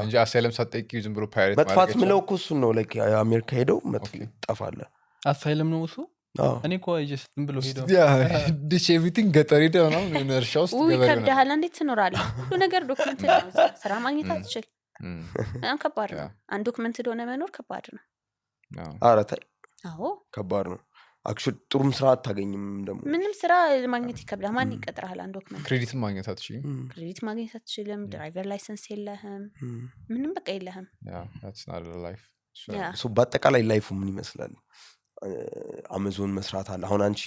እንጂ አሳይለም ሳትጠይቂው ዝም ብሎ ፓይሬት ማለት መጥፋት ምለው እኮ እሱ ነው ላይክ አሜሪካ ሄደው ጠፋለ አሳይለም ነው እሱ እኔ እኮ አይጀስ ዝም ብሎ ሄደው ዲሽ ኤቭሪቲንግ ገጠር ሄደው ነው እርሻ ውስጥ ገበሬ ነው ይከብዳል እንዴት ትኖራለህ ሁሉ ነገር ዶክመንት ነው ስራ ማግኘት አትችል በጣም ከባድ ነው አንድ ዶክመንት ሆነ መኖር ከባድ ነው አረታይ አዎ ከባድ ነው አክቹሊ ጥሩም ስራ አታገኝም ደሞ ምንም ስራ ማግኘት ይከብዳል ማን ይቀጥራል አንድ ዶክመንት ክሬዲት ማግኘት አትችልም ክሬዲት ማግኘት አትችልም ድራይቨር ላይሰንስ የለህም ምንም በቃ የለህም that's not a life so በአጠቃላይ ላይፉ ምን ይመስላል አማዞን መስራት አለ አሁን አንቺ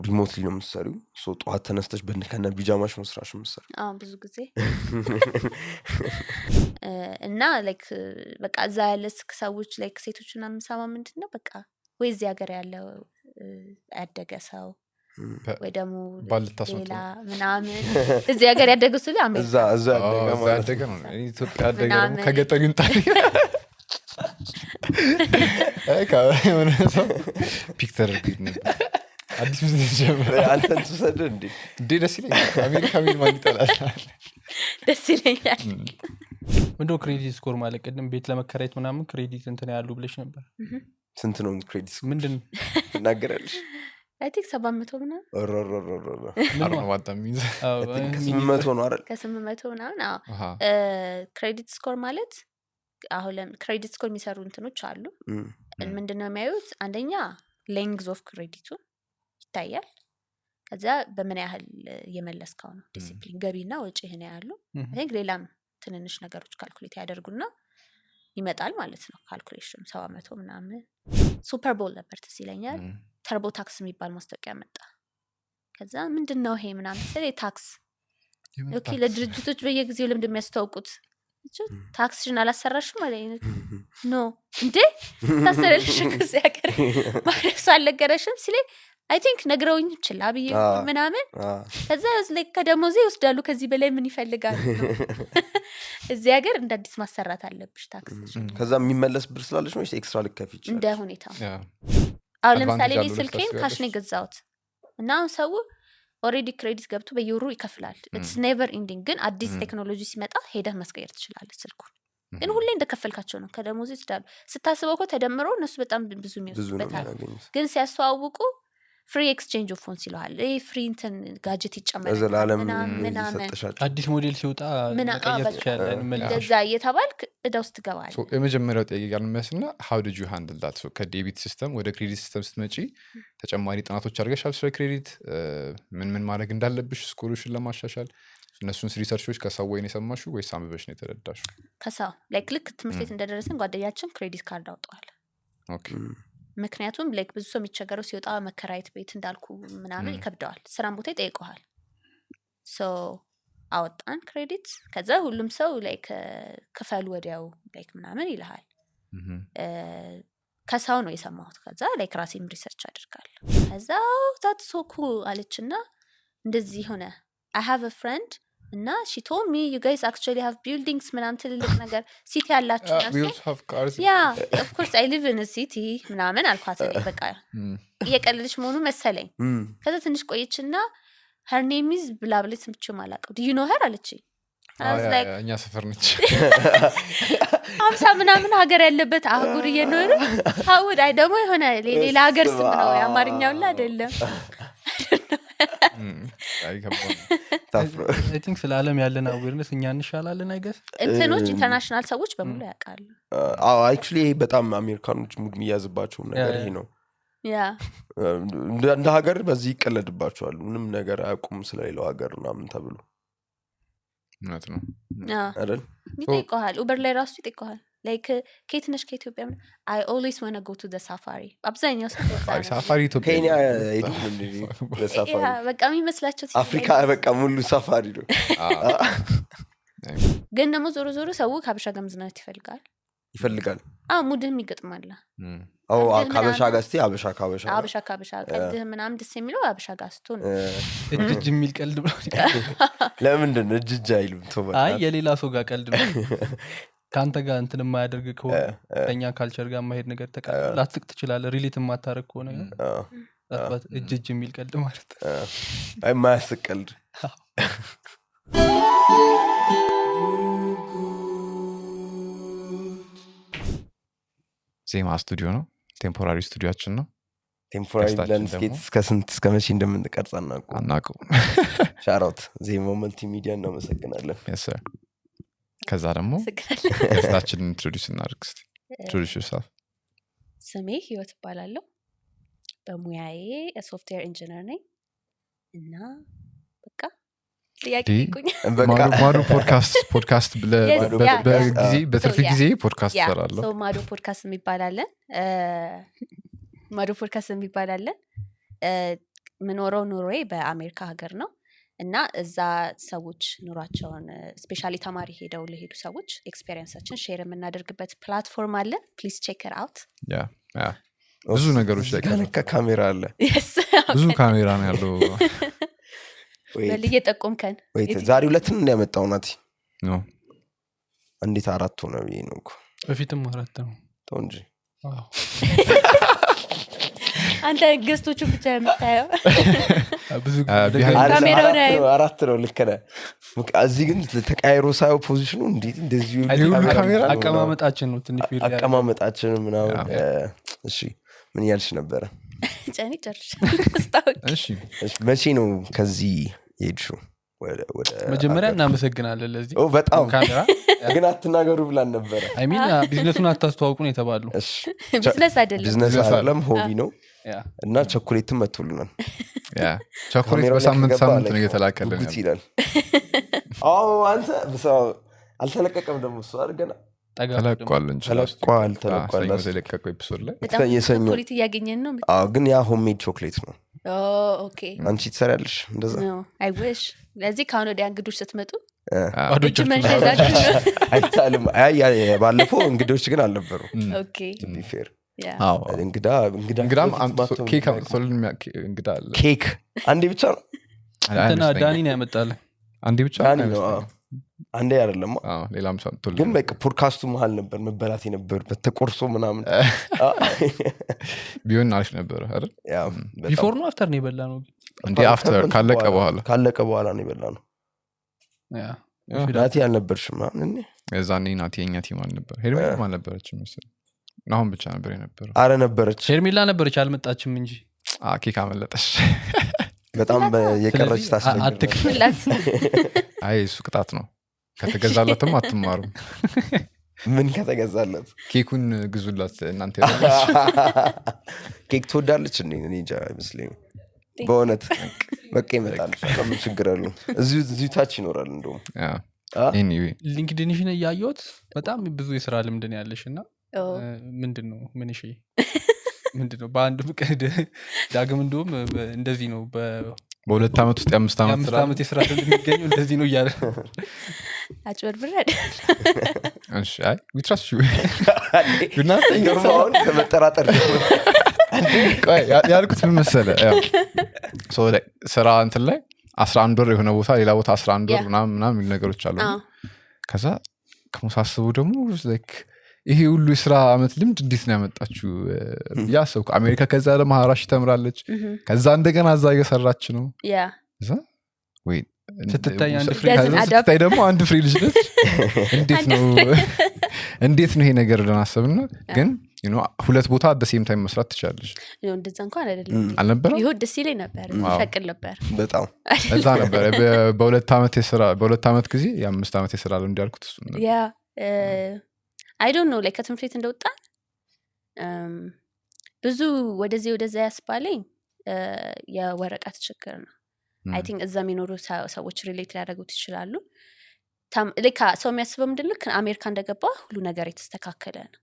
ሪሞትሊ ነው የምትሰሪው ሶ ጧት ተነስተሽ በእንከነ ቢጃማሽ ነው ስራሽ የምትሰሪው ብዙ ጊዜ እና ላይክ በቃ እዛ ያለስ ሰዎች ላይክ ሴቶችና ምሳማ ምንድነው በቃ ወይ እዚህ ሀገር ያለው ያደገ ሰው ወይ ደግሞ ሌላ ምናምን እዚህ ሀገር ያደገው ሰው አሜሪካ እዛ ያደገ ነው ኢትዮጵያ ያደገ ነው ከገጠር ይምጣል የሆነ ሰው ፒክቸር አዲስ ቢዝነስ ጀመረ አንተን ተሰደ እንዴ ደስ ይለኛል አሜሪካ ምን ማግኝታላል ደስ ይለኛል ምንድነው ክሬዲት ስኮር ማለት ቅድም ቤት ለመከራየት ምናምን ክሬዲት እንትን ያሉ ብለሽ ነበር ስንት ነው ክሬዲት ምንድነው ተናገራለሽ I think 700 ምናምን አርማዋጣም ይዘ ከ800 ነው አይደል ከ800 ምናምን ክሬዲት ስኮር ማለት አሁን ክሬዲት ስኮር የሚሰሩ እንትኖች አሉ ምንድነው የሚያዩት አንደኛ ሌንግዝ ኦፍ ክሬዲቱ ይታያል ከዛ በምን ያህል የመለስከው ነው ዲሲፕሊን ገቢና ወጪህን ያያሉ I think ሌላም ትንንሽ ነገሮች ካልኩሌት ያደርጉና ይመጣል ማለት ነው ካልኩሌሽን 700 ምናምን ሱፐር ቦል ነበር ትሲለኛል ተርቦ ታክስ የሚባል ማስታወቂያ መጣ ከዛ ምንድነው ይሄ ምናምን ስለ ታክስ ኦኬ ለድርጅቶች በየጊዜው ለምን እንደሚያስተዋውቁት ታክስሽን አላሰራሽም ማለት ነው እንዴ ታሰረልሽ ከዚያ ያቀር ማለት ሳልገረሽም ሲለ I think ነግረውኝ ይችላል አብይ ምናምን ከዛ like ከደሞዜ ይወስዳሉ ከዚህ በላይ ምን ይፈልጋሉ እዚህ ሀገር እንደ አዲስ ማሰራት አለብሽ ታክስ ከዛ የሚመለስ ብር ስላለሽ ነው ኤክስትራ ልከፍ ይችላል እንደ ሁኔታው አሁን ለምሳሌ ስልኬን ካሽ ነው ገዛውት እና ሰው ኦሬዲ ክሬዲት ገብቶ በየወሩ ይከፍላል it's never ending ግን አዲስ ቴክኖሎጂ ሲመጣ ሄደህ መስቀየር ትችላለህ ስልኩን ግን ሁሌ እንደከፈልካቸው ነው ከደሞዝ ይስዳሉ ስታስበው እኮ ተደምሮ እነሱ በጣም ብዙ የሚወስዱበታል ግን ሲያስተዋውቁ ፍሪ ኤክስቼንጅ ኦፍ ፎንስ ይላል ፍሪ እንትን ጋጀት ይጨመራል ምናምን አዲስ ሞዴል ሲወጣ መቀየር ይችላል እንደዛ እየተባልክ እዳውስ ትገባል ሶ የመጀመሪያው ጥያቄ ያልመስና how did you handle that so ከዴቢት ሲስተም ወደ ክሬዲት ሲስተም ስትመጪ ተጨማሪ ጥናቶች አድርገሻል ስለ ክሬዲት ምን ማድረግ እንዳለብሽ ስኮርሽን ለማሻሻል እነሱን ሪሰርቾች ከሰው ወይን የሰማሽው ወይስ አንብበሽ ነው የተረዳሽው ከሰው ላይክ ልክ ትምህርት ቤት እንደደረሰን ጓደኛችን ክሬዲት ካርድ አውጣዋል ኦኬ ምክንያቱም ላይክ ብዙ ሰው የሚቸገረው ሲወጣ መከራየት ቤት እንዳልኩ ምናምን ይከብደዋል ስራም ቦታ ይጠይቀዋል ሶ አወጣን ክሬዲት ከዛ ሁሉም ሰው ላይክ ከፈሉ ወዲያው ላይክ ምናምን ይልሃል ከሰው ነው የሰማሁት ከዛ ላይክ ራሴም ሪሰርች አድርጋለሁ ከዛ that so cool አለችና እንደዚህ ሆነ I have a friend እና she told me you guys actually have buildings ምናምን ትልልቅ ነገር ሲቲ ያላችሁ we also have cars yeah of course I live in a city ምናምን አልኳት በቃ እየቀለልሽ መሆኑ መሰለኝ ከዛ ትንሽ ቆየችና her name is ብላብሌት ምንም አላውቀው do you know her አለችኝ I was like እኛ ሰፈር ነች አምሳ ምናምን ሀገር ያለበት አህጉር እየኖረ how would I ደግሞ የሆነ ሌላ ሀገር ስም ነው የአማርኛው ላይ አይደለም I think ስለ ዓለም ያለን አዌርነስ እኛ እንሻላለን I guess እንትኖች ኢንተርናሽናል ሰዎች በሙሉ ያውቃሉ actually በጣም አሜሪካኖች ሙድ የሚያዝባቸው ነገር ይሄ ነው ያ እንደ ሀገር በዚህ ይቀለድባቸዋል ምንም ነገር አያውቁም ስለሌላው ሀገር ምናምን ተብሎ ማለት ነው አይደል ይጠይቀዋል ኡበር ላይ ራሱ ይጠይቀዋል like ከየትነሽ ከኢትዮጵያ I always want to go to the safari አብዛኛው ሳፋሪ ኢትዮጵያ ኬንያ ሄድኩኝ ለሳፋሪ በቃ የሚመስላቸው አፍሪካ በቃ ሙሉ ሳፋሪ ነው ግን ደግሞ ዞሮ ዞሮ ሰው ከሀበሻ ጋር መዝናናት ይፈልጋል ሙድህም ይገጥማል ከሀበሻ ጋር እስቲ ሀበሻ ቀልድህ ምናምን ደስ የሚለው ሀበሻ ጋር ስትሆን እጅ የሚል ቀልድ ብሎ ለምንድን ነው እጅ አይሉም አይ የሌላ ሰው ጋር ቀልድ ነው ካንተ ጋር እንትን የማያደርግ ከሆነ ከኛ ካልቸር ጋር ማሄድ ነገር ተቀበል ላትስቅ ትችላለህ ሪሌት የማታረግ ከሆነ አጥባት እጅ የሚል ቀልድ ማለት አይ ማያስቅ ቀልድ ዜማ ስቱዲዮ ነው ቴምፖራሪ ስቱዲዮችን ነው ቴምፖራሪ ላንድስኬፕ እስከ መቼ እንደምንቀርጽ አናውቅም ሻራውት ዜማ መልቲሚዲያ እናመሰግናለን yes sir ከዛ ደግሞ ገስታችንን ኢንትሮዲዩስ እናድርግ እስቲ ኢንትሮዲዩስ yourself ስሜ ህይወት እባላለሁ በሙያዬ ሶፍትዌር ኢንጂነር ነኝ እና በቃ ጥያቄ ይቁኝ ማዶ ፖድካስት በትርፍ ጊዜ ፖድካስት ሰራለሁ ሶ ማዶ ፖድካስት የሚባላለን ማዶ ፖድካስት የሚባላለን ምኖረው ኑሮዬ በአሜሪካ ሀገር ነው እና እዛ ሰዎች ኑሯቸውን ስፔሻሊ ተማሪ ሄደው ለሄዱ ሰዎች ኤክስፒሪየንሳችን ሼር የምናደርግበት ፕላትፎርም አለ ፕሊዝ ቼክ ኢት አውት ብዙ ነገሮች ላይ ካሜራ አለ ብዙ ካሜራ ነው ያለው በልዬ ጠቆምከን ዛሬ ሁለትን እንዲያመጣው ናት ነው እንዴት አራት ሆነ ብዬ ነው እኮ በፊትም አራት ነው ተው እንጂ አንተ ገስቶቹ ብቻ የምታየው ብዙ አራት ነው ልክ ነህ እዚህ ግን ተቃይሮ ሳይው ፖዚሽኑ እንዴት እንደዚህ ካሜራ አቀማመጣችን ነው ትንሽ ቢል አቀማመጣችን ምናምን እሺ ምን ያልሽ ነበረ ጨኒ ጨርሽ እሺ መቼ ነው ከዚህ የሄድሽው ወደ መጀመሪያ እናመሰግናለን ለዚህ በጣም ካሜራ ግን አትናገሩ ብላን ነበረ አይ ሚን ቢዝነሱን አታስተዋውቁ ነው የተባሉ እሺ ቢዝነስ አይደለም ቢዝነስ አይደለም ሆቢ ነው እና ቸኮሌትም መጥቶልናል ቸኮሌት በሳምንት ነው እየተላከልን ይላል አንተ በሰው አልተለቀቀም ደግሞ እሱ አድርገና ተለቋል እንጂ ተለቋል ለቀቀው ኤፒሶድ ላይ ቸኮሌት እያገኘን ነው ግን ያ ሆምሜድ ቾክሌት ነው ኦኬ አንቺ ትሰሪያለሽ እንደዛ አይ ዊሽ ለዚህ ካሁን ወዲያ እንግዶች ስትመጡ ባዶች አይታልም ባለፈው እንግዶች ግን አልነበሩ ኦኬ to be fair እንግዳም እንግዳ አለ ኬክ አንዴ ብቻ ነው እንትና ዳኒ ነው ያመጣል አንዴ ብቻ ነው አንዴ አይደለም ሌላም ሰው ግን በቃ ፖድካስቱ መሃል ነበር መበላት የነበረበት ተቆርሶ ምናምን ቢሆን አሪፍ ነበር አይደል ቢፎር ነው አፍተር ነው የበላነው እንዴ አፍተር ካለቀ በኋላ ነው የበላነው ናቲ አልነበርሽም ማለት የዛኔ ናቲ የኛ ቲም አልነበር ሄርሜላ አልነበረችም መሰለኝ አሁን ብቻ ነበር የነበረው አረ ነበረች ሄርሜላ ነበረች አልመጣችም እንጂ ኬክ አመለጠሽ በጣም የቀረች ታስፈልግ አትክፍላት አይ እሱ ቅጣት ነው ከተገዛላትም አትማሩም ምን ከተገዛላት ኬኩን ግዙላት እናንተ ኬክ ትወዳለች እንዴ እኔ እንጃ አይመስለኝም በእውነት በቃ ይመጣል ምን ችግር አለው እዚሁ ታች ይኖራል እንደውም anyway ሊንክድኢንሽን ያያዩት በጣም ብዙ የሥራ ልምድ ነው ያለሽና ምንድነው ምን እሺ ምንድነው በአንድ ፍቅድ ዳግም እንደውም እንደዚህ ነው በሁለት አመት ውስጥ የአምስት አመት የሥራ ልምድ የሚገኘው እንደዚህ ነው እያለ አጭበርብረን እሺ አይ we trust you ይገርማውን ከመጠራጠር ያልኩት ምን መሰለህ ሶ ስራ እንትን ላይ 11 ወር የሆነ ቦታ ሌላ ቦታ 11 ወር ምናምን ነገሮች አሉ ከዛ ከመሳሰቡ ደግሞ like ይሄ ሁሉ የሥራ አመት ልምድ እንዴት ነው ያመጣችሁ ያሰብኩ አሜሪካ ከዛ ለማራሽ ተምራለች ከዛ እንደገና እዛ እየሰራች ነው እዛ ወይ ስትታይ ደግሞ አንድ ፍሪ ልጅ ነች እንዴት ነው ይሄ ነገር ለናሰብና ግን ሁለት ቦታ አደ ሴም ታይም መስራት ትችላለሽ እንደዛ እንኳን አይደለም አልነበረም ይሁን ደስ ይለኝ ነበር ሸቅል ነበር በጣም እዛ ነበር በሁለት አመት ጊዜ የአምስት አመት የሥራ ልምድ ያልኩት እሱ ነው I don't know like ከትምህርት ቤት እንደወጣን ብዙ ወደዛ ያስባለኝ የወረቀት ችግር ነው I think እዛ የሚኖሩ ሰዎች ሪሌት ሊያደርጉት ይችላሉ ልክ ሰው የሚያስበው ምንድን ልክ አሜሪካ እንደገባ ሁሉ ነገር የተስተካከለ ነው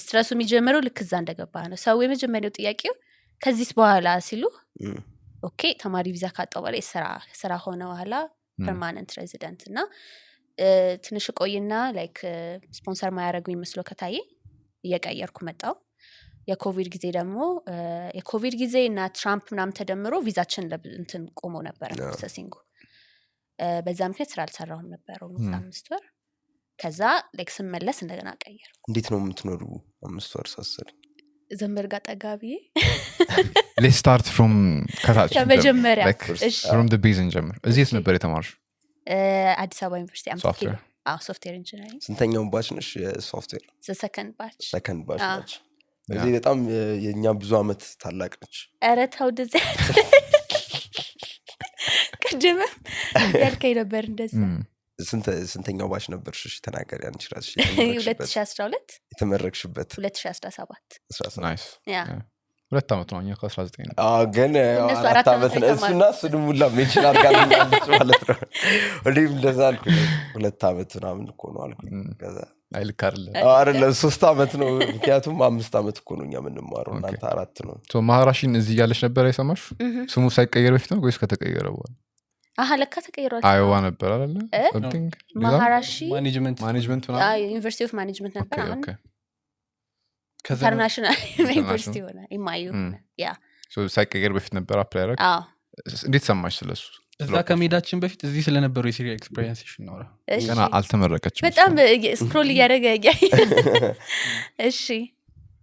ስትረሱ የሚጀምረው ልክ እዛ እንደገባ ነው ሰው የመጀመሪያው ጥያቄው ከዚህ በኋላ ሲሉ ኦኬ ተማሪ ቪዛ ካጣው በኋላ ስራ ሆነ በኋላ ፐርማነንት ሬዚደንት እና ትንሽ ቆይና ላይክ ስፖንሰር ማያረጉ ይመስሎ ከታየ እየቀየርኩ መጣው የኮቪድ ጊዜ ደግሞ የኮቪድ ጊዜ እና ትራምፕ ምናምን ተደምሮ ቪዛችን እንትን ቆሞ ነበር ፕሮሰሲንጉ በዛ ምክንያት ስራ አልሰራሁም ነበር 5 ወር ከዛ ላይክ ስመለስ እንደገና ቀየር እንዴት ነው የምትኖሩ 5 ወር ሳሰሪ ዘመር ጋር ጠጋቢ let's start from ከታች ከመጀመሪያ from the base ጀምር እዚህ ነበር የተማርሽው አዲስ አበባ ዩኒቨርሲቲ ሶፍትዌር ኢንጂነሪንግ ስንተኛው ባች ነሽ የሶፍትዌር ሰከንድ ባች ነች እዚህ በጣም የኛ ብዙ አመት ታላቅ ነች ኧረ ተው እንደዚህ ቅድም ያልከኝ ነበር እንደዛ ስንተኛው ባች ነበርሽ እሺ ተናገሪ አንቺ ራስሽ 2012 የተመረቅሽበት 2017 ናይስ ያ 2 ዓመት ነው እኛ ከ19 ነው ግን እነሱ 4 4 ዓመት ዓመት ነው እሱና እሱንም ሁላ ሜንሽን አድርጋለች ማለት ነው ወዲም እንደዛ አልኩኝ 2 ዓመት ምናምን እኮ ነው አልኩኝ ከዛ አይልክ አይደለም 3 ዓመት ነው ምክንያቱም 5 ዓመት እኮ ነው እኛ የምንማረው እናንተ 4 ነው ሶ ማህራሽን እዚህ ያለሽ ነበር አይሰማሽ ስሙ ሳይቀየር በፊት ነው ወይስ ከተቀየረ በኋላ ለካ ተቀይሯል አይዋ ነበር አይደል something ማህራሺ ማኔጅመንት ነው ዩኒቨርሲቲ ኦፍ ማኔጅመንት ነበር አሁን ኢንተርናሽናል ዩኒቨርሲቲ ሆነ ኢማዩ ያ ሶ ሳይቀየር በፊት ነበር አፕላይ አረክ እንዴት ሰማሽ ስለሱ እዛ ከሜዳችን በፊት እዚህ ስለነበረው የሲሪያ ኤክስፒሪየንስ ነው ገና አልተመረቀችም በጣም ስክሮል እያደረገ እሺ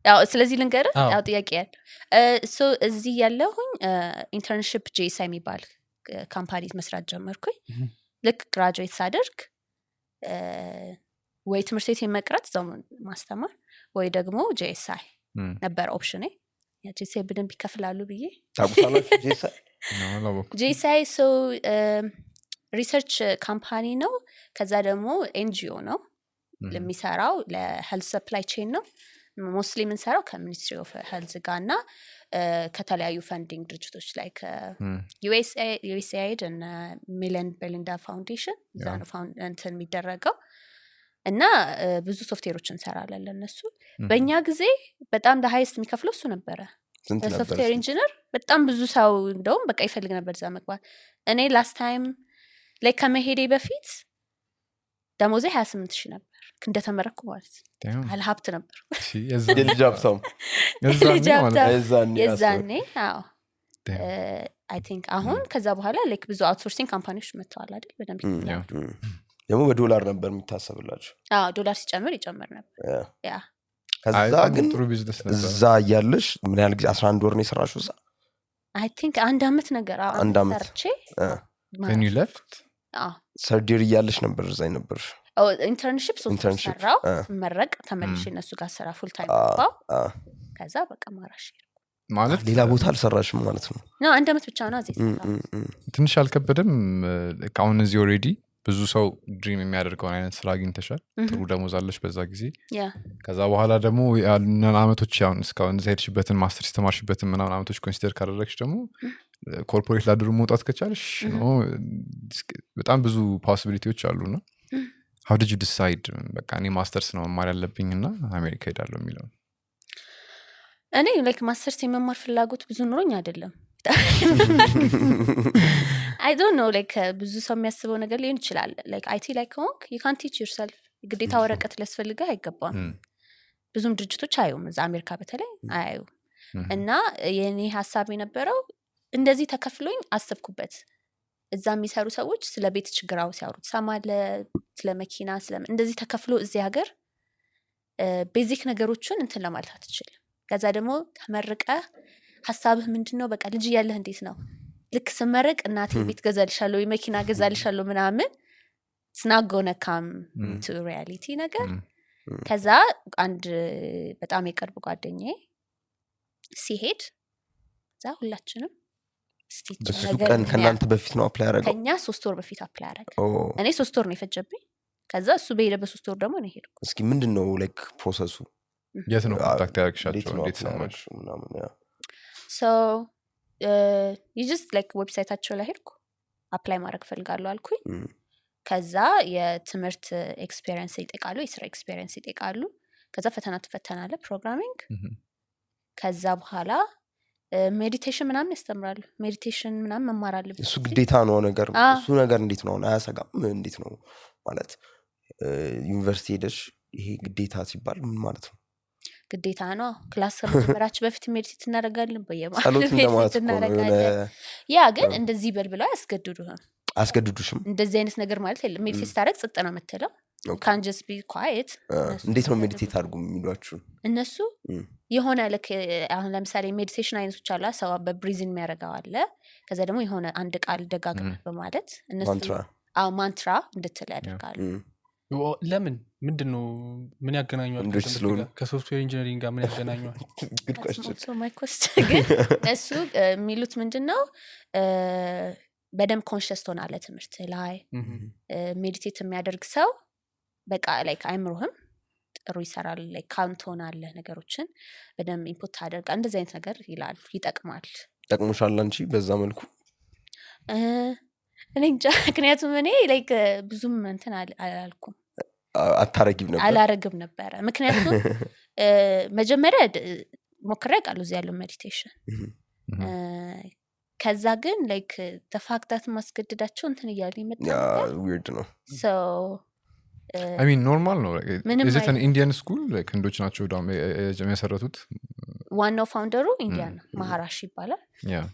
ያው ስለዚህ ልንገር ያው ጥያቄ ያለ ሶ እዚህ ያለሁኝ ኢንተርንሺፕ ጄሳ የሚባል ካምፓኒ መስራት ጀመርኩኝ ልክ ግራጁዌት ሳደርግ ወይ ትምህርት ቤት መቅረት እዛው ማስተማር ወይ ደግሞ ጄኤስአይ ነበር ኦፕሽኔ ጄኤስአይ በደንብ ይከፍላሉ ብዬ ታውቃላችሁ ጄኤስአይ ሶ ሪሰርች ካምፓኒ ነው ከዛ ደግሞ ኤንጂኦ ነው ለሚሰራው ለሄልዝ ሰፕላይ ቼን ነው ሞስትሊ የምንሰራው ከሚኒስትሪ ኦፍ ሄልዝ ጋር እና ከተለያዩ ፈንዲንግ ድርጅቶች ላይ ከዩኤስኤድ እና ሚለን ቤሊንዳ ፋውንዴሽን እዛ ነው እንትን የሚደረገው እና ብዙ ሶፍትዌሮች እንሰራለን ለነሱ በእኛ ጊዜ በጣም ሃይስት የሚከፍለው እሱ ነበረ ሶፍትዌር ኢንጂነር በጣም ብዙ ሰው እንደውም በቃ ይፈልግ ነበር እዛ መግባት እኔ ላስት ታይም ላይ ከመሄዴ በፊት ደሞዜ 28,000 ነበር እንደተመረኩ ማለት አልሀብት ነበር የልጃብታም የዛኔ አዎ አይ ቲንክ አሁን ከዛ በኋላ ላይክ ብዙ አውትሶርሲንግ ካምፓኒዎች መጥተዋል አይደል በደንብ ደግሞ በዶላር ነበር የሚታሰብላችሁ ዶላር ሲጨምር ይጨምር ነበር ያ ከዛ ግን ጥሩ ቢዝነስ ነበር እዛ ያለሽ ምን ያህል ጊዜ 11 ወር ነው የሰራሽው እዛ አይ ቲንክ አንድ አመት ነገር አንድ አመት ሰርቼ when you left ሰርጀሪ ያለሽ ነበር እዛ ነበርሽ ኢንተርንሺፕ ሰራው መረቅ ተመልሼ እነሱ ጋር ሰራ ፉል ታይም ባው ከዛ በቃ ማራሽ ማለት ሌላ ቦታ አልሰራሽም ማለት ነው አንድ አመት ብቻ ነው እዚህ ትንሽ አልከበደም አሁን እዚህ ኦሬዲ ብዙ ሰው ድሪም የሚያደርገውን አይነት ስራ አግኝተሻል ጥሩ ደሞዝ አለሽ በዛ ጊዜ ከዛ በኋላ ደግሞ ያንን አመቶች ያውን እስካሁን ሄድሽበትን ማስተርስ ተማርሽበትን ምናምን አመቶች ኮንሲደር ካደረግሽ ደግሞ ኮርፖሬት ላድሩ መውጣት ከቻልሽ ነው በጣም ብዙ ፖሲቢሊቲዎች አሉና how did you decide በቃ እኔ ማስተርስ ነው መማር ያለብኝና አሜሪካ ሄዳለሁ የሚለው እኔ ላይክ ማስተርስ የመማር ፍላጎት ብዙ ኑሮኝ አይደለም I don't know like ብዙ ሰው የሚያስበው ነገር ሊሆን ይችላል like IT like ሆንክ you can't teach yourself ግዴታ ወረቀት ሊያስፈልግህ አይገባም ብዙም ድርጅቶች አዩም እዛ አሜሪካ በተለይ አዩ እና የኔ ሐሳብ የነበረው እንደዚህ ተከፍሎኝ አሰብኩበት እዛ የሚሰሩ ሰዎች ስለ ቤት ችግራው ሲያወሩት ሰማለ ስለ መኪና ስለ እንደዚህ ተከፍሎ እዚህ ሀገር ቤዚክ ነገሮችን እንትን ለማለት አትችልም ከዛ ደግሞ ተመርቀ ሐሳብህ ምንድነው በቃ ልጅ ያለህ እንዴት ነው ልክ ስመረቅ እናቴ ቤት ገዛልሻለሁ ወይ መኪና ገዛልሻለሁ ምናምን ስናጎነ ካም ቱ ሪያሊቲ ነገር ከዛ አንድ በጣም የቅርብ ጓደኛዬ ሲሄድ እዛ ሁላችንም እሱ ቀን ከናንተ በፊት ነው አፕላይ ያደረገው ከኛ 3 ወር በፊት አፕላይ ያደረገ እኔ 3 ወር ነው የፈጀብኝ ከዛ እሱ በሄደ በ3 ወር ደግሞ ነው ሄድኩ እስኪ ምንድነው ላይክ ፕሮሰሱ የት ነው ኮንታክት ያደርግሻቸው እንዴት ሰማሽ so you just like ዌብሳይታቸው ላይ ሄድኩ አፕላይ ማድረግ ፈልጋለሁ አልኩኝ ከዛ የትምህርት ኤክስፒሪየንስ ይጠይቃሉ የስራ ኤክስፒሪየንስ ይጠይቃሉ ከዛ ፈተና ተፈተናለ ፕሮግራሚንግ ከዛ በኋላ ሜዲቴሽን ምናምን ያስተምራሉ ሜዲቴሽን ምናምን መማር አለብኝ እሱ ግዴታ ነው ነገር እሱ ነገር እንዴት ነው አያሰጋም እንዴት ነው ማለት ዩኒቨርሲቲ ሄደሽ ይሄ ግዴታ ሲባል ምን ማለት ነው ግዴታ ነው ክላስ ከመጀመራችን በፊት ሜዲቴት እናደርጋለን በየማለት ያ ግን እንደዚህ በልብለው አያስገድዱሽም እንደዚህ አይነት ነገር ማለት የለም ሜዲቴት ታረግ ጽጥ ነው የምትለው can just be quiet እንዴት ነው ሜዲቴት አድርጉ የሚሏችሁ እነሱ የሆነ ለክ አሁን ለምሳሌ ሜዲቴሽን አይነቶች አሉ ሰው በብሪዚንግ የሚያደርገው አለ ከዛ ደግሞ የሆነ አንድ ቃል ደጋግመህ በማለት እነሱ ማንትራ እንድትል ያደርጋሉ ለምን ምንድነው ምን ያገናኘዋል ወንዶች ስለሆኑ? ከሶፍትዌር ኢንጂነሪንግ ጋር ምን ያገናኘዋል? good question so my question ግን እሱ የሚሉት ምንድነው በደንብ ኮንሽስ ሆናለ ትምህርት ላይ ሜዲቴት የሚያደርግ ሰው በቃ ላይክ አይምሮህም ጥሩ ይሰራል ላይክ ካውንት ሆናለ ነገሮችን በደንብ ኢንፑት አደርጋ እንደዚህ አይነት ነገር ይላሉ ይጠቅማል ጠቅሞሻል አንቺ በዛ መልኩ እኔ እንጃ ምክንያቱም እኔ ላይክ ብዙም እንትን አላልኩም አላረግም ነበር ምክንያቱም መጀመሪያ ሞክሬ ቃሉ እዚህ ያለው ሜዲቴሽን ከዛ ግን ላይክ ተፋክታት ማስገድዳቸው እንትን እያሉ ይመጣ weird ነው so I mean normal ነው is it an Indian school like ህንዶች ናቸው ዳም የመሰረቱት ዋናው ፋውንደሩ ኢንዲያን ማሃራሽ ይባላል yeah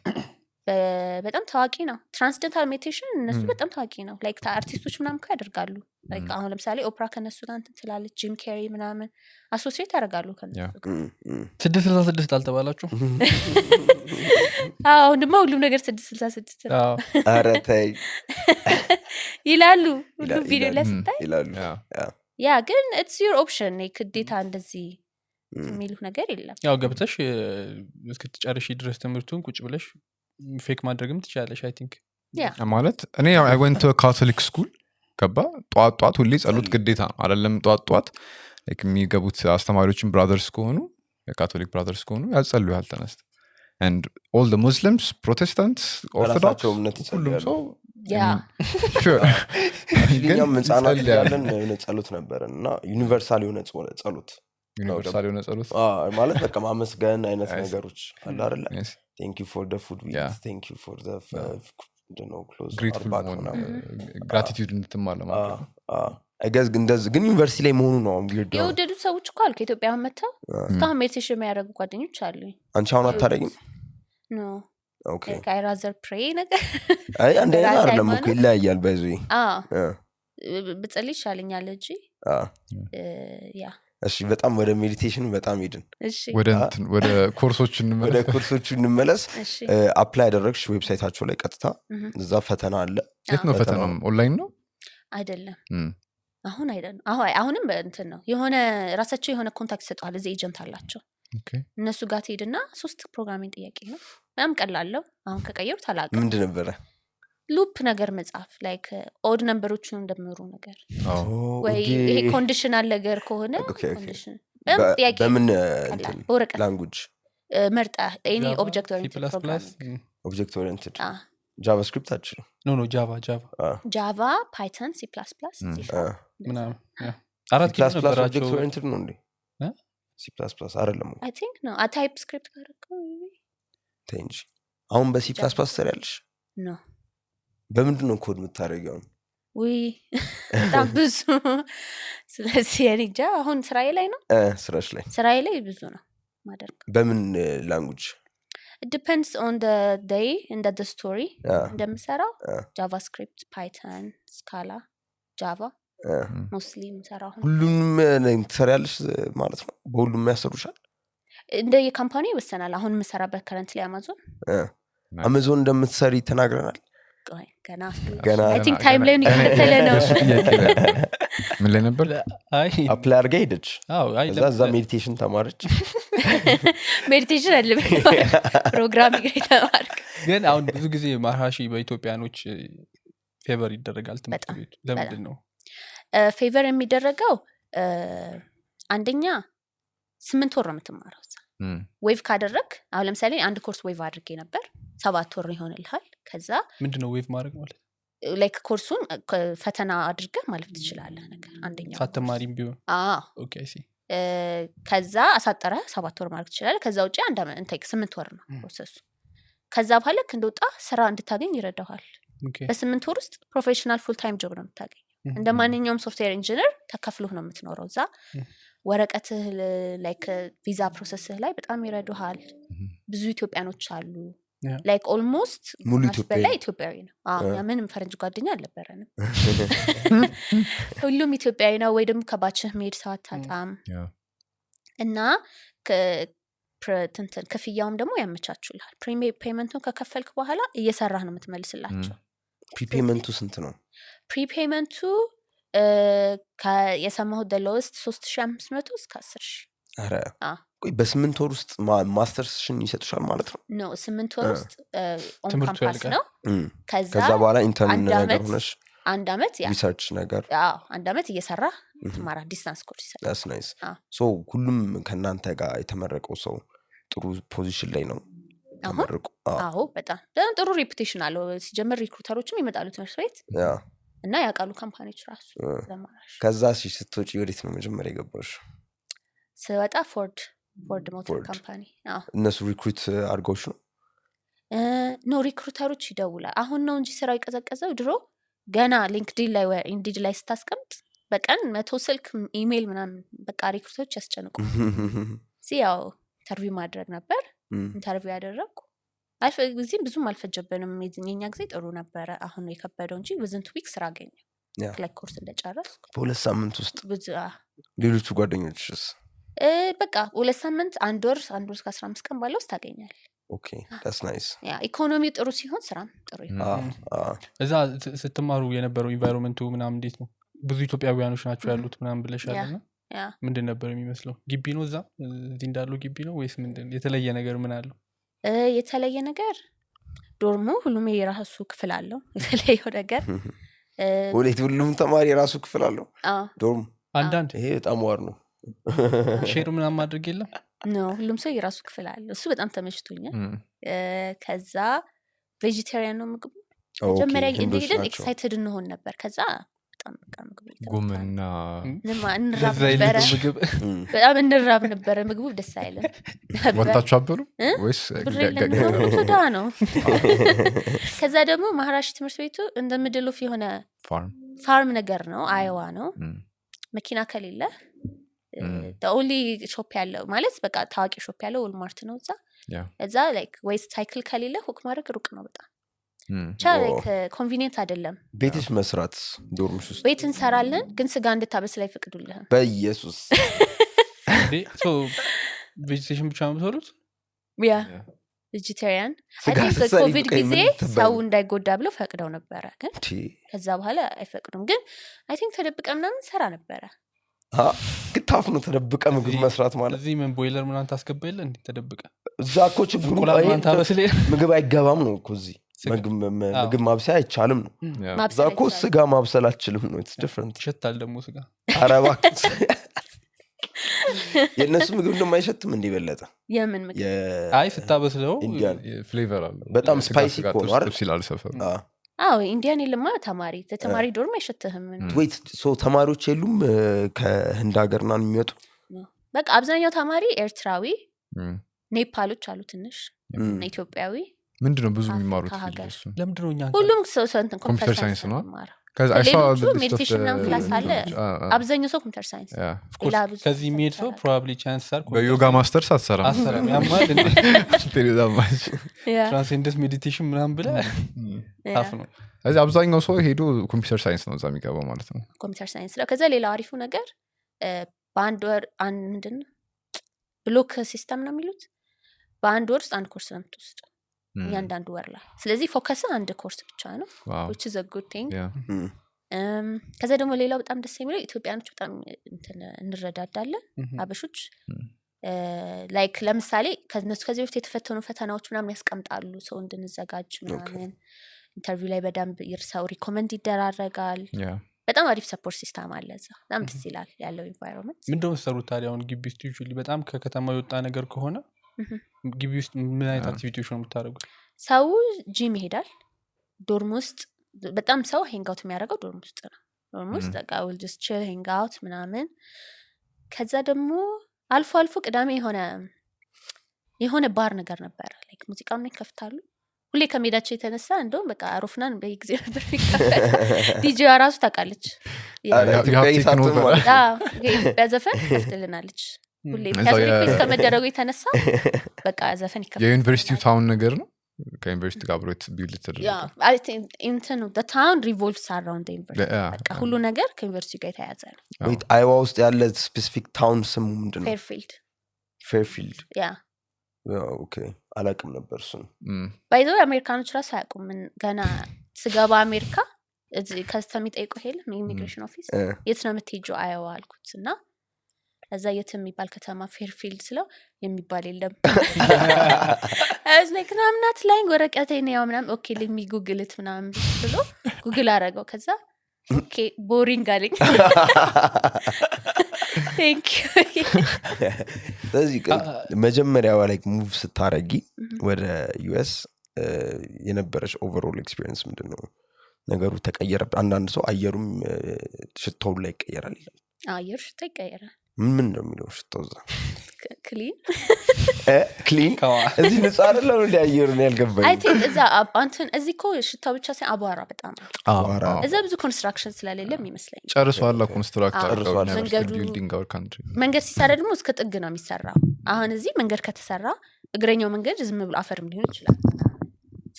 በጣም ታዋቂ ነው ትራንስደንታል ሜዲቴሽን እነሱ በጣም ታዋቂ ነው ላይክ አርቲስቶች ምናምን ያደርጋሉ ላይክ አሁን ለምሳሌ ኦፕራ ከነሱ ጋር እንትን ትላለች ጂም ኬሪ ምናምን አሶሲዬት ያደርጋሉ ከነሱ ጋር 666 አልተባላችሁ አዎ ድማ ሁሉም ነገር 666 አዎ ኧረ ተይ ይላሉ ሁሉ ቪዲዮ ላይ ስታይ ይላሉ ያ ግን it's your option ግዴታ እንደዚህ የሚሉ ነገር የለም ያው ገብተሽ እስክትጨርሺ ድረስ ትምህርቱን ቁጭ ብለሽ ፌክ ማድረግም ትችላለሽ I think ማለት እኔ I went to a Catholic school ገባ ጧት ሁሌ ጸሎት ግዴታ ነው አይደለም ጧት like የሚገቡት አስተማሪዎችን ብራዘርስ ከሆኑ የካቶሊክ ብራዘርስ ከሆኑ ያጸልዩሃል ተነስተ and all the Muslims Protestants Orthodox ሁሉም ሰው sure ግን ህፃናት ያለን የሆነ ጸሎት ነበርና ዩኒቨርሳል የሆነ ጸሎት ማለት በቃ ማመስገን አይነት ነገሮች አለ አይደል thank you for the food we eat thank you for the clothes grateful gratitude እንትማለ ማለት I guess ግን ዩኒቨርሲቲ ላይ መሆኑ ነው weird የወደዱ ሰዎች እኮ አሉ ከኢትዮጵያ መጣው እስካሁን ሜዲቴሽን የሚያደርጉ ጓደኞች አሉ አንቺ አሁን አታደርጊም no okay I rather pray ነገር አይ አንዴ አይደለም እኮ ይለያያል በዚህ ብጸልይ ይሻለኛል እንጂ ያ እሺ በጣም ወደ ሜዲቴሽን በጣም ሄድን እሺ ወደ ኮርሶች እንመለስ አፕላይ አደረግሽ ዌብሳይታቸው ላይ ቀጥታ እዛ ፈተና አለ የት ነው ፈተናው ኦንላይን ነው አይደለም አሁን አይደለም አሁንም በእንትን ነው የሆነ ራሳቸው የሆነ ኮንታክት ሰጣሉ እዚህ ኤጀንት አላቸው እነሱ ጋር ትሄድና 3 ፕሮግራሚንግ ጥያቄ ነው በጣም ቀላለው አሁን ከቀየሩት አላውቅም ምንድን ነበረ ሉፕ ነገር መጻፍ ላይክ ኦድ ነምበሮችን እንደምሩ ነገር ወይ ይሄ ኮንዲሽናል ነገር ከሆነ ኮንዲሽን ጥያቄ በምን ወረቀት ላንጉዌጅ መርጣ ኤኒ ኦብጀክት ኦሪየንትድ ጃቫስክሪፕት አትችልም ኖ ጃቫ ፓይተን ሲ++ ምናምን አራት ኪሎ ነበራቸው ኦብጀክት ኦሪየንትድ ነው እንዴ ሲ++ አይደለም I think no a TypeScript ካረከው እንጂ አሁን በሲ++ ትሰሪያለሽ no በምንድን ነው ኮድ የምታደርጊው ወይ በጣም ብዙ ስለዚህ ያንጃ አሁን ስራዬ ላይ ነው ስራዬ ላይ ብዙ ነው ማደርግ በምን ላንጉዌጅ it depends on the day and the story እንደምሰራው JavaScript Python Scala Java ሙስሊም ሰራው ሁሉንም ትሰሪያለሽ ማለት ነው በሁሉም ያሰሩሻል እንደ የካምፓኒ ይወሰናል አሁን የምሰራበት ከረንትሊ አማዞን እንደምትሰሪ ተናግረናል ገና I think time line ይከተለ ነው ምን ላይ ነበር አይ አፕላይ አድርጋ ሄደች እዛ ሜዲቴሽን ተማረች ሜዲቴሽን አለ ፕሮግራሚንግ ተማርክ ግን አሁን ብዙ ጊዜ ማርሃሺ በኢትዮጵያኖች ፌቨር ይደረጋል ትምህርት ቤት ለምንድን ነው ፌቨር የሚደረገው አንደኛ 8 ወር ነው የምትማረው ዌቭ ካደረክ አሁን ለምሳሌ አንድ ኮርስ ዌቭ አድርጌ ነበር 7 ወር ይሆንልሃል ከዛ ምንድነው ዌቭ ማድረግ ማለት ላይክ ኮርሱን ፈተና አድርገህ ማለፍ ትችላለህ ነገር አንደኛ ሳተማሪም ቢሆን ኦኬ አይ ሲ ከዛ አሳጠረ 7 ወር ማድረግ ትችላለህ ከዛ ውጪ አንድ እንተክ 8 ወር ነው ፕሮሰሱ ከዛ በኋላ እንደወጣ ስራ እንድታገኝ ይረዳዋል በ8 ወር ውስጥ ፕሮፌሽናል ፉል ታይም ጆብ ነው የምታገኝ እንደማንኛውም ሶፍትዌር ኢንጂነር ተከፍሎህ ነው የምትኖረው እዛ ወረቀትህ ላይክ ቪዛ ፕሮሰስህ ላይ በጣም ይረዱሃል ብዙ ኢትዮጵያኖች አሉ ላይክ ኦልሞስት ሙሉ ኢትዮጵያዊ ነው ምንም ፈረንጅ ጓደኛ አልነበረንም ሁሉም ኢትዮጵያዊ ነው ወይ ደግሞ ከባችህ መሄድ ሰው አታጣም እና ክፍያውም ደግሞ ያመቻቹልሃል ፕሪፔመንቱን ከከፈልክ በኋላ እየሰራህ ነው የምትመልስላቸው ፕሪፔመንቱ ስንት ነው ፕሪፔመንቱ የሰማሁት the lowest 3500 እስከ 10000 አረ ቆይ በ8 ወር ውስጥ ማስተርስሽን ይሰጡሻል ማለት ነው? ነው 8 ወር ውስጥ ኦን ትምህርቱ ካምፓስ ያልቃል። ነው። ከዛ በኋላ ኢንተርን ነገር ሆነሽ አንድ አመት ሪሰርች ነገር አንድ አመት እየሰራ ትማራ ዲስታንስ ኮርስ ይሰጣል። that's nice so ሁሉም ከናንተ ጋር የተመረቀው ሰው ጥሩ ፖዚሽን ላይ ነው ተመረቁ? አዎ በጣም ጥሩ ሬፑቴሽን አለው። ሲጀምር ሪክሩተሮችም ይመጣሉ ትምህርት ቤት እና ያውቃሉ ካምፓኒዎች ራሱ ለማራሽ። ከዛ ስትወጪ ወዴት ነው መጀመሪያ የገባሽ? ስወጣ ፎርድ ሞተር ካምፓኒ። እነሱ ሪክሩት አድርገውሽ ነው? ኖ ሪክሩተሮች ይደውላል። አሁን ነው እንጂ ስራው የቀዘቀዘው። ድሮ ገና ሊንክድኢን ላይ ወይ ኢንዲድ ላይ ስታስቀምጥ በቀን 100 ስልክ ኢሜል ምናምን በቃ ሪክሩተሮች ያስጨንቁ። ያው ኢንተርቪው ማድረግ ነበር። ኢንተርቪው ያደረኩ ጊዜም ብዙም አልፈጀብንም። የኛ ጊዜ ጥሩ ነበረ። አሁን ነው የከበደው እንጂ within 2 weeks ስራ አገኘ ክላክ ኮርስ እንደጨረስኩ በ2 ሳምንት ውስጥ። ሌሎቹ ጓደኞችስ? በቃ 2 ሳምንት 1 ወር እስከ 15 ቀን ባለው ውስጥ ታገኛል። ኦኬ that's nice ኢኮኖሚው ጥሩ ሲሆን ስራም ጥሩ ይሆናል። እዛ ስትማሩ የነበረው ኢንቫይሮንመንቱ ምናምን እንዴት ነው? ብዙ ኢትዮጵያውያኖች ናቸው ያሉት ምናምን ብለሻልና ምንድን ነበር የሚመስለው? ግቢ ነው እዛ እዚህ እንዳለው ግቢ ነው ወይስ ምንድን የተለየ ነገር ምን አለው? የተለየ ነገር ዶርሙ ሁሉም የራሱ ክፍል አለው። የተለየው ነገር ሁሉም ተማሪ የራሱ ክፍል አለው ዶርም? አንዳንድ ይሄ በጣም ዋር ነው። ሼር ምናምን ማድረግ የለም ነው። ሁሉም ሰው የራሱ ክፍል አለው። እሱ በጣም ተመችቶኛል። ከዛ ቬጂቴሪያን ነው ምግቡ። መጀመሪያ እንደሄድን ኤክሳይትድ እንሆን ነበር። ከዛ በጣም በቃ ምግቡ ጎመንና በጣም እንራብ ነበረ። ምግቡ ደስ አይልም። ወጣችሁ አበሉ ወይስ ቶዳ ነው? ከዛ ደግሞ ማህራሽ ትምህርት ቤቱ እንደ ሚድል ኦፍ የሆነ ፋርም ነገር ነው። አይዋ ነው። መኪና ከሌለ ኦንሊ ሾፕ ያለው ማለት በቃ ታዋቂ ሾፕ ያለው ወልማርት ነው። እዛ ላይክ ወይስ ሳይክል ከሌለ ሁክ ማድረግ ሩቅ ነው በጣም ላይክ ኮንቪኒየንት አይደለም። ቤትሽ መስራት ዶርምሽ ውስጥ ቤት እንሰራለን ግን ስጋ እንድታበስል አይፈቅዱልህም። በኢየሱስ ቬጂቴሽን ብቻ ነው የምትበሉት? ያ ቬጂቴሪያን ኮቪድ ጊዜ ሰው እንዳይጎዳ ብለው ፈቅደው ነበረ። ግን ከዛ በኋላ አይፈቅዱም። ግን አይ ቲንክ ተደብቀ ምናምን ሰራ ነበረ። ግታፍ ነው ተደብቀ ምግብ መስራት ማለት። እዚህ ምን ቦይለር ምናምን ታስገባ የለ እንዴ ተደብቀ? እዛ እኮ ችግሩ ምግብ አይገባም ነው እኮ እዚህ ምግብ ማብሰያ አይቻልም ነው። እዛ እኮ ስጋ ማብሰል አትችልም ነው። ኢትስ ዲፈረንት። ይሸታል ደግሞ ስጋ። ኧረ እባክህ የእነሱ ምግብ እንደማይሸትም እንደ በለጠ የምን ምግብ? አይ ስታበስለው ፍሌቨር አለው በጣም ስፓይሲ እኮ ነው አይደል? ሲላል ሰፈር ኢንዲያን የለማ ተማሪ ዶርም አይሸትህም። ወይት ተማሪዎች የሉም ከህንድ ሀገርና የሚመጡ? በቃ አብዛኛው ተማሪ ኤርትራዊ፣ ኔፓሎች አሉ ትንሽ፣ ኢትዮጵያዊ። ምንድነው ብዙ የሚማሩት? ለምንድነው እኛ ሁሉም ሰው ኮምፒውተር ሳይንስ ነው። ሌሎቹ ሜዲቴሽን ምናምን ክላስ አለ። አብዛኛው ሰው ኮምፒውተር ሳይንስ። ከዚህ የሚሄድ ሰው ፕሮባብሊ ቻንሰር በዮጋ ማስተርስ አትሰራም። ያማል ትራንሴንደንስ ሜዲቴሽን ምናምን ብለህ ታፍ ነው። እዚህ አብዛኛው ሰው ሄዶ ኮምፒውተር ሳይንስ ነው እዛ የሚገባው ማለት ነው። ኮምፒውተር ሳይንስ ነው። ከዛ ሌላው አሪፉ ነገር በአንድ ወር ምንድን ነው ብሎክ ሲስተም ነው የሚሉት። በአንድ ወር ውስጥ አንድ ኮርስ ነው የምትወስደው እያንዳንዱ ወር ላይ። ስለዚህ ፎከስ አንድ ኮርስ ብቻ ነው which is a good thing። ከዛ ደግሞ ሌላው በጣም ደስ የሚለው ኢትዮጵያኖች በጣም እንረዳዳለን። አበሾች ላይክ ለምሳሌ ከዚህ በፊት የተፈተኑ ፈተናዎች ምናምን ያስቀምጣሉ ሰው እንድንዘጋጅ ምናምን። ኢንተርቪው ላይ በደንብ ይርሳው ሪኮመንድ ይደራረጋል። በጣም አሪፍ ሰፖርት ሲስተም አለ እዛ። በጣም ደስ ይላል ያለው ኢንቫይሮንመንት። ምንድነው የምትሰሩት ታዲያ አሁን ግቢ ውስጥ? ዩዥዋሊ በጣም ከከተማ የወጣ ነገር ከሆነ ግቢ ውስጥ ምን አይነት አክቲቪቲዎች ነው የምታደርጉት? ሰው ጂም ይሄዳል። ዶርም ውስጥ በጣም ሰው ሄንጋውት የሚያደርገው ዶርም ውስጥ ነው። ዶርም ውስጥ በቃ ዊል ጀስት ቺል ሄንጋውት ምናምን። ከዛ ደግሞ አልፎ አልፎ ቅዳሜ የሆነ ባር ነገር ነበር ላይክ ሙዚቃ ምን ይከፍታሉ። ሁሌ ከሜዳቸው የተነሳ እንደውም በቃ አሮፍናን በየጊዜው ነበር የሚከፈት። ዲጂ ራሱ ታውቃለች ዘፈን ከፍትልናለች ሁሌ ሪኩዌስት ከመደረጉ የተነሳ በቃ ዘፈን ይከፍታል። የዩኒቨርሲቲው ታውን ነገር ነው ከዩኒቨርሲቲ ጋር አብሮ ቢልድ ተደረገ። እንትኑ the town revolves around the university። በቃ ሁሉ ነገር ከዩኒቨርሲቲ ጋር የተያያዘ ነው። ወይት አይዋ ውስጥ ያለ ስፔሲፊክ ታውን ስሙ ምንድነው? ፌርፊልድ። ኦኬ አላውቅም ነበር እሱን። ባይዘው አሜሪካኖች ራሱ አያውቁም። ገና ስገባ አሜሪካ እዚህ ከስተም ይጠይቀው ሄለ ኢሚግሬሽን ኦፊስ የት ነው የምትሄጂው አየዋ አልኩት እና እዛ የት የሚባል ከተማ ፌርፊልድ ስለው የሚባል የለም like I'm not lying ወረቀቴ ነው ያው ምናምን ኦኬ let me google it ምናምን ብሎ ጉግል አረጋው ከዛ ኦኬ ቦሪንግ አለኝ thank you ስለዚህ መጀመሪያው ላይ ሙቭ ስታረጊ ወደ ዩኤስ የነበረሽ ኦቨርኦል ኤክስፒሪየንስ ምንድነው ነገሩ ተቀየረ አንዳንድ ሰው አየሩም ሽታው ላይ ይቀየራል ይላል አየር ሽታ ይቀየራል ምን ነው የሚለው ሽታው እዛ ክሊን ክሊን እዚህ ንጹህ አይደለም እንዴ አየሩ ነው ያልገባኝ አይ ቲንክ እዛ አንተን እዚህ ኮ ሽታው ብቻ ሳይሆን አቧራ በጣም አቧራ እዛ ብዙ ኮንስትራክሽን ስለሌለም ይመስለኝ ጨርሷል ኮንስትራክተር ጨርሷል ቢልዲንግ አወር ካንትሪ መንገድ ሲሰራ ደግሞ እስከ ጥግ ነው የሚሰራው አሁን እዚህ መንገድ ከተሰራ እግረኛው መንገድ ዝም ብሎ አፈርም ሊሆን ይችላል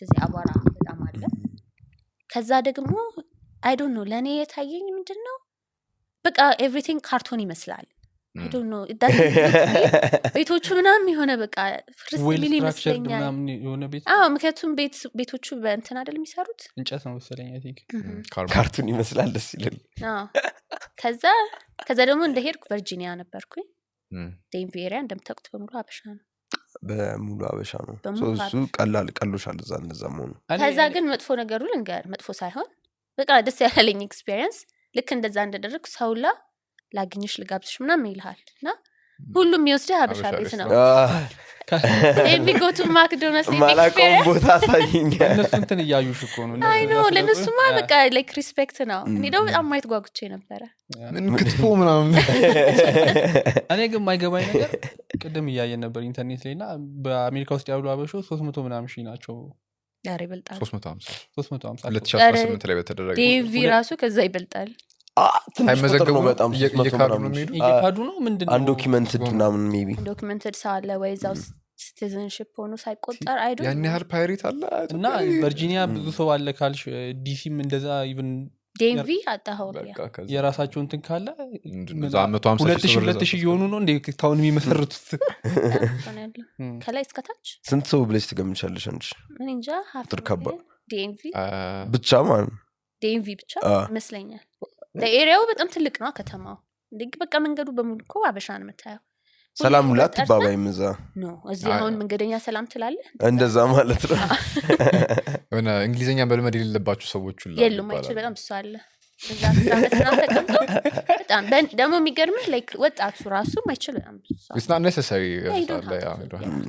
ስለዚህ አቧራ በጣም አለ ከዛ ደግሞ አይ ዶንት ኖ ለኔ የታየኝ ምንድነው በቃ ኤቭሪቲንግ ካርቶን ይመስላል I don't know it doesn't ቤቶቹ ምናምን የሆነ በቃ ፍርስ ሊል ይመስለኛል የሆነ ቤት ምክንያቱም ቤቶቹ በእንትን አይደል የሚሰሩት እንጨት ነው መሰለኝ I think ካርቱን ይመስላል ደስ ይላል ከዛ ደግሞ እንደሄድኩ ቨርጂኒያ ነበርኩኝ ዴንቪ ኤሪያ እንደምታውቁት በሙሉ አበሻ ነው በሙሉ አበሻ ነው እሱ ቀሎሻል እዛ እንደዛ መሆኑ ከዛ ግን መጥፎ ነገሩ ልንገር መጥፎ ሳይሆን በቃ ደስ ያለኝ ኤክስፒሪየንስ ልክ እንደዛ እንደደረኩ ሰውላ ላግኝሽ ልጋብዝሽ ምናምን ይልሃልና ሁሉም ይወስደ ሀበሻ ቤት ነው ኤቪጎቱ ማክዶናልድስ ማላቆም ቦታ ሳይኛ እነሱ እንትን እያዩሽ እኮ ነው አይ ኖ ለነሱማ በቃ ላይክ ሪስፔክት ነው እኔ ደግሞ በጣም ማይት ጓጉቼ ነበር ምን ክትፎ ምናምን እኔ ግን ማይገባኝ ነገር ቅድም እያየን ነበር ኢንተርኔት ላይና በአሜሪካ ውስጥ ያሉ አበሾ 300 ምናምን ሺህ ናቸው ዛሬ ይበልጣል 350 2018 ላይ በተደረገ ዲቪ ራሱ ከዛ ይበልጣል አይመዘገቡ በጣም እየካዱ ነው የሚሉ እየካዱ ነው ምንድነው አንዶኪመንትድ ምናምን ሜቢ ዶክመንትድ ሳለ ወይዛው ሲቲዝንሺፕ ሆኖ ሳይቆጠር አይዶ ያን ያህል ፓይሬት አለ እና ቨርጂኒያ ብዙ ሰው አለ ካልሽ ዲሲም እንደዛ ኢቭን ዴንቪ አጣው የራሳቸው እንትን ካለ 250 እየሆኑ ነው እንዴ ታውን የሚመሰርቱት ከላይ እስከታች ስንት ሰው ብለሽ ትገምቻለሽ አንቺ ምን እንጃ ትርከባ ዴንቪ ብቻ ማለት ዴንቪ ብቻ ይመስለኛል ለኤሪያው በጣም ትልቅ ነው ከተማው እንዴ በቃ መንገዱ በሙሉ እኮ አበሻ ነው የምታየው ሰላም ሁላት ባባይ ምዛ ኖ እዚህ አሁን መንገደኛ ሰላም ትላለህ እንደዛ ማለት ነው እና እንግሊዘኛ መልመድ የሌለባችሁ ሰዎች ሁሉ የሉም አይችል በጣም ብዙ አለ እዛ አመትና ተቀምጦ በጣም ደግሞ የሚገርምህ ላይክ ወጣቱ ራሱ ማይችል በጣም ብዙ it's not necessary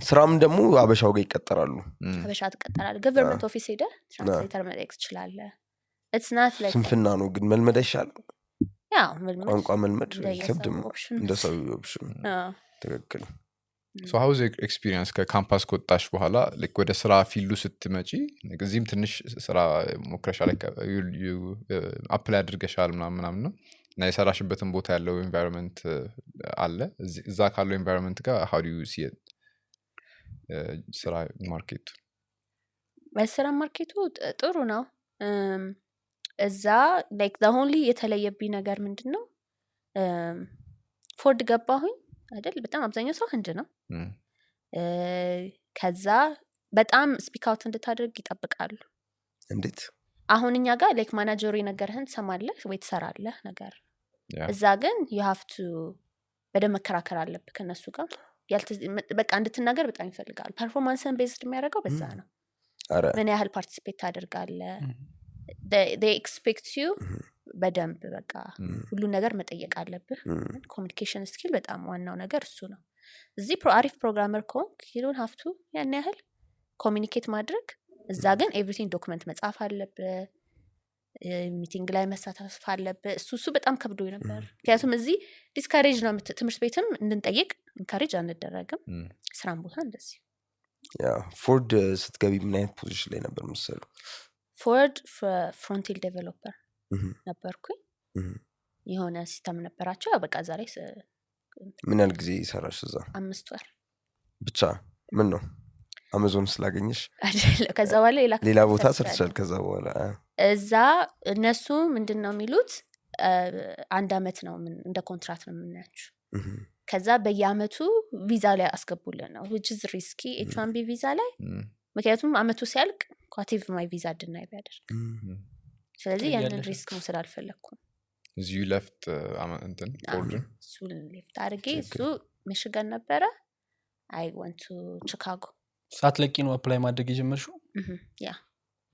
ስራም ደግሞ አበሻው ጋር ይቀጠራሉ አበሻ ትቀጠራለህ ገቨርንመንት ኦፊስ ሄደ ትራንስሌተር መጠየቅ ትችላለህ it's not like ስንፍና ነው ግን መልመድ አይሻልም ያው መልመድ ቋንቋ መልመድ ከብድም እንደ ሰው ኦፕሽን ትክክል so how was your experience ከካምፓስ ከወጣሽ በኋላ like ወደ ስራ ፊልዱ ስትመጪ እዚህም ትንሽ ስራ ሞክረሻል አፕላይ አድርገሻል ምናምን ነው እና የሰራሽበትን ቦታ ያለው ኤንቫይሮንመንት አለ እዛ ካለው ኤንቫይሮንመንት ጋር how do you see it ስራ ማርኬቱ በስራ ማርኬቱ ጥሩ ነው እዛ like the only የተለየብኝ ነገር ምንድነው ፎርድ ገባሁኝ አይደል በጣም አብዛኛው ሰው ህንድ ነው ከዛ በጣም ስፒክ አውት እንድታደርግ ይጠብቃሉ እንዴት አሁን እኛ ጋር like ማናጀሩ የነገርህን ትሰማለህ ወይ ትሰራለህ ነገር እዛ ግን you have to በደንብ መከራከር አለብህ ከነሱ ጋር በቃ እንድትናገር በጣም ይፈልጋሉ ፐርፎርማንስን ቤዝድ የሚያደርገው በዛ ነው ምን ያህል ፓርቲሲፔት ታደርጋለህ they expect you በደንብ በቃ ሁሉ ነገር መጠየቅ አለብህ ኮሙኒኬሽን ስኪል በጣም ዋናው ነገር እሱ ነው እዚህ አሪፍ ፕሮግራመር ኮንክ you don't have to ያን ያህል ኮሙኒኬት ማድረግ እዛ ግን ኤቭሪቲንግ ዶክመንት መጻፍ አለብህ ሚቲንግ ላይ መሳተፍ አለብህ እሱ በጣም ከብዶ ነበር ምክንያቱም እዚህ ዲስካሬጅ ነው ትምህርት ቤትም እንድንጠይቅ ኢንካሬጅ አንደረግም ስራም ቦታ እንደዚህ ያ ፎርድ ስትገቢ ምን አይነት ፖዚሽን ላይ ነበር መሰለው ፎርድ ፍሮንቲል ዴቨሎፐር ነበርኩኝ የሆነ ሲስተም ነበራቸው በቃ ዛሬ ምን ያህል ጊዜ ይሰራሽ እዛ 5 ወር ብቻ ምን ነው አማዞን ስላገኘሽ ከዛ በኋላ ሌላ ቦታ ሰርተሻል ከዛ በኋላ እዛ እነሱ ምንድነው የሚሉት 1 አመት ነው እንደ ኮንትራክት ነው የምናያችሁ ከዛ በየአመቱ ቪዛ ላይ አስገቡልን ነው which is risky H1B ቪዛ ላይ ምክንያቱም አመቱ ሲያልቅ ኳቲቭ ማይ ቪዛ ድናይ ቢያደርግ ስለዚህ ያንን ሪስክ መውሰድ አልፈለኩም እዚሁ left እንትን ቦርደር እሱ ሌፍት አድርጌ እሱ ሚሽጋን ነበረ I went to Chicago ሳትለቂ ነው አፕላይ ማድረግ የጀመርሽው ያ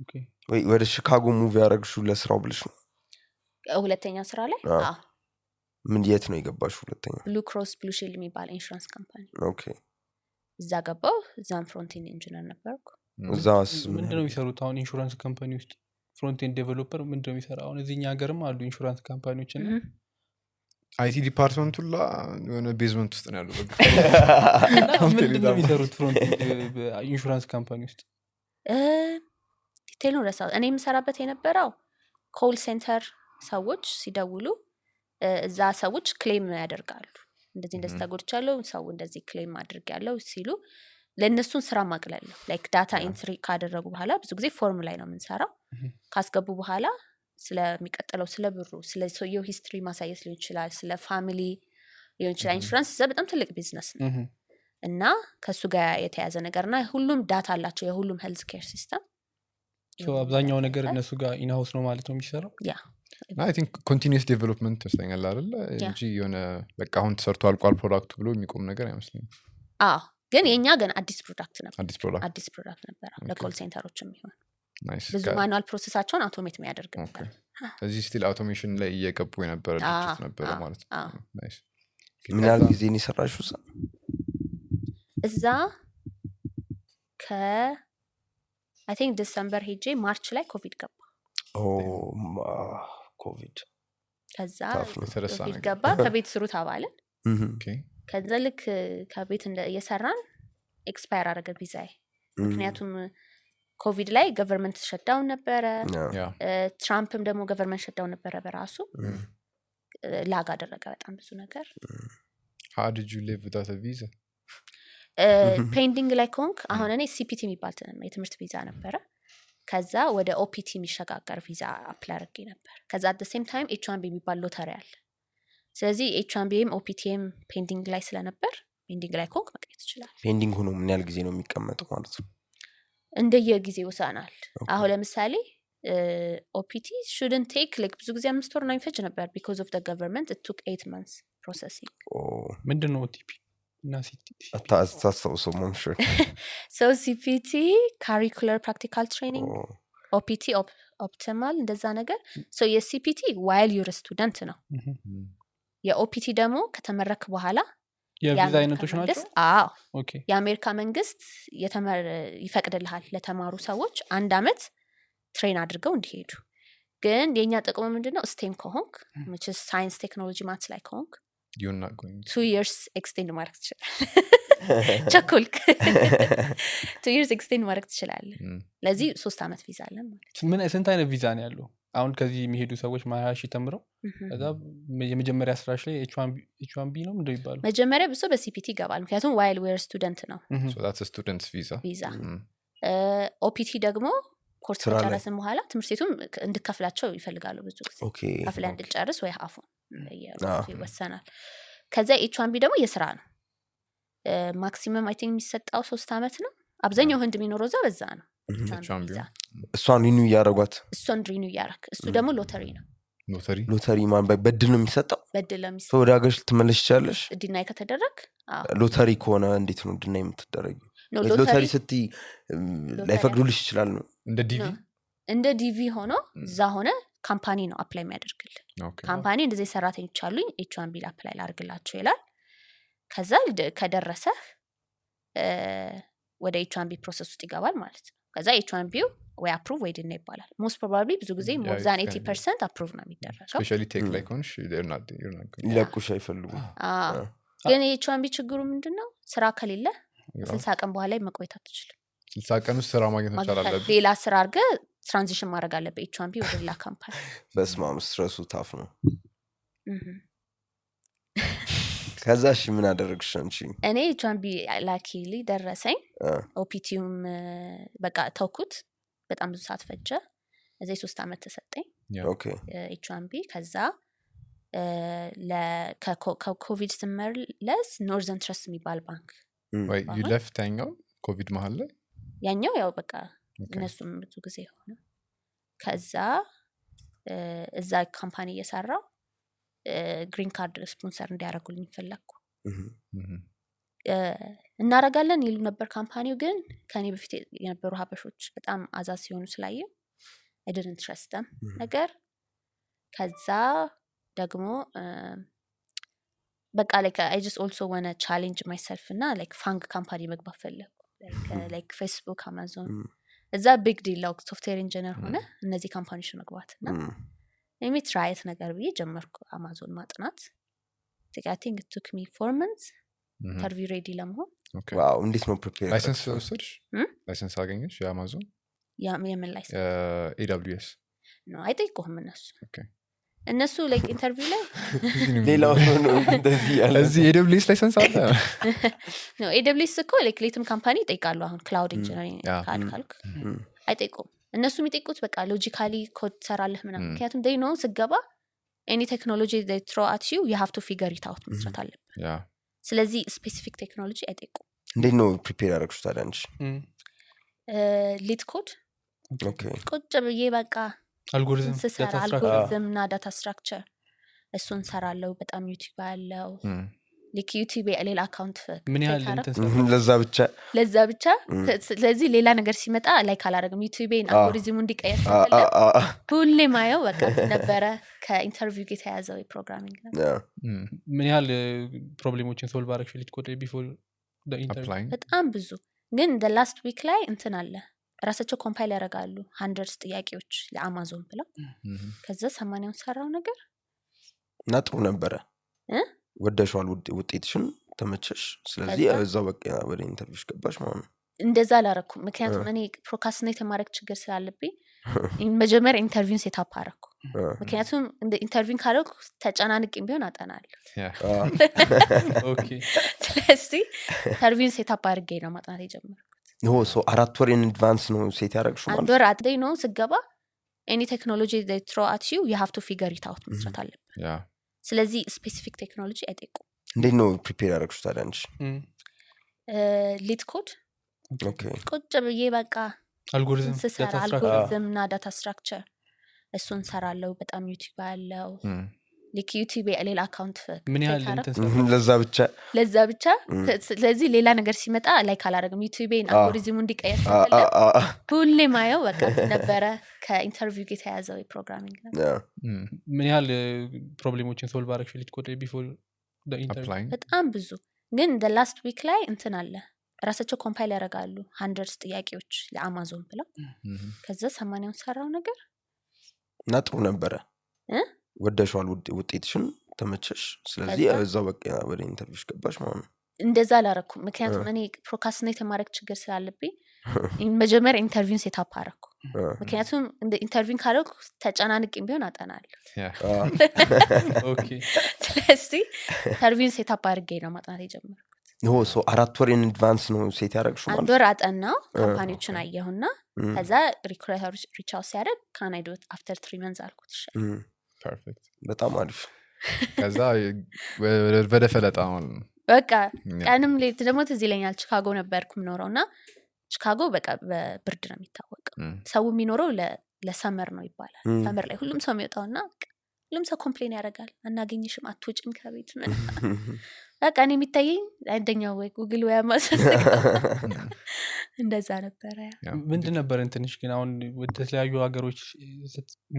ኦኬ ወይ ወደ ሺካጎ ሙቭ ያደረግሽው ለስራው ብለሽ ነው ሁለተኛ ስራ ላይ ምን የት ነው የገባሽው ሁለተኛ ብሉ ክሮስ ብሉ ሺልድ የሚባል ኢንሹራንስ ካምፓኒ ኦኬ እዛ ገባው እዛም ፍሮንት ኤንድ ኢንጂነር ነበርኩ እዛስ ምንድነው የሚሰሩት አሁን ኢንሹራንስ ካምፓኒ ውስጥ ፍሮንት ኤንድ ዴቨሎፐር ምንድነው የሚሰራው አሁን እዚህኛ ሀገርም አሉ ኢንሹራንስ ካምፓኒዎች እና IT ዲፓርትመንቱ የሆነ ቤዝመንት ውስጥ ነው ያለው ምንድነው የሚሰሩት ፍሮንት ኢንሹራንስ ካምፓኒ ውስጥ ዲቴይሉን ረሳሁት እኔ የምሰራበት የነበረው ኮል ሴንተር ሰዎች ሲደውሉ እዛ ሰዎች ክሌም ያደርጋሉ እንደዚህ ተጎድቻለሁ ሰው እንደዚህ ክሌም አድርጋለሁ ሲሉ ለነሱን ስራ ማቅለል ነው ላይክ ዳታ ኢንትሪ ካደረጉ በኋላ ብዙ ጊዜ ፎርም ላይ ነው የምንሰራው ካስገቡ በኋላ ስለሚቀጥለው ስለ ብሩ ስለ ሰውየው ሂስትሪ ማሳየት ሊሆን ይችላል ስለ ፋሚሊ ሊሆን ይችላል ኢንሹራንስ በጣም ትልቅ ቢዝነስ ነው እና ከሱ ጋር የተያዘ ነገርና ሁሉም ዳታ አላቸው የሁሉም ሄልዝ ኬር ሲስተም አብዛኛው ነገር እነሱ ጋር ኢንሃውስ ነው ማለት ነው የሚሰራው ያ I think continuous development ተስተኛል አይደል እንጂ የሆነ በቃ አሁን ተሰርቶ አልቋል ፕሮዳክቱ ብሎ የሚቆም ነገር አይመስልም ግን የኛ ግን አዲስ ፕሮዳክት ነበር አዲስ ፕሮዳክት ነበር ለኮል ሴንተሮችም ይሆን ናይስ ብዙ ማኑዋል ፕሮሰሳቸውን አውቶሜት የሚያደርግ ነበር እዚህ ስቲል አውቶሜሽን ላይ እየገቡ የነበረ ድርጅት ነበር ማለት ነው ናይስ ምን ያህል ጊዜ ነው የሰራሽው እዛ I think ዲሰምበር ሄጄ ማርች ላይ ኮቪድ ገባ ኮቪድ ከዛ ኮቪድ ገባ ከቤት ስሩ ተባልን ከዛ ልክ ከቤት እየሰራን ኤክስፓየር አደረገ ቪዛዬ ምክንያቱም ኮቪድ ላይ ገቨርንመንት ሸትዳውን ነበረ ትራምፕም ደግሞ ገቨርንመንት ሸትዳውን ነበረ በራሱ ላግ አደረገ በጣም ብዙ ነገር how did you live without a visa ፔንዲንግ ላይ ኮንክ አሁን እኔ ሲፒቲ የሚባል የትምህርት ቪዛ ነበረ ከዛ ወደ ኦፒቲ የሚሸጋገር ቪዛ አፕላይ አድርጌ ነበር ከዛ at the same time H1B የሚባል ሎተሪ አለ ስለዚህ H1Bም ኦፒቲም ፔንዲንግ ላይ ስለነበር ፔንዲንግ ላይ ኮንክ መቅረት ይችላል ፔንዲንግ ሆኖ ምን ያህል ጊዜ ነው የሚቀመጠው ማለት ነው እንደየጊዜው ወሳናል አሁን ለምሳሌ ኦፒቲ shouldn't take like ብዙ ጊዜ 5 ወር ነው የሚፈጅ ነበር because of the government it took 8 months processing ምንድነው ኦቲፒ እና ሲፒቲ አታስታውሰው ማምሹር so CPT curricular practical training OPT optimal እንደዛ ነገር so የCPT while you're a student ነው የኦፒቲ ደግሞ ከተመረክ በኋላ የቪዛ አይነቶች ናቸው ኦኬ የአሜሪካ መንግስት ይፈቅድልሃል ለተማሩ ሰዎች 1 አመት ትሬን አድርገው እንዲሄዱ ግን የኛ ጥቅሙ ምንድነው ስቴም ከሆንክ which is science technology maths ላይ ከሆንክ you're not going 2 years extend ማድረግ ትችላለህ ቸኩልክ 2 years extend ማድረግ ትችላለህ ለዚህ 3 አመት ቪዛ አለን ማለት ምን ስንት አይነት ቪዛ ነው ያለው አሁን ከዚህ የሚሄዱ ሰዎች ማያሺ ተምረው ከዛ የመጀመሪያ ስራሽ ላይ H1B ነው ምንድነው ይባላል መጀመሪያ ብሶ በሲፒቲ ይገባል ምክንያቱም while we are student ነው so that's a student's visa ኦፒቲ ደግሞ ኮርስ ከጨረስን በኋላ ትምህርት ቤቱም እንድከፍላቸው ይፈልጋሉ ብዙ ጊዜ ከፍለን እንድጨርስ ወይ ሀፉን ይወሰናል ከዛ H1B ደግሞ የስራ ነው ማክሲመም አይ ቲንክ የሚሰጣው 3 አመት ነው አብዛኛው ህንድ የሚኖረው እዛ በዛ ነው እሷን ሪኒው ያረጓት እሷን ሪኒው ያረክ እሱ ደግሞ ሎተሪ ነው ሎተሪ ማን በድል ነው የሚሰጣው በድል ነው የሚሰጣው ወደ ሀገርሽ ትመለሽ ይችላልሽ ዲናይ ከተደረክ ሎተሪ ከሆነ እንዴት ነው ዲናይ የምትደረጊው ሎተሪ ስትይ ላይፈቅዱልሽ ይችላል ነው እንደ ዲቪ ሆኖ እዛ ሆነ ካምፓኒ ነው አፕላይ የሚያደርግልን ካምፓኒ እንደዚህ ሰራተኞች አሉኝ H1B አፕላይ ላድርግላቸው ይላል ከዛ ከደረሰ ወደ H1B ፕሮሰስ ውስጥ ይገባል ማለት ነው ከዛ H1B ወይ አፕሩቭ ወይ ዲና ይባላል most probably ብዙ ጊዜ more than 80% አፕሩቭ ነው የሚደረገው especially take like on you're not ይለቁሽ አይፈልጉም ግን H1B ችግሩ ምንድነው ስራ ከሌለ 60 ቀን በኋላ መቆየት አትችልም 60 ቀን ውስጥ ስራ ማግኘት ይቻላል ሌላ ስራ አድርገ ትራንዚሽን ማድረግ አለበት H1B ወደ ሌላ ካምፓኒ በስማም ስትረሱ ታፍ ነው ከዛሽ ምን አደረግሽ አንቺ እኔ H1B ላኪሊ ደረሰኝ ኦፒቲውም በቃ ተውኩት በጣም ብዙ ሰዓት ፈጀ እዚህ 3 አመት ተሰጠኝ ኦኬ H1B ከዛ ከኮቪድ ስመለስ ኖርዘርን ትረስት የሚባል ባንክ ወይ you left ታኛው ኮቪድ መሃል ላይ ያኛው ያው በቃ እነሱም ብዙ ጊዜ ሆነ ከዛ እዛ ካምፓኒ እየሰራው ግሪን ካርድ ስፖንሰር እንዲያደርጉልኝ ፈለኩ እናረጋለን ይሉ ነበር ካምፓኒው ግን ከኔ በፊት የነበሩ ሀበሾች በጣም አዛዝ ሲሆኑ ስላየው I didn't trust them ነገር ከዛ ደግሞ በቃ like I just also want to challenge myself እና like fang ካምፓኒ መግባት ፈለኩ like Facebook Amazon እዛ big deal like software engineer ሆነ እነዚህ ካምፓኒዎች መግባትና maybe try it ነገር ብዬ ጀመርኩ አማዞን ማጥናት I think it took me 4 months interview ready ለመሆን ዋው እንዴት ነው prepare ላይሰንስ ወሰድሽ ላይሰንስ አገኘሽ የአማዞን የምን ላይሰንስ AWS ነው አይጠይቁህም እነሱ like ኢንተርቪው ላይ ሌላው ነው እንደዚህ ያለ እዚህ AWS ላይሰንስ አለ ነው AWS እኮ like ሌትም ካምፓኒ ይጠይቃሉ አሁን ክላውድ ኢንጂነሪንግ ካልክ አይጠይቁም እነሱ የሚጠይቁት በቃ ሎጂካሊ ኮድ ሰራለህ ምናምን ምክንያቱም they know ስገባ any technology they throw at you you have to figure it out መስራት አለብህ ስለዚህ ስፔሲፊክ ቴክኖሎጂ አይጠይቁም እንዴት ነው ፕሪፔር አደረግሽ ታዲያ አንቺ ሊድ ኮድ ኦኬ ቁጭ ብዬ በቃ አልጎሪዝም እና ዳታ ስትራክቸር እሱን ሰራለው በጣም ዩቲዩብ ያለው ሊክ ዩቲዩብ ሌላ አካውንት ምን ያህል ለዛ ብቻ ስለዚህ ሌላ ነገር ሲመጣ ላይክ አላደረግም ዩቲዩብን አልጎሪዝሙ እንዲቀየር ሁሌ ማየው በቃ ነበረ ከኢንተርቪው ጋር የተያዘው ፕሮግራሚንግ ምን ያህል ፕሮብሌሞችን ሶልቭ አረግሽ ሊት ኮድ ቢፎር the interview በጣም ብዙ ግን the last week ላይ እንትን አለ ራሳቸው ኮምፓይል ያደርጋሉ 100 ጥያቄዎች ለአማዞን ብለው ከዛ 80ውን ሰራው ነገር እና ጥሩ ነበረ ወደሽዋል ውጤትሽን ተመቸሽ ስለዚህ እዛው በቃ ወደ ኢንተርቪው ገባሽ ማለት ነው እንደዛ አላረኩም ምክንያቱም እኔ ፕሮካስቲኔት ማድረግ ችግር ስላለብኝ መጀመሪያ ኢንተርቪውን ሴትአፕ አረኩ ምክንያቱም እንደ ኢንተርቪው ካለው ተጨናንቅም ቢሆን አጠናለሁ ኦኬ ስለዚህ ኢንተርቪውን ሴትአፕ አድርጌ ነው ማጥናት የጀመርኩት ኖ ሶ 4 ወር ኢን አድቫንስ ነው ሴት ያደረግሽው ማለት አንድ ወር አጥዴ ነው ስገባ any technology they throw at you you have to figure it out መስራት አለብህ ስለዚህ ስፔሲፊክ ቴክኖሎጂ አይጠይቁም እንዴት ነው ፕሪፔር አደረግሽ ታዲያ አንቺ ሊድ ኮድ ኦኬ ቁጭ ብዬ በቃ አልጎሪዝም እና ዳታ ስትራክቸር እሱን ሰራለው በጣም ዩቲዩብ ያለው ሊክ ዩቲዩብ ሌላ አካውንት ምን ያህል ለዛ ብቻ ስለዚህ ሌላ ነገር ሲመጣ ላይክ አላደረግም ዩቲዩብን አልጎሪዝሙ እንዲቀየር ሁሌ ማየው በቃ ነበረ ከኢንተርቪው ጋር የተያዘው ፕሮግራሚንግ ምን ያህል ፕሮብሌሞችን ሶልቭ አረግሽ ሊት ኮድ ቢፎር the interview በጣም ብዙ ግን the last week ላይ እንትን አለ ራሳቸው ኮምፓይል ያደርጋሉ 100 ጥያቄዎች ለአማዞን ብለው ከዛ 80ውን ሰራው ነገር እና ጥሩ ነበረ ወደሽዋል ውጤትሽን ተመቸሽ ስለዚህ እዛው በቃ ወደ ኢንተርቪው ገባሽ ማለት ነው እንደዛ አላረኩም ምክንያቱም እኔ ፕሮካስቲኔት ማድረግ ችግር ስላለብኝ መጀመሪያ ኢንተርቪውን ሴትአፕ አረኩ ምክንያቱም እንደ ኢንተርቪው ካለው ተጨናንቅም ቢሆን አጠናለሁ ኦኬ ስለዚህ ኢንተርቪውን ሴትአፕ አድርጌ ነው ማጥናት የጀመርኩት ኖ ሶ 4 ወር ኢን አድቫንስ ነው ሴት ያደረግሽው ማለት አንድ ወር አጠናው ካምፓኒዎችን አየሁና ከዛ ሪክሩተሮች ሪች አውት ሲያደርግ ካን አይ ዱ ኢት አፍተር 3 months አልኩት እሺ ፐርፌክት በጣም አሪፍ ከዛ ወደ ፈለጣ ማለት ነው በቃ ቀንም ሌት ደግሞ ትዝ ይለኛል ቺካጎ ነበርኩ ምኖረውና ቺካጎ በቃ በብርድ ነው የሚታወቀው ሰው የሚኖረው ለሰመር ነው ይባላል ሰመር ላይ ሁሉም ሰው የሚወጣውና ሁሉም ሰው ኮምፕሌን ያደርጋል አናገኝሽም አትወጪም ከቤት ምን በቃ እኔ የሚታየኝ አንደኛው ወይ ጉግል ወይ አማዞን እንደዛ ነበር ምንድን ነበር እንትንሽ ግን አሁን ወደ ተለያዩ ሀገሮች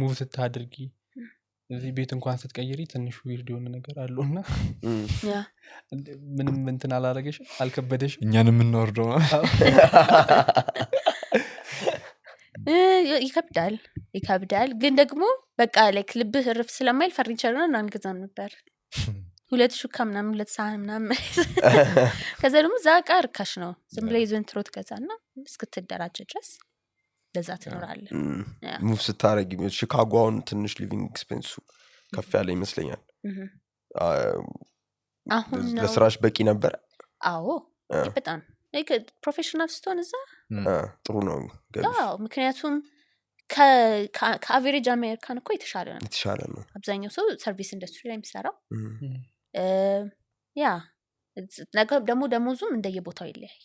ሙቭ ስታድርጊ እዚህ ቤት እንኳን ስትቀይሪ ትንሽ ዊርድ የሆነ ነገር አለውና ምንም እንትን አላረገሽ አልከበደሽ እኛን የምንወርደው ይከብዳል ግን ደግሞ በቃ ላይክ ልብህ እርፍ ስለማይል ፈርኒቸር ነው አንገዛም ነበር ሁለት ሹካ ምናምን ሁለት ሳህን ምናምን ከዛ ደግሞ ዛቃ ርካሽ ነው ዝም ብለህ ይዘን ትሮት ገዛና እስክትደራጀ ድረስ ለዛ ትኖራለህ ሙቭ ስታረጊ ሺካጎውን ትንሽ ሊቪንግ ኤክስፔንሱ ከፍ ያለ ይመስለኛል አሁን ለስራሽ በቂ ነበር አዎ በጣም like ፕሮፌሽናል ስትሆን እዛ ጥሩ ነው አዎ ምክንያቱም ከአቨሬጅ አሜሪካን እኮ የተሻለ ነው አብዛኛው ሰው ሰርቪስ ኢንደስትሪ ላይ የሚሰራው ያ ነገር ደግሞ ደሞዙም እንደየቦታው ይለያል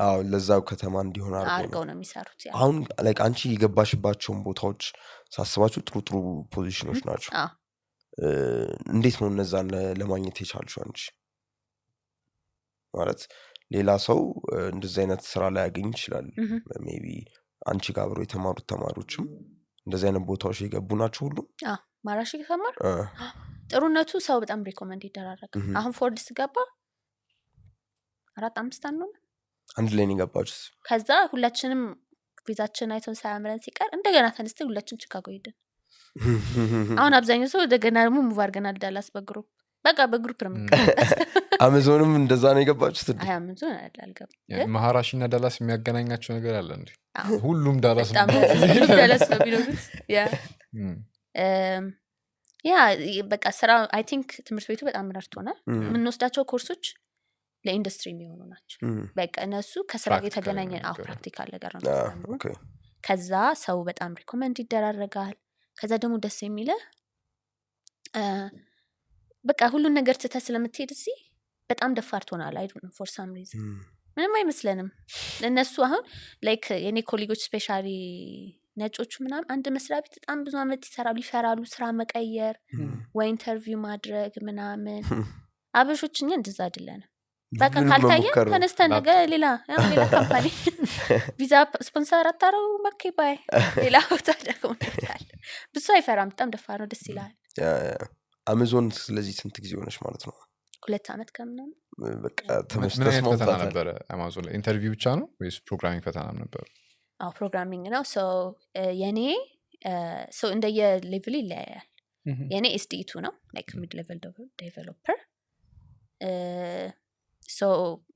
አዎ ለዛው ከተማ እንዲሆን አርገው ነው የሚሰሩት አሁን ላይክ አንቺ የገባሽባቸውን ቦታዎች ሳስባችሁ ጥሩ ፖዚሽኖች ናቸው እንዴት ነው እነዛን ለማግኘት የቻልሽው አንቺ ማለት ሌላ ሰው እንደዚህ አይነት ስራ ላይ ያገኝ ይችላል ሜቢ አንቺ ጋር አብረው የተማሩት ተማሪዎችም እንደዚህ አይነት ቦታዎች የገቡ ናቸው ሁሉ ማራሽ ከተማር ጥሩነቱ ሰው በጣም ሪኮመንድ ይደራረጋል አሁን ፎርድ ስገባ 4-5 አንድ ላይ ነው የገባችሁት ከዛ ሁላችንም ቪዛችን አይተን ሳያምረን ሲቀር እንደገና ተነስተን ሁላችን ቺካጎ ሄድን አሁን አብዛኛው ሰው እንደገና ደግሞ ሙቭ አድርገናል ዳላስ በግሩፕ በቃ በግሩፕ ነው አማዞንም እንደዛ ነው የገባችሁት አማዞን አልገባም ማሃራሽና ዳላስ የሚያገናኛቸው ነገር አለ እንዴ ሁሉም ዳላስ ዳላስ ነው ቢሉት ያ በቃ ስራ አይ ቲንክ ትምህርት ቤቱ በጣም ረድቶናል የምንወስዳቸው ኮርሶች ለኢንዱስትሪ የሚሆኑ ናቸው በቃ እነሱ ከስራ ጋር የተገናኘ ፕራክቲካል ነገር ነው ከዛ ሰው በጣም ሪኮመንድ ይደራረጋል ከዛ ደግሞ ደስ የሚለ በቃ ሁሉን ነገር ትተህ ስለምትሄድ እዚህ በጣም ደፋር ትሆናል አይ ዶንት ኖ ፎር ሳም ሪዝን ምንም አይመስለንም እነሱ አሁን ላይክ የኔ ኮሊጎች ስፔሻሊ ነጮቹ ምናምን አንድ መስሪያ ቤት በጣም ብዙ አመት ይፈራሉ ስራ መቀየር ወይ ኢንተርቪው ማድረግ ምናምን አበሾችኛ እንደዛ አይደለም በቃ ካልታየ ተነስተ ነገ ሌላ ካምፓኒ ቪዛ ስፖንሰር አታረው መከ ባይ ሌላ ቦታ ደግሞ ታል ብዙ አይፈራም በጣም ደፋር ነው ደስ ይላል አማዞን ስለዚህ ስንት ጊዜ ሆነሽ ማለት ነው 2 አመት ከምናምን በቃ ተመስተስማውታ ነበር አማዞን ላይ ኢንተርቪው ብቻ ነው ወይስ ፕሮግራሚንግ ፈተናም ነበር ፕሮግራሚንግ ነው ሶ የኔ ሶ እንደየ ሌቭል ይለያያል የኔ ኤስዲ2 ነው ላይክ ሚድ ሌቭል ዴቨሎፐር ሶ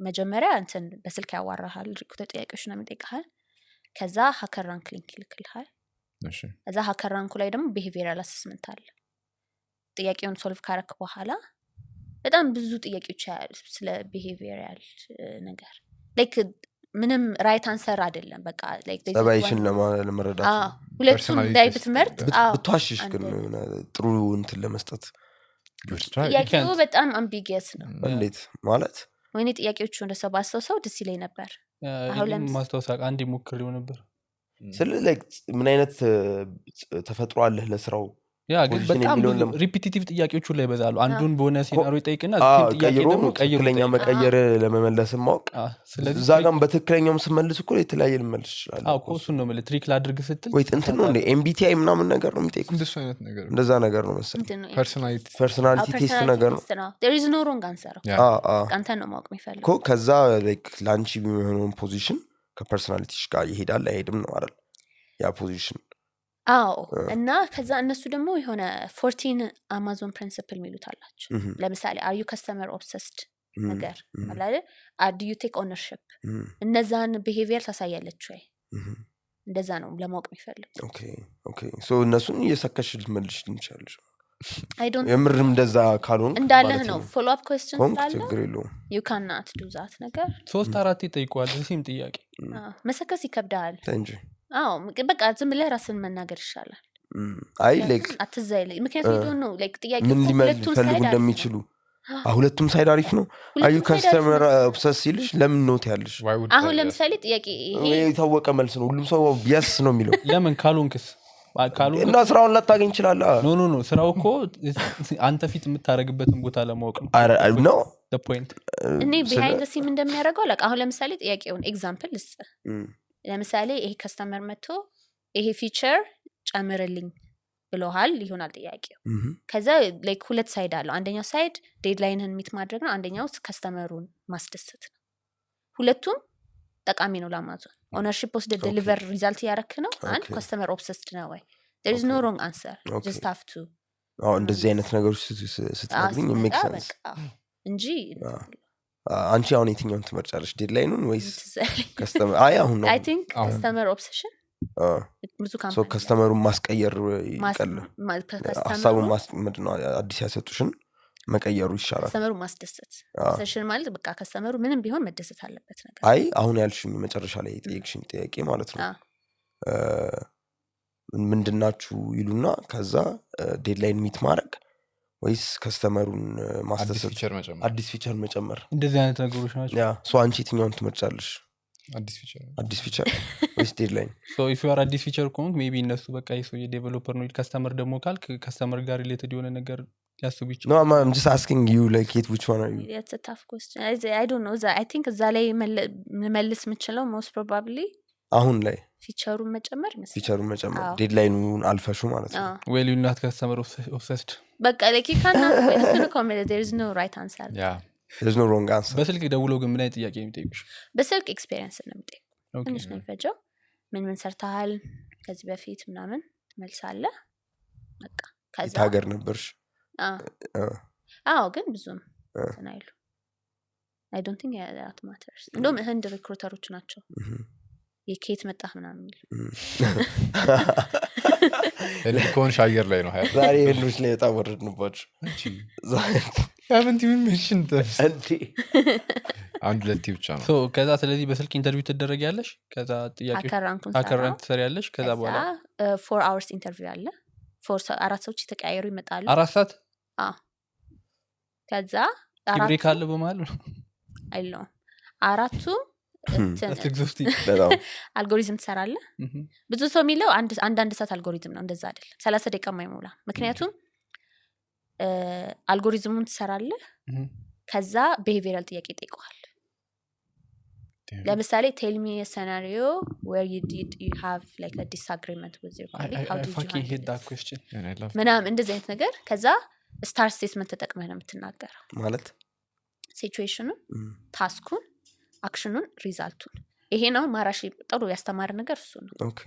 መጀመሪያ እንትን በስልክ ያዋራሃል ሪኩተር ጥያቄዎች ነው የሚጠይቃል ከዛ ሃከር ራንክ ሊንክ ይልክልሃል እሺ ከዛ ሃከር ራንኩ ላይ ደግሞ ቢሄቪየራል አሰስመንት አለ ጥያቄውን ሶልቭ ካረክ በኋላ በጣም ብዙ ጥያቄዎች ያሉ ስለ ቢሄቪየራል ነገር ላይክ ምንም ራይት አንሰር አይደለም በቃ ላይክ ሰባይሽን ለመረዳት ሁለቱም ላይ ብትመርጥ ብትዋሽሽ ግን ጥሩ እንትን ለመስጠት ጥያቄው በጣም አምቢጊየስ ነው እንዴት ማለት ወይኔ ጥያቄዎቹ እንደሰባሰው ሰው ደስ ይለኝ ነበር አሁን ማስተዋወቅ አንድ ሞክር ሊሆን ነበር ስለ ላይክ ምን አይነት ተፈጥሮ አለ ለስራው ያ ግን በጣም ሪፒቲቲቭ ጥያቄዎቹ ላይ በዛሉ አንዱን በሆነ ሲናሪዮ ይጠይቅና እዚህ ጥያቄ ደግሞ ትክክለኛ መቀየር ለመመለስ ማወቅ ስለዚህ ዛጋም በትክክለኛው ስመልስ እኮ የተለያየ ልመልስ ይችላል አዎ ኮሱን ነው ማለት ትሪክ ላድርግ ስትል ወይ እንትን ነው እንደ ኤምቢቲአይ ምናምን ነገር ነው የሚጠይቁት እንደሱ አይነት ነገር እንደዛ ነገር ነው መሰለኝ ፐርሰናሊቲ ቴስት ነገር ነው there is no wrong answer አንተ ነው ማወቅ የሚፈልገው እኮ ከዛ ላይክ ላንቺ የሚሆነው ፖዚሽን ከፐርሰናሊቲሽ ጋር ይሄዳል አይሄድም ነው አይደል ያ ፖዚሽን አዎ እና ከዛ እነሱ ደግሞ የሆነ 14 አማዞን ፕሪንሲፕል ሚሉት አላችሁ ለምሳሌ are you customer obsessed ነገር ማለት do you take ownership እነዛን ቢሄቪየር ታሳያለች ወይ እንደዛ ነው ለማወቅ የሚፈልግ ኦኬ ሶ እነሱን እየሰከሽ ልትመልሽ እንችላለን I don't የምርም እንደዛ ካልሆነ እንዳለህ ነው follow up question ስላለ you cannot do that ነገር 3-4 ይጠይቋል እዚህም ጥያቄ መሰከስ ይከብዳል እንጂ በቃ ዝም ብለህ ራስን መናገር ይሻላል አይ ላይክ አትዘይል ምክንያቱም ይሄ ነው ላይክ ጥያቄ ምን ሊፈልጉ እንደሚችሉ ሁለቱም ሳይድ አሪፍ ነው አዩ ከስተመር ኦብሰስ ይልሽ ለምን ኖት ያለሽ አሁን ለምሳሌ ጥያቄ ይሄ የታወቀ መልስ ነው ሁሉም ሰው ቢያስ ነው የሚለው ለምን ካሉንክስ እና ስራውን ላታገኝ ይችላል ኖ ስራው እኮ አንተ ፊት የምታረግበትን ቦታ ለማወቅ ነው the point እኔ behind the scene እንደሚያደርገው ለካ አሁን ለምሳሌ ጥያቄውን ኤግዛምፕል ልስጥ ለምሳሌ ይሄ ከስተመር መጥቶ ይሄ ፊቸር ጨምርልኝ ብለዋል ይሆናል ጥያቄው ከዛ ላይክ ሁለት ሳይድ አለው አንደኛው ሳይድ ዴድላይንን ሚት ማድረግ ነው አንደኛው ከስተመሩን ማስደሰት ነው ሁለቱም ጠቃሚ ነው ለአማዞን ኦነርሺፕ ወስደ ዴሊቨር ሪዛልት ያረክ ነው አንድ ከስተመር ኦብሰስድ ነው ወይ there is no wrong answer just have to እንደዚህ አይነት ነገሮች ስትነግሪኝ make sense እንጂ አንቺ አሁን የትኛውን ትመርጫለሽ ዴድላይኑን ወይስ ከስተመር አይ አሁን ነው I think customer obsession ብዙ ካምፓኒ ሶ ከስተመሩን ማስቀየር ይቀላል ሀሳቡን ምንድነው አዲስ ያሰጡሽን መቀየሩ ይሻላል ከስተመሩ ማስደሰት ሴሽን ማለት በቃ ከስተመሩ ምንም ቢሆን መደሰት አለበት ነገር አይ አሁን ያልሽኝ መጨረሻ ላይ የጠየቅሽኝ ጥያቄ ማለት ነው ምንድናችሁ ይሉና ከዛ ዴድላይን ሚት ማድረግ ወይስ ከስተመሩን አዲስ ማስተሰብ ፊቸር መጨመር አዲስ ፊቸር መጨመር እንደዚህ አይነት ነገሮች ናቸው ያ ሶ አንቺ የትኛውን ትመርጫለሽ አዲስ ፊቸር ወይስ ዴድላይን so if you are አዲስ ፊቸር ኮንክ ሜቢ እነሱ በቃ የሰው የዴቨሎፐር ነው ከስተመር ደግሞ ካልክ ከስተመር ጋር ሪሌትድ የሆነ ነገር ያስቡ ይችላል no I'm just asking you like which one are you it's a tough question I don't know I think እዛ ላይ መልስ የምችለው most probably አሁን ላይ ፊቸሩን መጨመር ይመስላል ፊቸሩን መጨመር ዴድላይኑን አልፈሹ ማለት ነው well you not customer obsessed በቃ like you cannot it's going to come there is no right answer yeah there's no wrong answer በስልክ ደውለው ግን ምን አይነት ጥያቄ የሚጠይቁሽ በስልክ ኤክስፒሪየንስ ነው የሚጠይቁ ትንሽ ነው የሚፈጀው ምን ሰርተሃል ከዚህ በፊት ምናምን ትመልሳለህ በቃ ከዛ ታገር ነበርሽ አዎ ግን ብዙም ተናይሉ I don't think that matters እንደውም ህንድ ሪክሩተሮች ናቸው የኬት መጣህ ምናምን ኮንሽ አየር ላይ ነው ዛሬ ሁሉሽ ላይ በጣም ወረድንባችሁ haven't even mentioned this እንዴ አንድ ለቲ ብቻ ነው so ከዛ ስለዚህ በስልክ ኢንተርቪው ትደረጊያለሽ ከዛ ጥያቄ አከራንት ትሰሪያለሽ ከዛ በኋላ 4 hours ኢንተርቪው አለ 4 ሰዎች ተቀያየሩ ይመጣሉ 4 ሰዓት ከዛ ብሬክ አለ በመሃል አይለው አራቱ አልጎሪዝም ትሰራለህ ብዙ ሰው የሚለው አንድ ሰዓት አልጎሪዝም ነው እንደዛ አይደለም 30 ደቂቃ የማይሞላ ምክንያቱም አልጎሪዝሙን ትሰራለህ ከዛ behavioral ጥያቄ ይጠይቀዋል ለምሳሌ tell me a scenario where you have like a disagreement with your colleague how did you fucking hate that question ምናምን እንደዚህ አይነት ነገር ከዛ ስታር ስቴትመንት ተጠቅመህ ነው የምትናገረው ማለት ሲቹዌሽኑን ታስኩን አክሽኑን ሪዛልቱን ይሄ ነው ማራሽ ጥሩ ያስተማረ ነገር እሱ ነው ኦኬ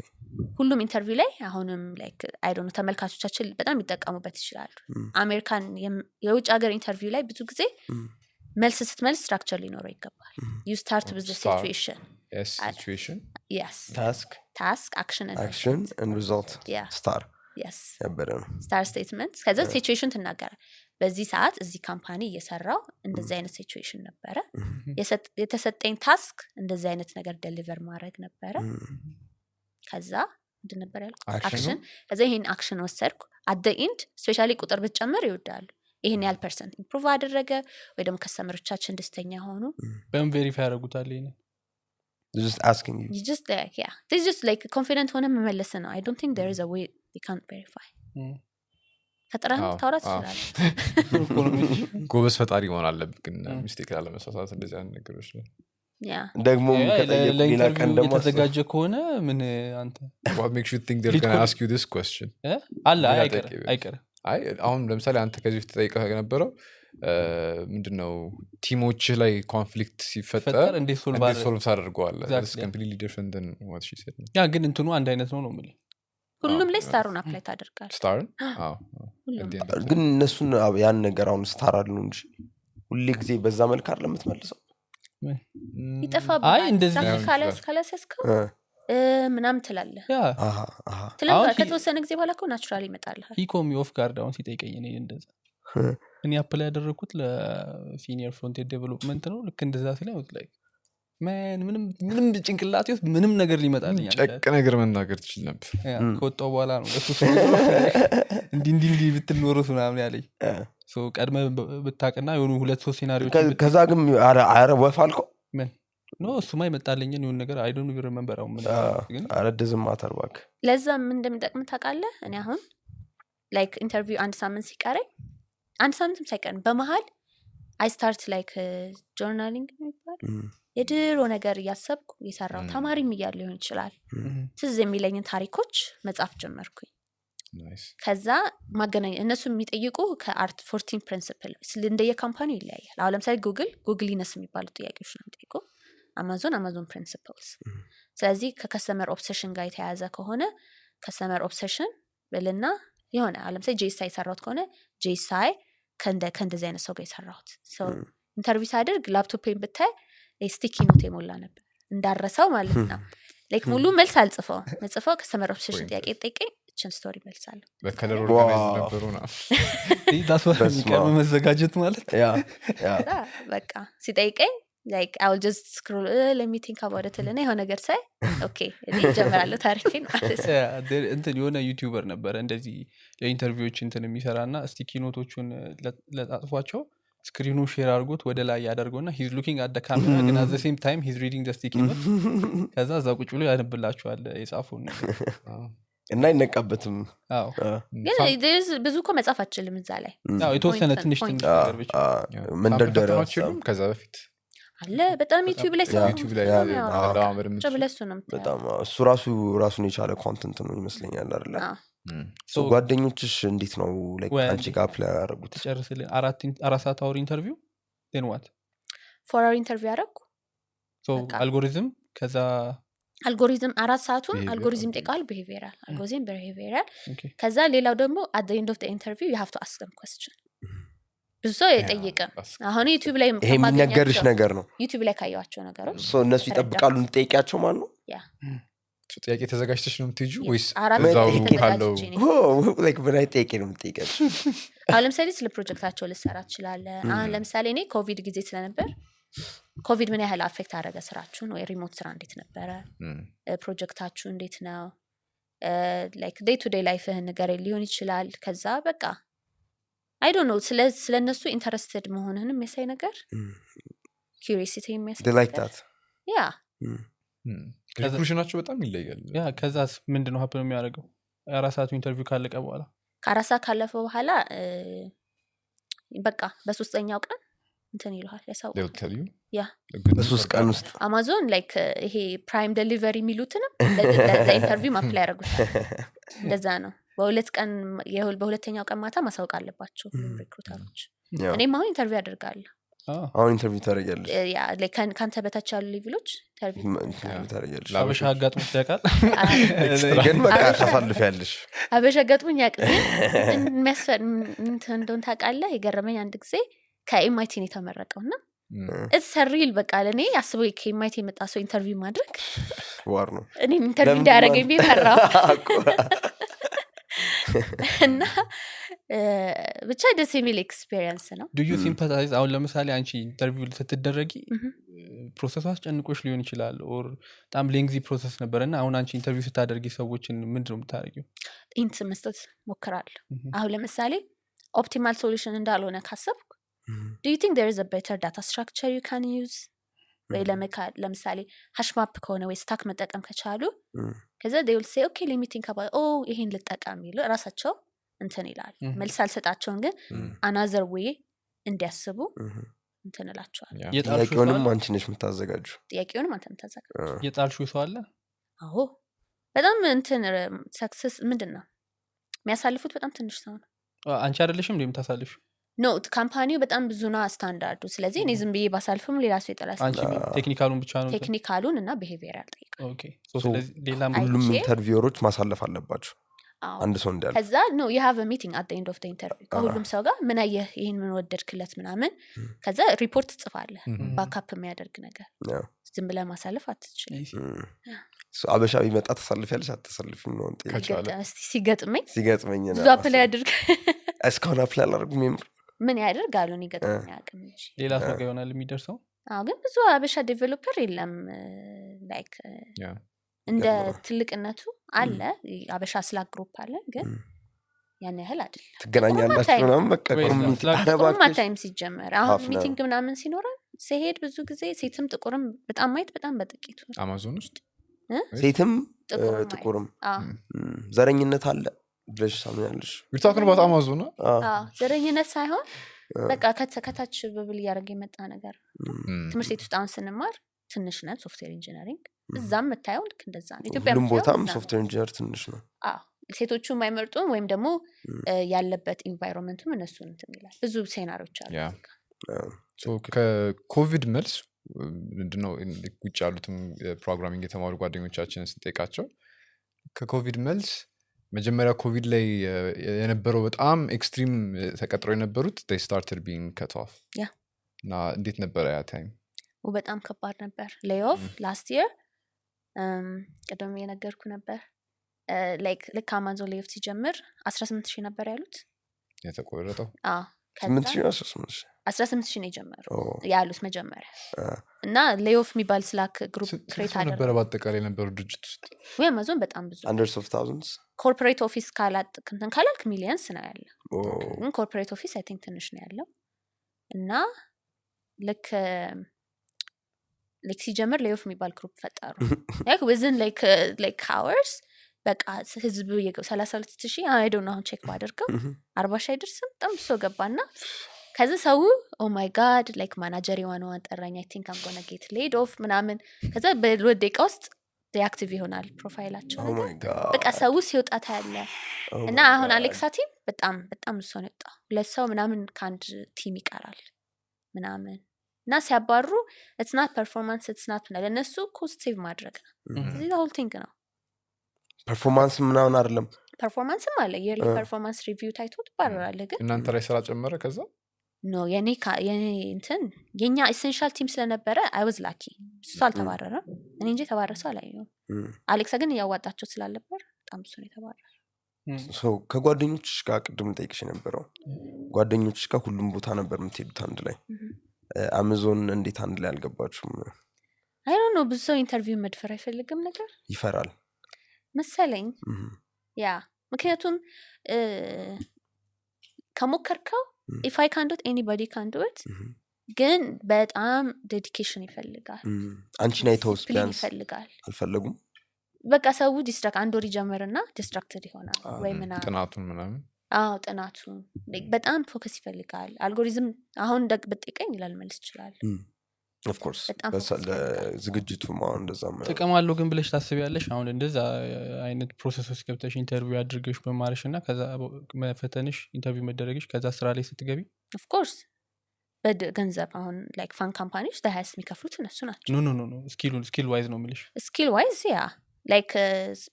ሁሉም ኢንተርቪው ላይ አሁንም ላይክ አይ ዶንት ኖ ተመልካቾቻችን በጣም ይጠቀሙበት ይችላሉ አሜሪካን የውጭ ሀገር ኢንተርቪው ላይ ብዙ ጊዜ መልስ ስትመልስ ስትራክቸር ሊኖረው ይገባል you start with the situation yes situation yes task action and result yeah star yes ያበረ ነው star statement ከዛ ሲቹዌሽን ትናገራለህ በዚህ ሰዓት እዚህ ካምፓኒ እየሰራው እንደዚህ አይነት ሲቹዌሽን ነበረ የተሰጠኝ ታስክ እንደዚህ አይነት ነገር ዴሊቨር ማድረግ ነበረ ከዛ እንደ ነበር ያልኩት አክሽን ከዛ ይሄን አክሽን ወሰድኩ at the end ስፔሻሊ ቁጥር ብትጨምር ይወዳሉ ይሄን ያህል ፐርሰንት ኢምፕሩቭ አደረገ ወይ ደግሞ ከስተመሮቻችን ደስተኛ ሆኑ በምን ቬሪፋይ ያደርጉታል ይሄን just asking you just like yeah this just like confident ሆነ መመለስ ነው I don't think there is a way they can't verify ፈጥረህ ታውራት ይችላል ጎበዝ ፈጣሪ መሆን አለብህ ግን ሚስቴክ ላለመሳሳት እንደዚህ አይነት ነገሮች ነው ያ ደግሞ ሌላ ቀን ደግሞ የተዘጋጀ ከሆነ ምን አንተ what makes you think they're going to ask you this question አለ አይቀር አሁን ለምሳሌ አንተ ከዚህ ተጠይቀህ የነበረው ምንድነው ቲሞች ላይ ኮንፍሊክት ሲፈጠር እንዴት ሶልቭ ታደርገዋለህ that's completely different than what she said ያ ግን እንትኑ አንድ አይነት ነው የምልህ ሁሉም ላይ ስታሩን አፕላይ ታደርጋለህ ስታር ግን እነሱን ያን ነገር አሁን ስታር አሉ እንጂ ሁሌ ጊዜ በዛ መልክ አይደለም የምትመልሰው ይጠፋብሃል አይ እንደዚህ ካላስከው ምናምን ትላለህ ያ ትላለህ ከተወሰነ ጊዜ በኋላ እኮ ናቹራሊ ይመጣልህ ኢኮሚ ኦፍ ጋርድ አሁን ሲጠይቀኝ እኔ እንደዛ እኔ አፕላይ ያደረኩት ለሲኒየር ፍሮንት ኤንድ ዴቨሎፕመንት ነው ልክ እንደዛ ሲለኝ ላይ ማን ምንም ጭንቅላቴ ውስጥ ምንም ነገር ሊመጣልኝ ጨቅ ነገር መናገር ትችል ነበር ከወጣው በኋላ ነው እሱ እንዲ ብትኖሩት ምናምን ያለኝ ሶ ቀድመ ብታቀና የሆኑ 2-3 ሲናሪዮች ከዛ ግን አረ ወፍ አልከው ምን ኖ እሱማ ይመጣልኝን የሆነ ነገር አይ ዶንት ሪሜምበር አሁን ግን አረ ደዝም ማተር ባክ ለዛ ምን እንደሚጠቅም ታውቃለህ እኔ አሁን ላይክ ኢንተርቪው አንድ ሳምንት ሲቀረኝ አንድ ሳምንትም ሳይቀርም በመሃል አይ ስታርት ላይክ ጆርናሊንግ የሚባል የድሮ ነገር እያሰብኩ የሰራው ተማሪም እያለ ሊሆን ይችላል ትዝ የሚለኝን ታሪኮች መጻፍ ጀመርኩኝ ከዛ ማገናኘ እነሱ የሚጠይቁ ከአርት 14 ፕሪንሲፕል እንደየ ካምፓኒ ይለያያል አሁን ለምሳሌ ጉግሊነስ የሚባሉ ጥያቄዎች ነው የሚጠይቁ አማዞን ፕሪንሲፕልስ ስለዚህ ከከስተመር ኦብሴሽን ጋር የተያያዘ ከሆነ ከስተመር ኦብሴሽን ብልና የሆነ አሁን ለምሳሌ ጄሳይ የሰራሁት ከሆነ ጄሳይ ከእንደዚህ አይነት ሰው ጋር የሰራሁት ኢንተርቪው ሳደርግ ላፕቶፔን ብታይ ስቲኪ ኖት የሞላ ነበር እንዳረሰው ማለት ነው ላይክ ሙሉ መልስ አልጽፈው መጽፈው ከስተመር ኦብሴሽን ጥያቄ ጠይቀኝ እችን ስቶሪ መልሳለሁ በከለር ኦርጋናይዝ ነበሩና ዳስ መዘጋጀት ማለት ያ በቃ ሲጠይቀኝ like I will just scroll let me think about it ለኔ የሆነ ነገር ሳይ ኦኬ እኔ ጀምራለሁ ታሪኬን ማለት እንትን የሆነ ዩቲዩበር ነበረ እንደዚህ ለኢንተርቪዎች እንትን የሚሰራና ስቲኪ ኖቶቹን ለጣጥፏቸው ስክሪኑ ሼር አድርጎት ወደ ላይ ያደርገውና he's looking at the camera ግን at the same time he's reading the sticky note ከዛ እዛ ቁጭ ብሎ ያነብላቸዋል የጻፈውን እና ይነቃበትም አዎ ግን ብዙ እኮ መጻፍ አትችልም እዛ ላይ አዎ የተወሰነ ትንሽ ነገር ብቻ መንደርደሪያው ከዛ በፊት አለ በጣም ዩቲዩብ ላይ ሰው ዩቲዩብ ላይ በጣም እሱ ራሱን የቻለ ኮንተንት ነው ይመስለኛል አይደል ጓደኞችሽ እንዴት ነው አንቺ ጋር አፕላይ ያደረጉት ተጨርስልን 4 ሰዓት አወር ኢንተርቪው then what 4 hour ኢንተርቪው አደረኩ አልጎሪዝም ከዛ አልጎሪዝም 4 ሰዓቱን አልጎሪዝም ጠይቃል behavioral ከዛ ሌላው ደግሞ at the end of the interview you have to ask them question ብዙ ሰው የጠየቀ አሁን ዩቲዩብ ላይ ይሄ የሚነገርሽ ነገር ነው ዩቲዩብ ላይ ካያቸው ነገሮች ሶ እነሱ ይጠብቃሉ እንጠይቂያቸው ማለት ነው ያ ጥያቄ ተዘጋጅተሽ ነው የምትሄጂው ወይስ እዛው ካለው like when I take it የምትጠይቂያቸው አሁን ለምሳሌ ስለ ፕሮጀክታቸው ልሰራ ትችላለህ አሁን ለምሳሌ እኔ ኮቪድ ጊዜ ስለነበር ኮቪድ ምን ያህል አፌክት አደረገ ስራችሁን ወይ ሪሞት ስራ እንዴት ነበረ ፕሮጀክታችሁ እንዴት ነው like day to day life ነገር ሊሆን ይችላል ከዛ በቃ I don't know ስለነሱ ኢንተረስትድ መሆንህንም የሚያሳይ ነገር curiosity የሚያሳይ they like that yeah ኮንክሉዥናቸው በጣም ይለያል ያ ከዛስ ምንድነው ሀፕን የሚያደርገው 4 ሰዓቱ ኢንተርቪው ካለቀ በኋላ ከአራሳ ካለፈው በኋላ በቃ በሶስተኛው ቀን እንትን ይልሃል ያሳው they'll tell you ያ በሶስት ቀን ውስጥ አማዞን ላይክ ይሄ ፕራይም ዴሊቨሪ ሚሉትንም ለኢንተርቪው ማፕላይ ያደርጉታል እንደዛ ነው በሁለተኛው ቀን ማታ ማሳወቅ አለባቸው ሪክሩተሮች እኔም አሁን ኢንተርቪው አደርጋለሁ አሁን ኢንተርቪው ታደርጊያለሽ ያ like ካንተ በታች ያሉ ሌቭሎች ኢንተርቪው ታደርጊያለሽ አበሻ አጋጥሞሽ ያውቃል ግን በቃ ታሳልፊያለሽ አበሻ አጋጥሞኝ ያውቃል እንደውን ታውቃለህ የገረመኝ አንድ ጊዜ ከኤምአይቲ ነው የተመረቀውና it's real በቃ ለኔ አስበው ከኤምአይቲ የመጣ ሰው ኢንተርቪው ማድረግ ዋር ነው እኔ ኢንተርቪው እንዳደረገኝ ቢፈራው እና ብቻ ደስ የሚል ኤክስፒሪየንስ ነው do you sympathize አሁን ለምሳሌ አንቺ ኢንተርቪው ስትደረጊ ፕሮሰሱ አስጨንቆሽ ሊሆን ይችላል ኦር በጣም ሌንግዚ ፕሮሰስ ነበርና አሁን አንቺ ኢንተርቪው ስታደርጊ ሰዎችን ምንድነው የምታደርጊው ኢንት መስጠት ሞክራለሁ አሁን ለምሳሌ ኦፕቲማል ሶሉሽን እንዳልሆነ ካሰብኩ do you think there is a better data structure you can use ወይ ለምሳሌ ሃሽማፕ ከሆነ ወይ ስታክ መጠቀም ከቻሉ ከዛ they will say okay let me think about ይሄን ልጠቀም ይሉ ራሳቸው እንትን ይላል መልስ አልሰጣቸውን ግን another way እንዲያስቡ እንትን እላቸዋለሁ ጥያቄውንም አንቺ ነሽ የምታዘጋጁ ጥያቄውንም አንተ የምታዘጋጁ የጣልሽው ሰው አለ አዎ በጣም እንትን ሰክሰስ ምንድነው የሚያሳልፉት በጣም ትንሽ ሰው ነው አንቺ አይደለሽም እንደምታሳልፊው ኖ ካምፓኒው በጣም ብዙና ስታንዳርዱ ስለዚህ እኔ ዝም ብዬ ባሳልፍም ሌላ ሰው ይጠራል አንቺ ቴክኒካሉን ብቻ ነው ቴክኒካሉን እና ቢሄቪየራል ጠይቃ ኦኬ ሶ ስለዚህ ሌላ ሁሉም ኢንተርቪወሮች ማሳለፍ አለባቸው አንድ ሰው እንዳለ ከዛ no you have a meeting at the end of the interview ከሁሉም ሰው ጋር ምን አየህ ይሄን ምን ወደድክለት ምናምን ከዛ ሪፖርት ጽፋለህ ባክአፕ የሚያደርግ ነገር ዝም ብለህ ማሳለፍ አትችልም ሶ አበሻ ቢመጣ ተሳልፊያለሽ አትተሳልፊም ነው እንዴ ከቻለ እስቲ ሲገጥመኝ ነው ዙ አፕላይ አድርግ እስካሁን አፕላይ አላደርግም ምን ያደርጋሉ ይገጥመኝ አቅም እንጂ ሌላ ሰው ጋር ይሆናል የሚደርሰው ግን ብዙ አበሻ ዴቨሎፐር የለም ላይክ እንደ ትልቅነቱ አለ አበሻ ስላክ ግሩፕ አለ ግን ያን ያህል አይደል ትገናኛላችሁ ምናምን በቃ ኮሚኒቲ አረባክ ታይም ሲጀመር አሁን ሚቲንግ ምናምን ሲኖረን ሲሄድ ብዙ ጊዜ ሴትም ጥቁርም በጣም ማይት በጣም በጥቂቱ አማዞን ውስጥ ሴትም ጥቁርም ዘረኝነት አለ ብለሽ ሳምኛለሽ we're talking about Amazon ዘረኝነት ሳይሆን በቃ ከታች በብል ያረገ የመጣ ነገር ትምህርት ቤት ውስጥ አሁን ስንማር ትንሽ ነን ሶፍትዌር ኢንጂነሪንግ እዛም መታየው ልክ እንደዛ ነው ኢትዮጵያ ሁሉም ቦታም ሶፍትዌር ኢንጂነር ትንሽ ነው ሴቶቹ የማይመርጡም ወይም ደግሞ ያለበት ኢንቫይሮንመንቱም እነሱን እንትን ይላል ብዙ ሴናሪዎች አሉ ሶ ከኮቪድ መልስ ምንድነው ውጭ ያሉትም ፕሮግራሚንግ የተማሩ ጓደኞቻችንን ስንጠይቃቸው ከኮቪድ መልስ መጀመሪያ ኮቪድ ላይ የነበረው በጣም ኤክስትሪም ተቀጥሮ የነበሩት they started being cut off እና እንዴት ነበር ያ ታይም በጣም ከባድ ነበር ሌይኦፍ ላስት ይር ቀደም የነገርኩ ነበር ላይክ አማዞን ሌይኦፍ ሲጀምር 18000 ነበር ያሉት የተቆረጠው 18 ነው የጀመረው ያሉት መጀመሪያ እና ሌኦፍ የሚባል ስላክ ግሩፕ ክሬት አደረገ ነበር በአጠቃላይ ነበሩ ድርጅት ውስጥ ወይ አማዞን በጣም ብዙ hundreds of thousands ኮርፖሬት ኦፊስ ካላልክ ሚሊየንስ ነው ያለው ግን ኮርፖሬት ኦፊስ አይ ቲንክ ትንሽ ነው ያለው እና ልክ ሲጀምር ሌኦፍ የሚባል ግሩፕ ፈጠሩ like within like hours በቃ ህዝብ የገው 32000 አይ ዶንት ኖ አሁን ቼክ ባደርገው 40,000 አይደርስም በጣም ሰው ገባና ከዛ ሰው ኦ ማይ ጋድ ላይክ ማናጀር የሆነው አንጠራኝ አይ ቲንክ አም ጎና ጌት ሌድ ኦፍ ምናምን ከዛ በደቂቃ ውስጥ ዲአክቲቭ ይሆናል ፕሮፋይላቸው በቃ ሰው ሲወጣ ታያለ እና አሁን አሌክሳ ቲም በጣም ሰው ነው የወጣው 2 ሰው ምናምን ካንድ ቲም ይቀራል ምናምን እና ሲያባሩ it's not performance it's not ለነሱ ኮስት ሴቭ ማድረግ ነው እዚህ the whole thing ነው ፐርፎርማንስ ምናምን አይደለም ፐርፎርማንስም አለ yearly performance review ታይቶት ባረራለ ግን እናንተ ላይ ስራ ጨመረ ከዛ ኖ የኔ እንትን የኛ ኤሴንሻል ቲም ስለነበረ I was lucky እሱ አልተባረረም እኔ እንጂ ተባረሰው አላየው አሌክሳ ግን ያዋጣቸው ስላለበር በጣም እሱ ነው የተባረረው ሶ ከጓደኞችሽ ጋር ቅድም ጠይቅሽ ነበረው ጓደኞችሽ ጋር ሁሉም ቦታ ነበር የምትሄዱት አንድ ላይ አማዞን እንዴት አንድ ላይ አልገባችሁም I don't know ብዙ ኢንተርቪው መድፈር አይፈልግም ነገር ይፈራል መሰለኝ ያ ምክንያቱም ከሞከርከው if I can do it anybody can do it ግን በጣም ዴዲኬሽን ይፈልጋል አንቺና ይተውስ ፕላንስ ይፈልጋል አልፈለጉም በቃ ሰው ዲስትራክት አንድ ወር ይጀምርና ዲስትራክትድ ይሆናል ወይ ምናምን ጥናቱን ምናምን ጥናቱ በጣም ፎከስ ይፈልጋል አልጎሪዝም አሁን በጥቂቀኝ ይላል መልስ ይችላል of course ለዝግጅቱ ማው እንደዛም ጥቅም አለው ግን ብለሽ ታስቢያለሽ አሁን እንደዛ አይነት ፕሮሰስ ገብተሽ ኢንተርቪው አድርገሽ በማርሽና ከዛ መፈተንሽ ኢንተርቪው መደረግሽ ከዛ ስራ ላይ ስትገቢ of course በገንዘብ አሁን like fund companies the highest የሚከፍሉት እነሱ ናቸው ኖ ስኪል ዋይዝ ነው የምልሽ ስኪል ዋይዝ ያ like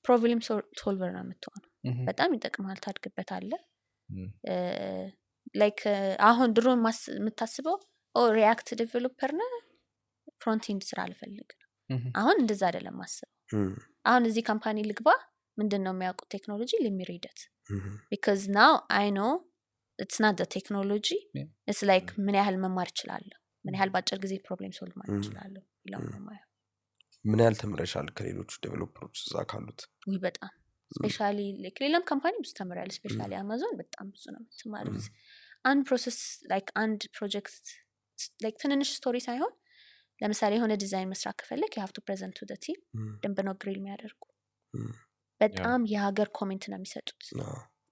problem solver ነው የምትሆነው በጣም ይጠቅማል ታድግበታለህ like አሁን ድሮ የምታስበው ሪአክት ዴቨሎፐር ነው ፍሮንት ኤንድ ስራ አልፈልግ አሁን እንደዛ አይደለም ማስበው አሁን እዚህ ካምፓኒ ልግባ ምንድነው የሚያውቁት ቴክኖሎጂ ለሚሪደት because now I know it's not the technology it's like ምን ያህል መማር ይችላልው ምን ያህል ባጭር ጊዜ ፕሮብሌም ሶልቭ ማድረግ ይችላልው ይላል ነው ምን ያህል ተምረሻል ከሌሎች ዴቨሎፐሮች እዛ ካሉት ወይ በጣም ስፔሻሊ like ሌላም ካምፓኒ ብዙ ተምራለሁ ስፔሻሊ አማዞን በጣም ብዙ ነው ተማሩት አንድ ፕሮሰስ like አንድ ፕሮጀክት like ትንንሽ ስቶሪ ሳይሆን ለምሳሌ የሆነ ዲዛይን መስራት ከፈለክ you have to present to the team ደንብ ነው ግሪል የሚያደርጉ በጣም የሀገር ኮሜንት ነው የሚሰጡት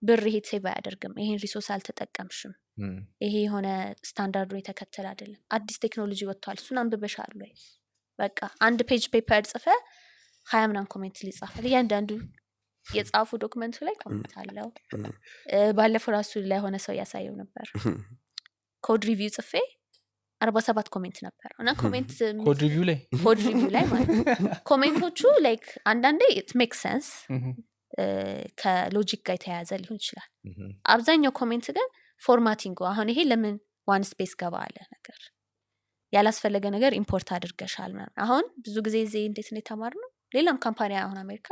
ብር ይሄ ሴቭ አያደርግም ይሄን ሪሶርስ አልተጠቀምሽም ይሄ የሆነ ስታንዳርዱ የተከተለ አይደለም አዲስ ቴክኖሎጂ ወጥቷል እሱን አንብበሻል ወይ በቃ አንድ ፔጅ ፔፐር ጽፈ 20 ምናምን ኮሜንት ሊጻፈል ያንዳንዱ የጻፉ ዶክመንቱ ላይ ኮሜንት አለው ባለፈው ራሱ ላይ ሆነ ሰው ያሳየው ነበር ኮድ ሪቪው ጽፌ 47 ኮሜንት ነበር እና ኮሜንት ኮድ ሪቪው ላይ ማለት ኮሜንቶቹ ላይክ አንዳንዴ it makes sense ከሎጂክ ጋር የተያያዘ ሊሆን ይችላል አብዛኛው ኮሜንት ግን ፎርማቲንግ አሁን ይሄ ለምን ዋን ስፔስ ገባ አለ ነገር ያላስፈለገ ነገር ኢምፖርት አድርገሻል ማለት አሁን ብዙ ጊዜ እዚህ እንዴት ነው የተማርነው ሌላም ካምፓኒ አሁን አሜሪካ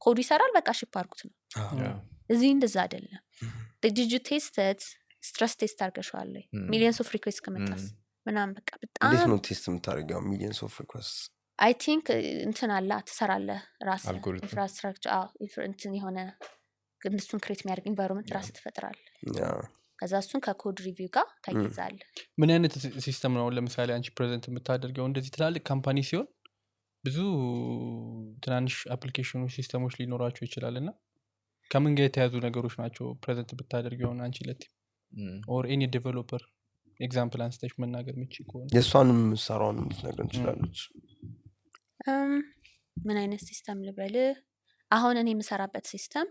ኮድ ይሰራል በቃ ሽፕ አድርጉት ነው እዚህ እንደዛ አይደለም did you test it stress test አድርገሻል millions of requests ከመጣስ ምናምን በቃ በጣም እንዴት ነው ቴስት የምታደርገው millions of requests I think እንትን አለ ትሰራለህ ራስ ኢንፍራስትራክቸር እንትን የሆነ እሱን ክሬት የሚያደርግ ኢንቫይሮንመንት ራስ ትፈጥራለህ ከዛ እሱን ከኮድ ሪቪው ጋር ታይዛለህ ምን አይነት ሲስተም ነው ለምሳሌ አንቺ ፕሬዘንት የምታደርገው እንደዚህ ትላልቅ ካምፓኒ ሲሆን ብዙ ትናንሽ አፕሊኬሽኖች ሲስተሞች ሊኖራቸው ይችላልና ከምን ጋር የተያዙ ነገሮች ናቸው ፕሬዘንት ብታደርገው አንቺ ለቲም or any developer ኤግዛምፕል አንስተሽ መናገር ምችል ከሆነ የሷንም ሰራውን ነገር እንችላለች ምን አይነት ሲስተም ልበል አሁን እኔ የምሰራበት ሲስተም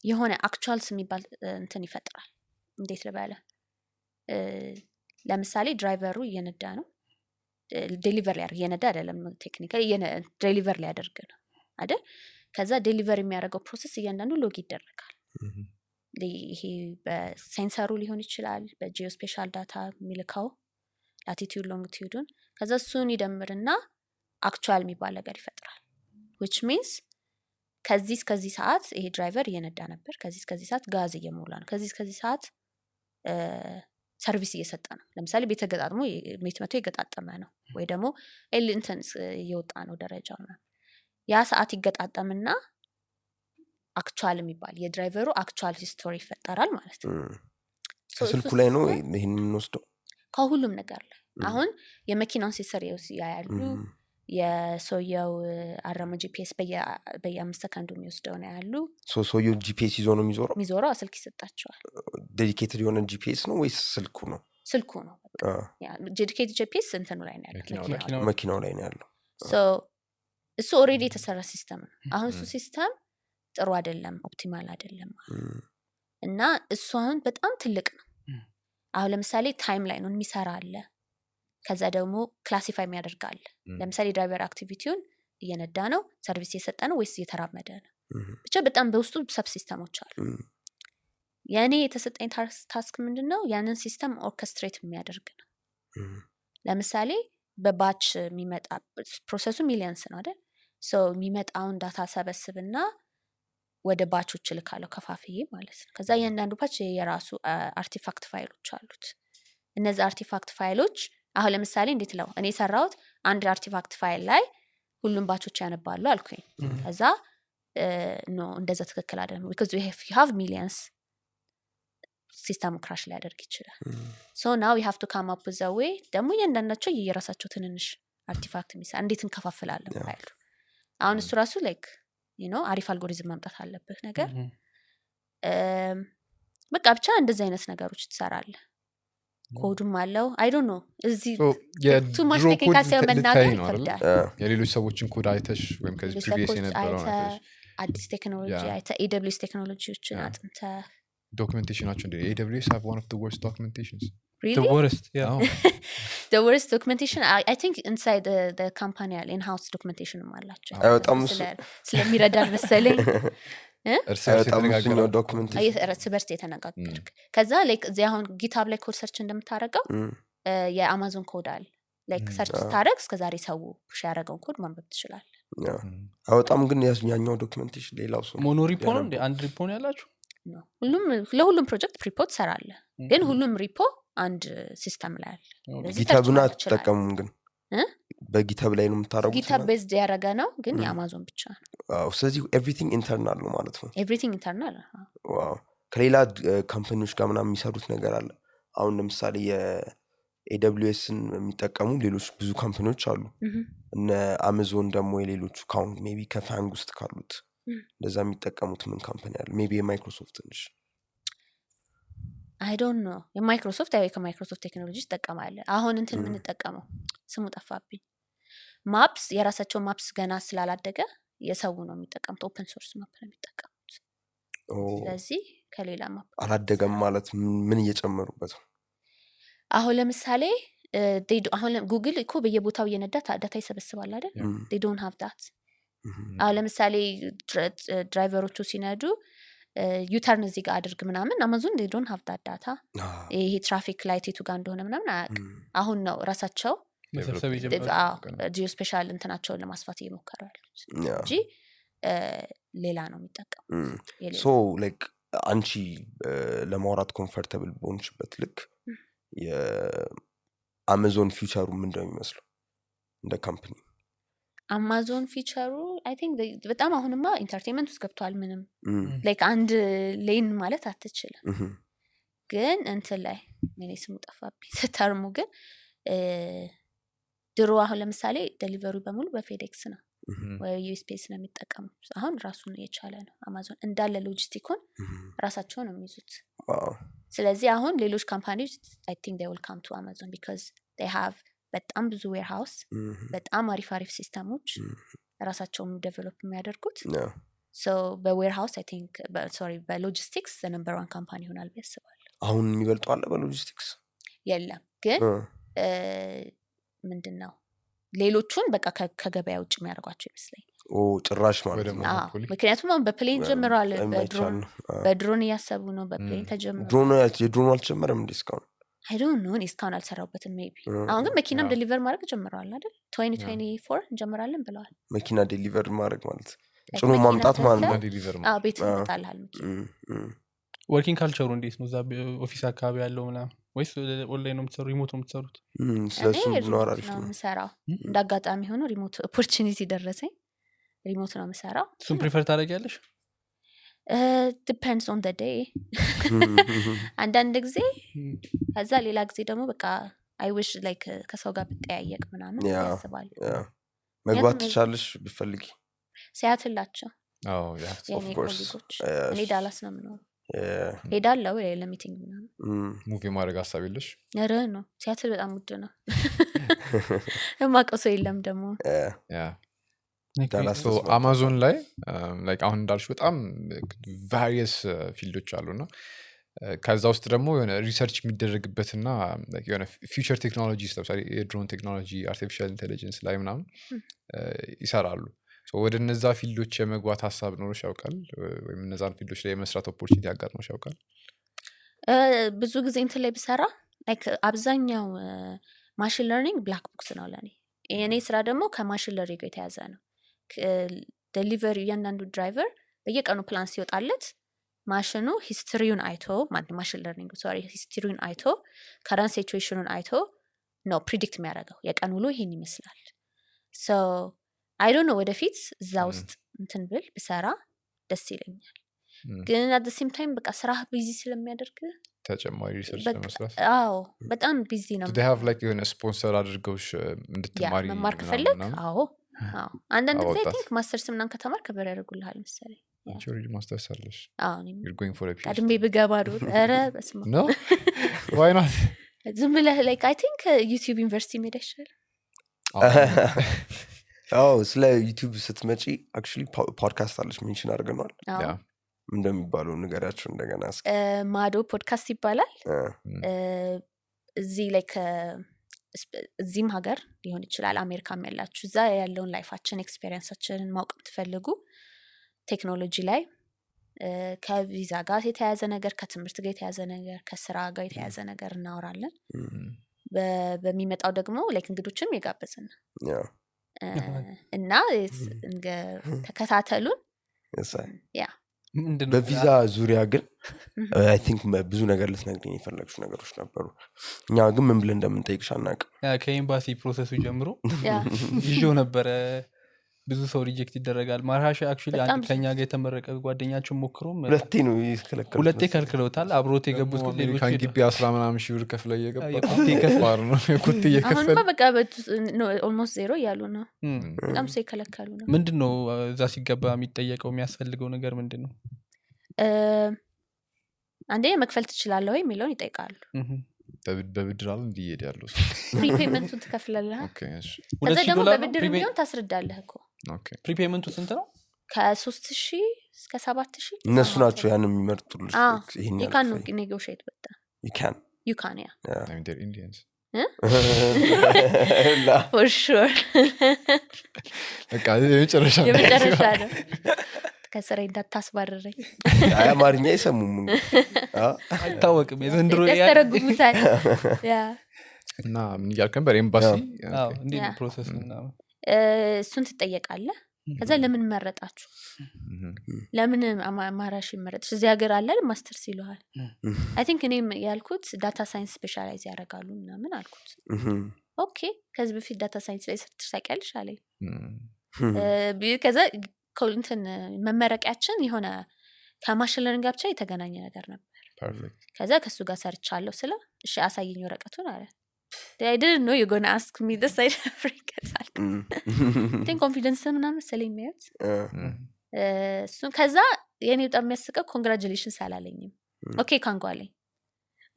የሆነ አክቹዋልስ የሚባል እንትን ይፈጥራል እንዴት ልበል ለምሳሌ ድራይቨሩ እየነዳ ነው ዴሊቨር ሊያደርግ እየነዳ አይደለም ቴክኒካሊ ዴሊቨር ሊያደርግ ነው አይደል ከዛ ዴሊቨር የሚያደርገው ፕሮሰስ እያንዳንዱ ሎግ ይደረጋል ይሄ በሴንሰሩ ሊሆን ይችላል በጂኦስፔሻል ዳታ የሚልካው ላቲቲዩድ ሎንጊቲዩዱን ከዛ እሱን ይደምርና አክቹዋል የሚባል ነገር ይፈጥራል which means ከዚህ እስከዚህ ሰዓት ይሄ ድራይቨር እየነዳ ነበር ከዚህ እስከዚህ ሰዓት ጋዝ እየሞላ ነው ከዚህ እስከዚህ ሰዓት ሰርቪስ እየሰጠ ነው ለምሳሌ ቤተ ገጣጥሞ ቤት መቶ እየገጣጠመ ነው ወይ ደግሞ እንትን እየወጣ ነው ደረጃው ነው ያ ሰዓት ይገጣጠምና አክቹዋል የሚባል የድራይቨሩ አክቹዋል ሂስቶሪ ይፈጠራል ማለት ነው ስልኩ ላይ ነው ይሄን የምንወስደው ከሁሉም ነገር ላይ አሁን የመኪናውን ሴንሰር ያያሉ የሰውየው አራማ ጂፒኤስ በየ5 ሰከንዱ የሚወስደው ነው ያሉ ሰውየው ጂፒኤስ ይዞ ነው የሚዞረው ስልክ ይሰጣቸዋል ዴዲኬትድ የሆነ ጂፒኤስ ነው ወይስ ስልኩ ነው ያ ዴዲኬትድ ጂፒኤስ እንትኑ ላይ ነው ያለው መኪናው ላይ ነው ያለው እሱ ኦልሬዲ የተሰራ ሲስተም ነው አሁን እሱ ሲስተም ጥሩ አይደለም ኦፕቲማል አይደለም እና እሱ አሁን በጣም ትልቅ ነው አሁን ለምሳሌ ታይም ላይ ነው የሚሰራ አለ ከዛ ደግሞ ክላሲፋይ የሚያደርጋል ለምሳሌ ድራይቨር አክቲቪቲውን እየነዳ ነው ሰርቪስ እየሰጠ ነው ወይስ እየተራመደ ነው ብቻ በጣም በውስጡ ሰብ ሲስተሞች አሉ ያኔ የተሰጠኝ ታስክ ምንድነው ያንን ሲስተም ኦርኬስትሬት የሚያደርግ ነው ለምሳሌ በባች የሚመጣ ፕሮሰሱ ሚሊየንስ ነው አይደል ሶ የሚመጣውን ዳታ ሰበስብና ወደ ባቾች ልካለው ከፋፍዬ ማለት ነው ከዛ እያንዳንዱ ባች የራሱ አርቲፋክት ፋይሎች አሉት እነዚህ አርቲፋክት ፋይሎች አሁን ለምሳሌ እንዴት ነው እኔ ሰራውት አንድ አርቲፋክት ፋይል ላይ ሁሉም ባቾች ያነባሉ አልኩኝ ከዛ ኖ እንደዛ ትክክል አይደለም because we have millions ሲስተሙ ክራሽ ላይ ያደርግ ይችላል so now we have to come up with a way ደግሞ እያንዳንዳቸው የየራሳቸው ትንንሽ አርቲፋክት የሚሰራ እንዴት እንከፋፍላለን ፋይሉ አሁን እሱ ራሱ like you know አሪፍ አልጎሪዝም ማምጣት አለበት ነገር በቃ ብቻ እንደዚህ አይነት ነገሮች ትሰራለህ ኮድም አለው I don't know እዚህ too much technical ሳይሆን መናገር ይከብዳል የሌሎች ሰዎችን ኮድ አይተሽ ወይም ከዚህ ፕሪቪየስ የነበረው አይተሽ አዲስ ቴክኖሎጂ አይተ AWS ቴክኖሎጂዎችን አጥንተ ዶክመንቴሽናቸው እንደ AWS have one of the worst documentations really the worst yeah the worst documentation I think inside the company in-house documentation አላቸው በጣም ስለሚረዳን መሰለኝ እርስ በርስ የተነጋገርክ ከዛ ላይክ እዚህ አሁን ጊታብ ላይ ኮድ ሰርች እንደምታረገው የአማዞን ኮድ አለ ላይክ ሰርች ታረግ እስከዛሬ ሰው ፑሽ ያደረገውን ኮድ ማንበብ ትችላል በጣም ግን ያኛው ዶክመንቴሽን ሌላው ሰው ሞኖ ሪፖ ነው እንደ አንድ ሪፖ ነው ያላችሁ ለሁሉም ፕሮጀክት ሪፖርት ሰራለ ግን ሁሉም ሪፖ አንድ ሲስተም ላይ አለ ጊታብና ተጠቀሙም ግን በጊታብ ላይ ነው የምታረጉት ጊታብ ቤዝድ ያረጋ ነው ግን የአማዞን ብቻ ነው ስለዚህ ኤቭሪቲንግ ኢንተርናል ነው ማለት ነው ኤቭሪቲንግ ኢንተርናል ዋው ከሌላ ካምፓኒዎች ጋር ምናምን የሚሰሩት ነገር አለ አሁን ለምሳሌ የAWSን የሚጠቀሙ ሌሎች ብዙ ካምፓኒዎች አሉ እነ አማዞን ደግሞ የሌሎቹ ካውንት ሜቢ ከፋንግ ውስጥ ካሉት እንደዛ የሚጠቀሙት ምን ካምፓኒ አለ ሜቢ የማይክሮሶፍት ትንሽ I don't know የማይክሮሶፍት ከማይክሮሶፍት ቴክኖሎጂ ተጠቀማለ አሁን እንትን ምን ተጠቀመው ስሙ ጠፋብኝ ማፕስ የራሳቸው ማፕስ ገና ስላላደገ የሰው ነው የሚጠቀሙት ኦፕን ሶርስ ማፕ ነው የሚጠቀሙት ስለዚህ ከሌላ ማፕ አላደገም ማለት ምን እየጨመሩበት አሁን ለምሳሌ አሁን ጉግል እኮ በየቦታው እየነዳ ዳታ ይሰበስባል አይደል they don't have that አሁን ለምሳሌ ድራይቨሮቹ ሲነዱ ዩተርን እዚህ ጋር አድርግ ምናምን አማዞን they don't have that data ይሄ ትራፊክ ላይት የቱ ጋር እንደሆነ ምናምን አያውቅም አሁን ነው ራሳቸው ጂኦስፔሻል እንትናቸውን ለማስፋት እየሞከሩ ያሉት እንጂ ሌላ ነው የሚጠቀሙ ሶ ላይክ አንቺ ለማውራት ኮምፎርታብል በሆንሽበት ልክ የአማዞን ፊውቸሩ ምንድነው የሚመስለው እንደ ካምፓኒ አማዞን ፊቸሩ I think በጣም አሁንማ ኢንተርቴይንመንት ውስጥ ገብቷል ምንም ላይክ አንድ ሌን ማለት አትችልም ግን እንትን ላይ ምን ስሙ ጠፋብኝ ተርሙ ግን ድሮ አሁን ለምሳሌ ዴሊቨሪ በሙሉ በፌዴክስ ነው ወይ ዩኤስፒኤስ ነው የሚጠቀሙት አሁን ራሱን የቻለ ነው አማዞን እንዳለ ሎጂስቲኩን ራሳቸው ነው የሚይዙት ስለዚህ አሁን ሌሎች ካምፓኒዎች I think they will come to Amazon because they have በጣም ብዙ ዌርሃውስ በጣም አሪፍ ሲስተሞች ራሳቸውም ዴቨሎፕ የሚያደርጉት so በዌርሃውስ I think በሎጂስቲክስ the number 1 ካምፓኒ ይሆናል ቢያስባል አሁን የሚበልጠው አለ በሎጂስቲክስ የለም ግን ምንድነው ሌሎቹን በቃ ከገበያ ውጭ የሚያደርጓቸው ይመስለኝ ጭራሽ ማለት ነው ምክንያቱም አሁን በፕሌን ጀምሯል በድሮን እያሰቡ ነው በፕሌን ተጀምሯል ድሮን አልጀመረም እስካሁን I don't know እስካሁን አልሰራውበትም ሜቢ አሁን ግን መኪናም ዴሊቨር ማድረግ ጀምረዋል አይደል 2024 እንጀምራለን ብለዋል መኪና ዴሊቨር ማድረግ ማለት ጭኖ ማምጣት ማለት ነው ዴሊቨር ቤት ይመጣልሃል ወርኪንግ ካልቸሩ እንዴት ነው እዛ ኦፊስ አካባቢ ያለው ምናምን ወይስ ኦንላይን ነው የምትሰሩ ሪሞት ነው የምትሰሩት ስለሱ ብንወራ አሪፍ ነው ነው የምሰራው እንዳጋጣሚ ሆኖ ሪሞት ኦፖርቹኒቲ ደረሰኝ ሪሞት ነው የምሰራው እሱን ፕሪፈር ታደርጊያለሽ depends on the day አንዳንድ ጊዜ ከዛ ሌላ ጊዜ ደግሞ በቃ I wish like ከሰው ጋር ብጠያየቅ ምናምን ያስባል መግባት ትቻለሽ ብፈልጊ ሲያትላቸው of course እኔ ዳላስ ነው የምኖረው ሄዳለሁ ለሚቲንግ ምናምን ሙቪ ማድረግ ሀሳብ የለሽ ኧረ ነው ሲያትል በጣም ውድ ነው የማውቀው ሰው የለም ደግሞ አማዞን ላይ ላይክ አሁን እንዳልሽ በጣም ቫሪየስ ፊልዶች አሉና ከዛ ውስጥ ደግሞ የሆነ ሪሰርች የሚደረግበትና የሆነ ፊውቸር ቴክኖሎጂስ ለምሳሌ የድሮን ቴክኖሎጂ አርቲፊሻል ኢንቴሊጀንስ ላይ ምናምን ይሰራሉ ወደ እነዛ ፊልዶች የመግባት ሀሳብ ኖሮሽ ያውቃል ወይም እነዛን ፊልዶች ላይ የመስራት ኦፖርቹኒቲ ያጋጥሞሽ ያውቃል ብዙ ጊዜ እንትን ላይ ብሰራ ላይክ አብዛኛው ማሽን ለርኒንግ ብላክ ቦክስ ነው ለኔ የኔ ስራ ደግሞ ከማሽን ለርኒንግ ጋር የተያዘ ነው ዴሊቨሪ እያንዳንዱ ድራይቨር በየቀኑ ፕላን ሲወጣለት ማሽኑ ሂስትሪውን አይቶ ማሽን ለርኒንግ ሂስትሪውን አይቶ ከረንት ሲቹዌሽኑን አይቶ ነው ፕሪዲክት የሚያደርገው የቀን ውሎ ይሄን ይመስላል ሶ አይ ዶንት ኖ ወደፊት እዛ ውስጥ እንትን ብል ብሰራ ደስ ይለኛል ግን at the same time በቃ ስራ ቢዚ ስለሚያደርግ ተጨማሪ ሪሰርች ለመስራት በጣም ቢዚ ነው they have like የሆነ ስፖንሰር አድርገውሽ እንድትማሪ መማር ከፈለግ አንዳንድ ጊዜ I think ማስተርስ ምናምን ከተማር ከበር ያደርጉልሃል መሰለኝ already masters አለሽ you're going for a PhD ቀድሜ ብገባ ኧረ በስመ no why not ዝም ብለህ like I think ዩቲዩብ ዩኒቨርሲቲ ሄደ ይሻላል ስለ ዩቲዩብ ስትመጪ actually ፖድካስት አለሽ ሜንሽን አድርገናል እንደሚባለው ነገራችሁ እንደገና ማዶ ፖድካስት ይባላል እዚህ ላይክ እዚህም ሀገር ሊሆን ይችላል አሜሪካም ያላችሁ እዛ ያለውን ላይፋችን ኤክስፔሪየንሳችንን ማወቅ የምትፈልጉ ቴክኖሎጂ ላይ ከቪዛ ጋር የተያያዘ ነገር ከትምህርት ጋር የተያያዘ ነገር ከስራ ጋር የተያያዘ ነገር እናወራለን በሚመጣው ደግሞ ላይክ እንግዶችንም የጋበዝን እና ተከታተሉን በቪዛ ዙሪያ ግን አይ ቲንክ ብዙ ነገር ልትነግሪኝ የፈለግሽው ነገሮች ነበሩ እኛ ግን ምን ብለን እንደምንጠይቅሽ አናውቅም ከኤምባሲ ፕሮሰሱ ጀምሮ ይዤው ነበረ ብዙ ሰው ሪጀክት ይደረጋል ማርሃሻ actually አንድ ከኛ ጋር የተመረቀ ጓደኛችን ሞክሮም ሁለቴ ከልክለውታል አብሮት የገቡት ሌሎች ከግቢ 10 ምናምን ሺህ ብር ከፍለ እየገባር ነው የኩት እየከፈለ አሁን በቃ ኦልሞስት ዜሮ እያሉ ነው በጣም ሰው ይከለከሉ ነው ምንድነው እዛ ሲገባ የሚጠየቀው የሚያስፈልገው ነገር ምንድነው አንዴ መክፈል ትችላለህ ወይ የሚለውን ይጠይቃሉ በብድር አለ እንዲሄድ ያለው ፕሪፔመንቱን ትከፍላለህ እሺ ከዛ ደግሞ በብድር ቢሆን ታስረዳለህ እኮ ፕሪፔመንቱ ስንት ነው ከ3000 እስከ 7000 እነሱ ናቸው ያን የሚመርጡልሽ ይሄን you can negotiate with them you can I mean they're Indians for sure በቃ የመጨረሻ ነው ከስራ እንዳታስባረረኝ አማርኛ ይሰሙም አይታወቅም የዘንድሮ ያስተረጉሙታል እና ምን ያልከን በኤምባሲ እንዴ ፕሮሰስ እና እሱን ትጠየቃለህ ከዛ ለምን መረጣችሁ ለምን አማራሽ መረጥሽ እዚህ ሀገር አለ ማስተርስ ይሉሃል አይ ቲንክ እኔም ያልኩት ዳታ ሳይንስ ስፔሻላይዝ ያደርጋሉ ምናምን አልኩት ኦኬ ከዚህ በፊት ዳታ ሳይንስ ላይ ሰርተሽ ታውቂያለሽ አለኝ ከዛ ኮንተን መመረቂያችን የሆነ ከማሽን ለርኒንግ ጋር ብቻ የተገናኘ ነገር ነበር ፐርፌክት ከዛ ከሱ ጋር ሰርቻለሁ ስለ እሺ አሳየኝ ወረቀቱን አለ I didn't know you're going to ask me this I think confidence ምናምን ስለኝ ማለት እሱን ከዛ የኔ በጣም የሚያስቀው ኮንግራቹሌሽንስ አላለኝም ኦኬ ካንጓለኝ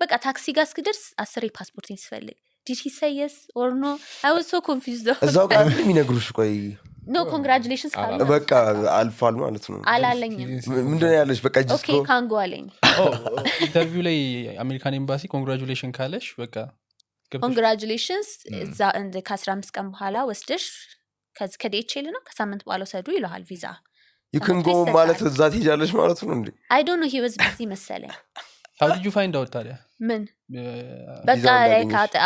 በቃ ታክሲ ጋር እስክደርስ 10 ፓስፖርቴን ስፈልግ did he say yes or no I was so confused እዛው ጋር የሚነግሩሽ ቆይ no congratulations ካለ በቃ አልፋል ማለት ነው አላለኝም ምንድነው ያለሽ በቃ ጂስ ኦኬ ካንጓለኝ ኢንተርቪው ላይ አሜሪካን ኤምባሲ ኮንግራቹሌሽን ካለሽ በቃ ኮንግራቹሌሽንስ እዛ እንደ ከ15 ቀን በኋላ ወስደሽ ከዲኤችኤል ነው ከሳምንት በኋላ ወሰዱ ይልሃል ቪዛ you can go ማለት እዛ ትሄጃለሽ ማለት ነው እንዴ I don't know he was busy መሰለኝ how did you find out ታዲያ ምን በቃ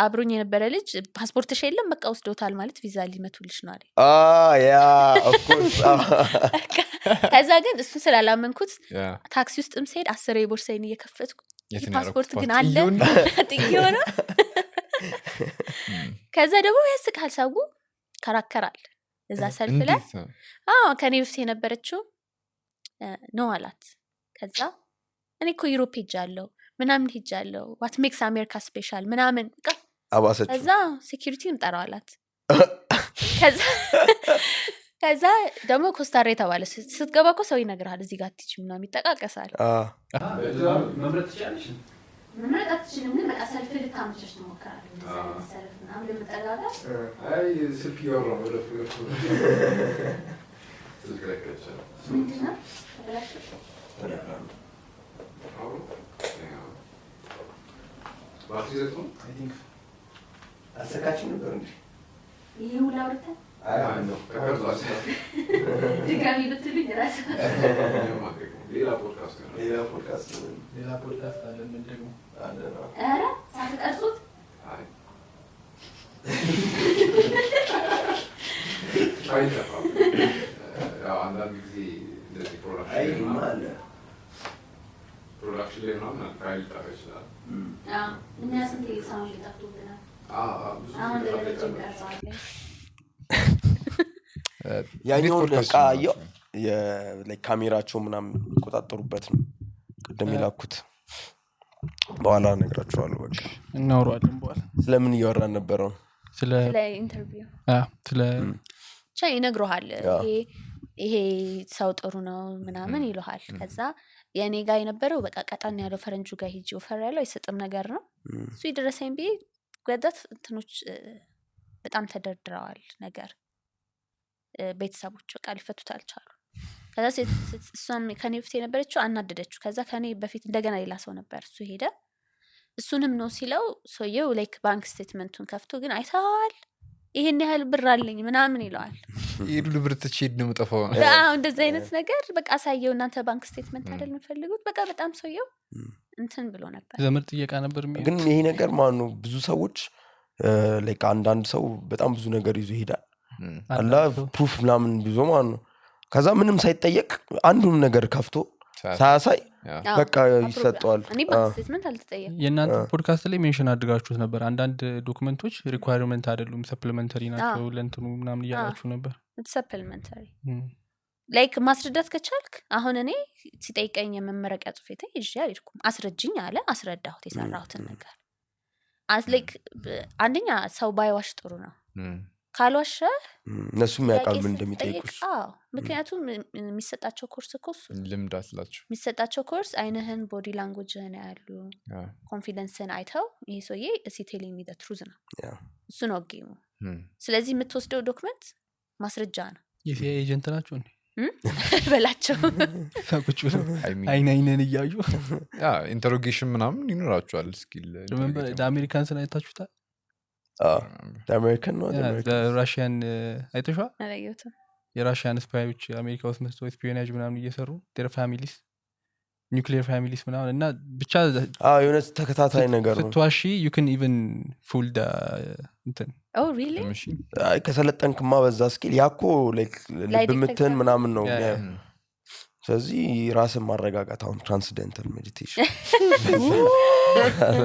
አብሮኝ የነበረ ልጅ ፓስፖርትሽ የለም በቃ ወስዶታል ማለት ቪዛ ሊመቱልሽ ነው አለ ያ ኦፍ ኮርስ ከዛ ግን እሱ ስላላመንኩት ታክሲ ውስጥም ስሄድ 10 የቦርሳዬን እየከፈትኩ ፓስፖርት ግን አለ ጥቂው ነው ከዛ ደግሞ ያስቃል ሰው ከራከራል እዛ ሰልፍ ላይ ከኔ በፊት የነበረችው ነው አላት ከዛ እኔ እኮ ዩሮፕ ሄጃለሁ ምናምን ሄጃለሁ what makes America special ምናምን አባሰች ከዛ ሴኩሪቲን ጠራዋላት ከዛ ደግሞ ኮስታሬ ተባለ ስትገባ እኮ ሰው ይነግራል እዚህ ጋር አትችም ምናምን ይጠቃቀሳል መምረጥ ትችላለሽ መምረጥ አትችልም ግን በቃ ሰልፍ ልታመቸሽ ትሞክራለህ ሰልፍ ምናምን ለመጠጋጋ አይ ስልክ ይወራው ወለፍ ስልክ ላይ ከቻለ ምንድን ነው ባትሪ ዘግቶ አይ ቲንክ አሰካችን ነበር እንዴ ይሄ ሁላ ወርታ አይ ነው ከከርቷል ድጋሚ ብትልኝ ራስ ሌላ ፖድካስት ነው ሌላ ፖድካስት አለ ምን ደግሞ አለ ነው አረ ሳትቀርጹት አይ አይተፋ ያው አንዳንድ ጊዜ እንደዚህ ፕሮዳክሽን ላይ ምናምን ፋይል ሊጠፋ ይችላል እና ስንት ሳውንድ ይጠፍቶብናል አሁን ለረጅም ቀርጸዋለኝ ያኛውን ዕቃ አየው ካሜራቸው ምናምን የሚቆጣጠሩበት ነው ቅድም የላኩት በኋላ እነግራችኋለሁ በቃ እናወራለን በኋላ ስለምን እያወራን ነበረው ስለ ኢንተርቪው ስለ ቻይ ይነግሩሃል ይሄ ሰው ጥሩ ነው ምናምን ይሉሃል ከዛ የኔ ጋር የነበረው በቃ ቀጣን ያለው ፈረንጁ ጋር ሂጂ ኦፈር ያለው አይሰጥም ነገር ነው እሱ ይደረሰኝ ቢ ገዳት እንትኖች በጣም ተደርድረዋል ነገር ቤተሰቦች በቃ ሊፈቱት አልቻሉ ከዛ እሷም ከኔ በፊት የነበረችው አናደደችው ከዛ ከኔ በፊት እንደገና ሌላ ሰው ነበር እሱ ሄደ እሱንም ነው ሲለው ሰውየው ላይክ ባንክ ስቴትመንቱን ከፍቶ ግን አይተዋል ይሄን ያህል ብር አለኝ ምናምን ይለዋል ይሉ ብር ትችይድ ነው መጣፈው እንደዚህ አይነት ነገር በቃ ሳየው እናንተ ባንክ ስቴትመንት አይደል የምፈልጉት በቃ በጣም ሰውየው እንትን ብሎ ነበር ዘመድ ጥየቃ ነበር ግን ይሄ ነገር ማን ነው ብዙ ሰዎች ላይክ አንዳንድ ሰው በጣም ብዙ ነገር ይዞ ይሄዳል አላ ፕሩፍ ምናምን ይዞ ማን ነው ከዛ ምንም ሳይጠየቅ አንዱን ነገር ከፍቶ ሳያሳይ በቃ ይሰጣዋል እኔ ባንክ ስቴትመንት አልተጠየቅም የእናንተ ፖድካስት ላይ ሜንሽን አድርጋችሁት ነበር አንዳንድ ዶክመንቶች ሪኳየርመንት አይደሉም ሰፕሊመንተሪ ናቸው ለእንትኑ ምናምን እያላችሁ ነበር ሰፕሊመንተሪ ላይክ ማስረዳት ከቻልክ አሁን እኔ ሲጠይቀኝ የመመረቂያ ጽሁፌ ይዤ አልሄድኩም አስረጅኝ አለ አስረዳሁት የሰራሁትን ነገር ላይክ አንደኛ ሰው ባይዋሽ ጥሩ ነው ካልዋሸ እነሱም ያውቃሉ ምን እንደሚጠይቁሽ ምክንያቱም የሚሰጣቸው ኮርስ እኮ ልምድ አላቸው የሚሰጣቸው ኮርስ አይነህን ቦዲ ላንጉጅህን ያሉ ኮንፊደንስን አይተው ይሄ ሰውዬ ቴሊንግ ሚ ዘ ትሩዝ ነው እሱ ነው ጌሙ ስለዚህ የምትወስደው ዶክመንት ማስረጃ ነው የሲአይኤ ኤጀንት ናቸው እንዴ በላቸው ታቁጭ አይነን እያዩ ኢንተሮጌሽን ምናምን ይኖራቸዋል ስኪል remember the Americans አይታችሁታል አሜሪካን ነው ራሽያን አይተሽዋ አላየሁትም የራሽያን ስፓዮች አሜሪካ ውስጥ መጥተው ስፒዮናጅ ምናምን እየሰሩ their families nuclear families ምናምን እና ብቻ የሆነ ተከታታይ ነገር ነው ስትዋሺ you can even fool the እንትን really ከሰለጠንክማ በዛ ስኪል ያኮ ላይክ ልብምትን ምናምን ነው ስለዚህ ራስን ማረጋጋት አሁን ትራንስደንታል ሜዲቴሽን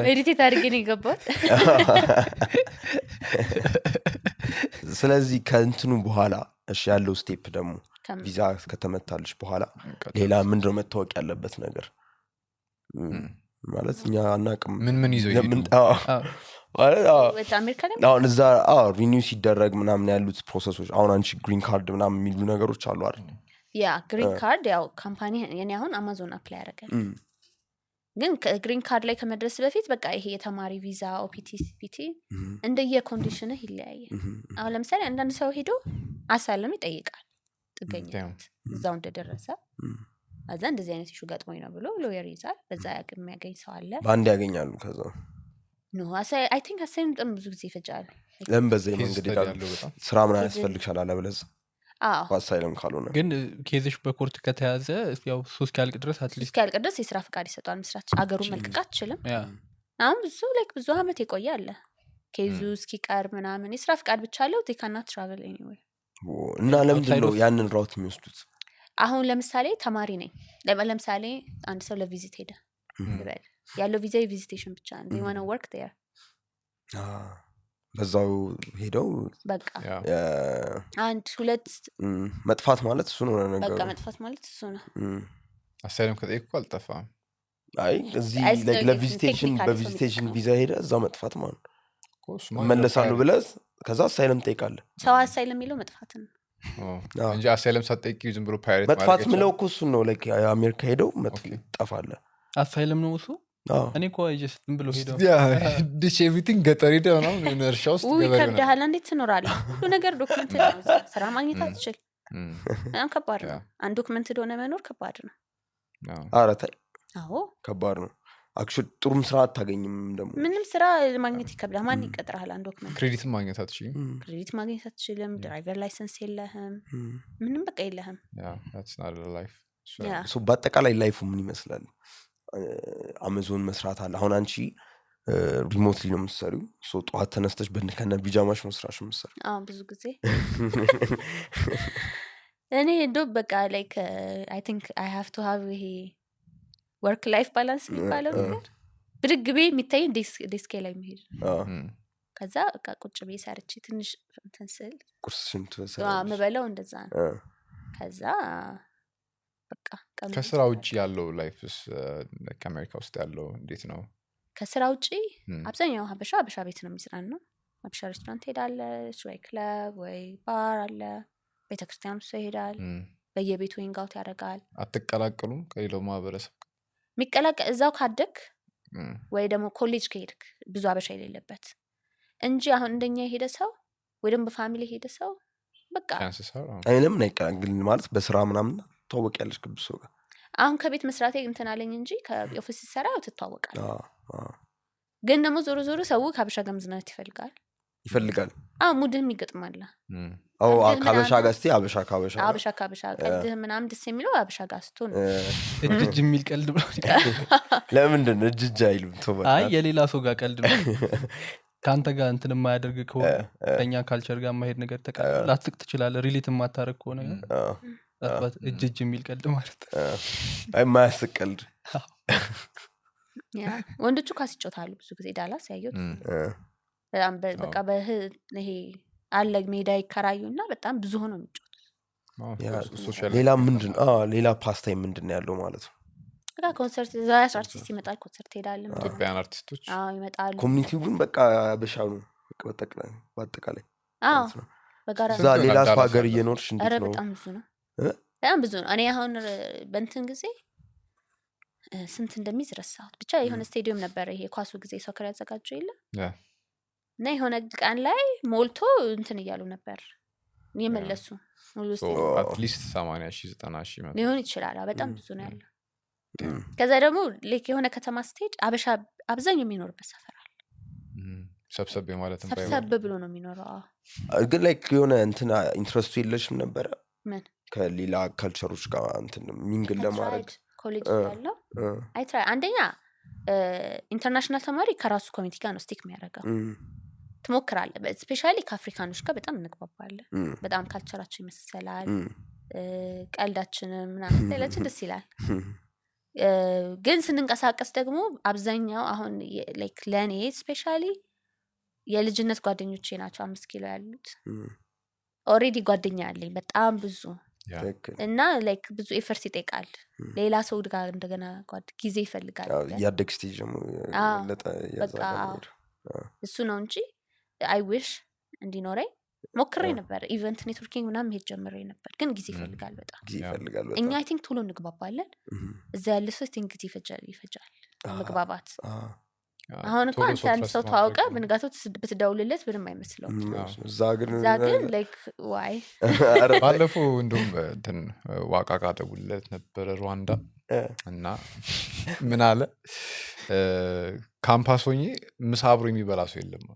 ሜዲቴት አድርገን ይገባል ስለዚህ ከእንትኑ በኋላ እሺ ያለው ስቴፕ ደግሞ ቪዛ ከተመታልሽ በኋላ ሌላ ምንድነው መታወቅ ያለበት ነገር ማለት እኛ አናቅም ምን ይዘው ወደ አሜሪካ ላይ አሁን እዛ ሪኒው ሲደረግ ምናምን ያሉት ፕሮሰሶች አሁን አንቺ ግሪን ካርድ ምናምን የሚሉ ነገሮች አሉ አይደል ያ ግሪን ካርድ ያው ካምፓኒ የኔ አሁን አማዞን አፕላይ ያደርጋል ግን ግሪን ካርድ ላይ ከመድረስ በፊት በቃ ይሄ የተማሪ ቪዛ ኦፒቲ ሲፒቲ እንደየ ኮንዲሽን ይለያያል አሁን ለምሳሌ አንዳንድ ሰው ሄዶ አሳለም ይጠይቃል ጥገኝነት እዛው እንደደረሰ አዛ እንደዚህ አይነት ኢሹ ገጥሞኝ ነው ብሎ ሎየር ይዛል በዛ የሚያገኝ ሰው አለ ባንድ ያገኛሉ ከዛ ኖ አይ ቲንክ አሳይም በጣም ብዙ ጊዜ ይፈጃል ለምን በዛ መንገድ ይላሉ ስራ ምን ያስፈልግሻል አለበለዚያ ዋሳይለም ካልሆነ ግን ኬዝሽ በኮርት ከተያዘ ያው 3 ያልቅ ድረስ አትሊስት ያልቅ ድረስ የስራ ፍቃድ ይሰጣል መስራት አገሩን መልቀቅ አትችልም አሁን ብዙ አመት የቆየ አለ ኬዙ እስኪቀር ምናምን የስራ ፍቃድ ብቻ አለው they cannot travel anywhere እና ለምንድን ነው ያንን ራውት የሚወስዱት አሁን ለምሳሌ ተማሪ ነኝ ለምሳሌ አንድ ሰው ለቪዚት ሄደ ይበል ያለው ቪዛ ቪዚቴሽን ብቻ ነው they want to work there በዛው ሄደው በቃ አንድ ሁለት መጥፋት ማለት እሱ ነው ነገሩ በቃ መጥፋት ማለት እሱ ነው አሳይለም ከጠይቁ አልጠፋም አይ እዚህ ለቪዚቴሽን በቪዚቴሽን ቪዛ ሄደ እዛው መጥፋት ማለት መለሳሉ ብለህ ከዛ አሳይለም ጠይቃለህ ሰው አሳይለም የሚለው መጥፋት ነው እንጂ አሳይለም ሳትጠይቂው ዝም ብሎ ፓይሬት መጥፋት ምለው እኮ እሱ ነው like አሜሪካ ሄደው መጥፋለ አሳይለም ነው እሱ እኔ እኮ just ዝም ብሎ ሄደው ዲሽ ኤቭሪቲንግ ገጠር ሄደው ነው ዩኒቨርሲቲ ውስጥ ገበሬ ነው ከብዳሃል እንዴት ትኖራለህ ሁሉ ነገር ዶክመንት ነው ስራ ማግኘት አትችል በጣም ከባድ ነው አንድ ዶክመንት ሆነ መኖር ከባድ ነው ኧረ ተይ አዎ ከባድ ነው አክቹሊ ጥሩም ስራ አታገኝም ደግሞ ምንም ስራ ማግኘት ይከብዳል ማን ይቀጥራል አንድ ዶክመንት ክሬዲት ማግኘት አትችልም ክሬዲት ማግኘት አትችልም ድራይቨር ላይሰንስ የለህም ምንም በቃ የለህም that's not a life so በአጠቃላይ ላይፉ ምን ይመስላል አማዞን መስራት አለ አሁን አንቺ ሪሞትሊ ነው የምትሰሪው ሶ ጧት ተነስተሽ በእንከነ ቢጃማሽ መስራሽ የምትሰሪው አዎ ብዙ ጊዜ እኔ እንደው በቃ like I think I have to have ይሄ work life balance የሚባለው ነገር ብድግቤ የሚታይ ዴስክ ላይ መሄድ ከዛ በቃ ቁጭ ብዬ ሰርቼ ትንሽ እንትን ቁርስሽን መበላው እንደዛ ነው ከዛ በቃ ከስራ ውጪ ያለው ላይፍስ ከአሜሪካ ውስጥ ያለው እንዴት ነው ከስራ ውጪ አብዛኛው ሀበሻ ቤት ነው የሚሰራው ሀበሻ ሬስቶራንት ሄዳለች ወይ ክለብ ወይ ባር አለ ቤተክርስቲያን ውስጥ ይሄዳል በየቤቱ ዊንጋውት ያደርጋል አትቀላቀሉም ከሌላው ማህበረሰብ ሚቀላቀል እዛው ካደክ ወይ ደግሞ ኮሌጅ ከሄድክ ብዙ ሀበሻ የሌለበት እንጂ አሁን እንደኛ የሄደ ሰው ወይ ደግሞ በፋሚሊ የሄደ ሰው በቃ አይለም ነይቀላቅል ማለት በስራ ምናምን ተዋወቂያለሽ ከብዙ ሰው ጋር አሁን ከቤት መስራቴ እንትን አለኝ እንጂ ከኦፊስ ሲሰራ ትተዋወቃለህ ግን ደግሞ ዞሮ ሰው ከሀበሻ ጋር መዝናናት ይፈልጋል ሙድህም ይገጥማል አዎ ካበሻ ጋር እስቲ አበሻ ቀልድህ ምናምን ደስ የሚለው አበሻ ጋር ስትሆን እጅ የሚል ቀልድ ብሎ ለምንድን ነው እጅ አይሉም ተባለ አይ የሌላ ሰው ጋር ቀልድ ነው ካንተ ጋር እንትን የማያደርግ ከሆነ ከኛ ካልቸር ጋር ማሄድ ነገር ተቀበል ላትስቅ ትችላለህ ሪሌት የማታረግ ከሆነ አጥባት እጅ የሚል ቀልድ ማለት አይ ማያስቅ ቀልድ ያ ወንዶቹ ካስጮታሉ ብዙ ጊዜ ዳላስ ያዩት በጣም በቃ ይሄ አለ ሜዳ ይከራዩና በጣም ብዙ ሆኖ የሚጮት ሌላ ምንድን ሌላ ፓስታይ ምንድን ያለው ማለት ነው በቃ ኮንሰርት ዛያስ አርቲስት ይመጣል ኮንሰርት ሄዳለም ኢትዮጵያን አርቲስቶች ይመጣሉ ኮሚኒቲው ግን በቃ በሻው ነው በአጠቃላይ በጋራ እዛ ሌላ ሰው ሀገር እየኖርሽ እንዴት ነው በጣም ብዙ ነው እኔ አሁን በእንትን ጊዜ ስንት እንደሚይዝ ረሳሁት ብቻ የሆነ ስቴዲየም ነበር ይሄ ኳሱ ጊዜ ሶከር ያዘጋጀው የለ እና የሆነ ቀን ላይ ሞልቶ እንትን እያሉ ነበር የመለሱ ሙሉ አትሊስት 80,000 90,000 ሊሆን ይችላል በጣም ብዙ ነው ያለው ከዛ ደግሞ ሌክ የሆነ ከተማ ስቴጅ አበሻ አብዛኛው የሚኖርበት ሰፈር አለ ሰብሰብ የማለትም ሰብሰብ ብሎ ነው የሚኖረው ግን ላይክ የሆነ እንትን ኢንትረስቱ የለሽም ነበር ምን ከሌላ ካልቸሮች ጋር እንትን ሚንግል ለማድረግ ኮሌጅ ያለው አይትራይ አንደኛ ኢንተርናሽናል ተማሪ ከራሱ ኮሚኒቲ ጋር ነው ስቲክ የሚያደርገው ትሞክራለህ ስፔሻሊ ከአፍሪካኖች ጋር በጣም እንግባባለን በጣም ካልቸራችን ይመሳሰላል ቀልዳችንም ምናምን ስለዚህ ደስ ይላል ግን ስንንቀሳቀስ ደግሞ አብዛኛው አሁን ላይክ ለኔ ስፔሻሊ የልጅነት ጓደኞቼ ናቸው 5 ኪሎ ያሉት ኦሬዲ ጓደኛ አለኝ በጣም ብዙ እና ላይክ ብዙ ኤፈርት ይጠይቃል ሌላ ሰው ጋር እንደገና ጊዜ ይፈልጋል ያደግ ስቴጅ ነው እሱ ነው እንጂ አይ ዊሽ እንዲኖረኝ ሞክሬ ነበር ኢቨንት ኔትወርኪንግ ምናምን ሄድ ጀምሬ ነበር ግን ጊዜ ይፈልጋል በጣም እኛ አይ ቲንክ ቶሎ እንግባባለን እዛ ያለ ሰው ቲንክ ጊዜ ይፈጃል መግባባት አሁን እኮ አንተ ሰው ታውቀ በንጋታው ብትደውልለት ምንም አይመስለው እዛ ግን ላይክ ዋይ ባለፈው እንደውም እንትን ዋቃቃ ደውልለት ነበር ሩዋንዳ እና ምን አለ ካምፓስ ሆኜ ምሳ አብሮ የሚበላ ሰው የለም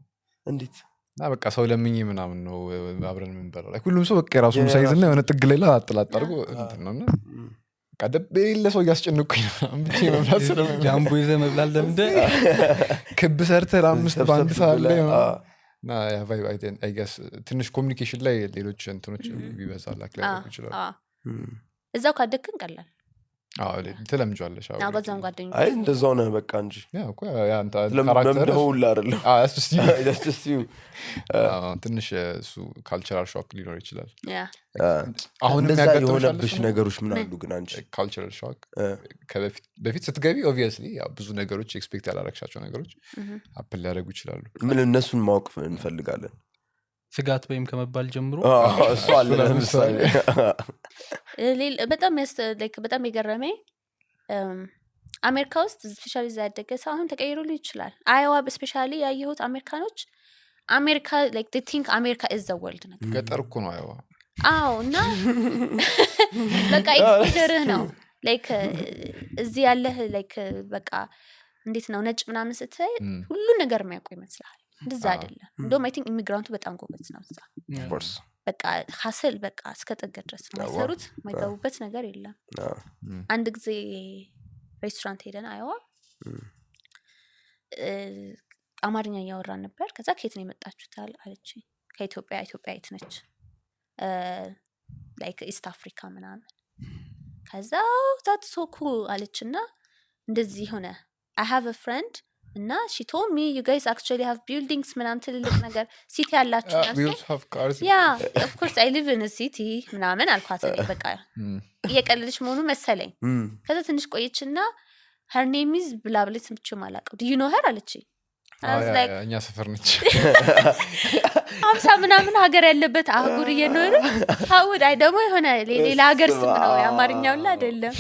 እንዴት እና በቃ ሰው ለምኝ ምናምን ነው አብረን የምንበላው like ሁሉም ሰው በቃ የራሱን ሳይዝና የሆነ ጥግ ላይ አጥላጥ አድርጎ እንትን ነውና በቃ ደበ ለሰው ያስጨንቁኝ ነው እንጂ መብላት ስለምን ጃምቦ ይዘህ መብላት ለምንደ ክብ ሰርተህ ለአምስት በአንድ ሰዓት ላይ እና አይ ገስ ትንሽ ኮሚኒኬሽን ላይ ሌሎች እንትኖች ቢበዛላክ ሊያደርጉ ይችላሉ እዛው ካደግን ቀላል ትለምጃለሽ አጓዛም ጓደኞች አይ እንደዛው ነው በቃ እንጂ እኮ ያንተ ካራክተር ለምደውላ አይደለም ትንሽ እሱ ካልቸራል ሾክ ሊኖር ይችላል አሁን እንደዛ የሆነብሽ ነገሮች ምን አሉ ግን አንቺ ካልቸራል ሾክ በፊት ስትገቢ ኦብቪየስሊ ብዙ ነገሮች ኤክስፔክት ያላረግሻቸው ነገሮች አፕል ሊያደርጉ ይችላሉ ምን እነሱን ማወቅ እንፈልጋለን ስጋት ወይም ከመባል ጀምሮ እሱ አለ ለምሳሌ በጣም የገረመኝ አሜሪካ ውስጥ ስፔሻሊ ያደገ ሰው አሁን ተቀይሮ ሊሆን ይችላል አይዋ ስፔሻሊ ያየሁት አሜሪካኖች አሜሪካ like they think America is the world ነገር ገጠር እኮ ነው አይዋ እና በቃ ኤክስፒሪየንስ ነው like እዚህ ያለ like በቃ እንዴት ነው ነጭ ምናምን ስትይ ሁሉ ነገር የሚያውቁ ይመስላል እንደዛ አይደለም እንደውም አይ ቲንክ ኢሚግራንቱ በጣም ጎበዝ ነው እዛ of course በቃ ሐሰል በቃ እስከ ጥግ ድረስ ማይሰሩት ማይገቡበት ነገር የለም አንድ ጊዜ ሬስቶራንት ሄደን አይዋ አማርኛ እያወራን ነበር ከዛ ከየት ነው የመጣችሁት አለች ከኢትዮጵያ የት ነች like ኢስት አፍሪካ ምናምን ከዛ that's so cool አለችና እንደዚህ ሆነ I have a friend እና she told me you guys actually have buildings ምናምን ትልልቅ ነገር ሲቲ ያላችሁ of course I live in a city ምናምን አልኳት በቃ እየቀለለች መሆኑ መሰለኝ ከዛ ትንሽ ቆየችና her name is ብላብለት ምቹ ማላቀው do you know her አለች እኛ ሰፈር ነች 50 ምናምን ሀገር ያለበት አህጉር እየኖረ ሀውድ አይ ደግሞ የሆነ ሌላ ሀገር ስም ነው የአማርኛው ላይ አይደለም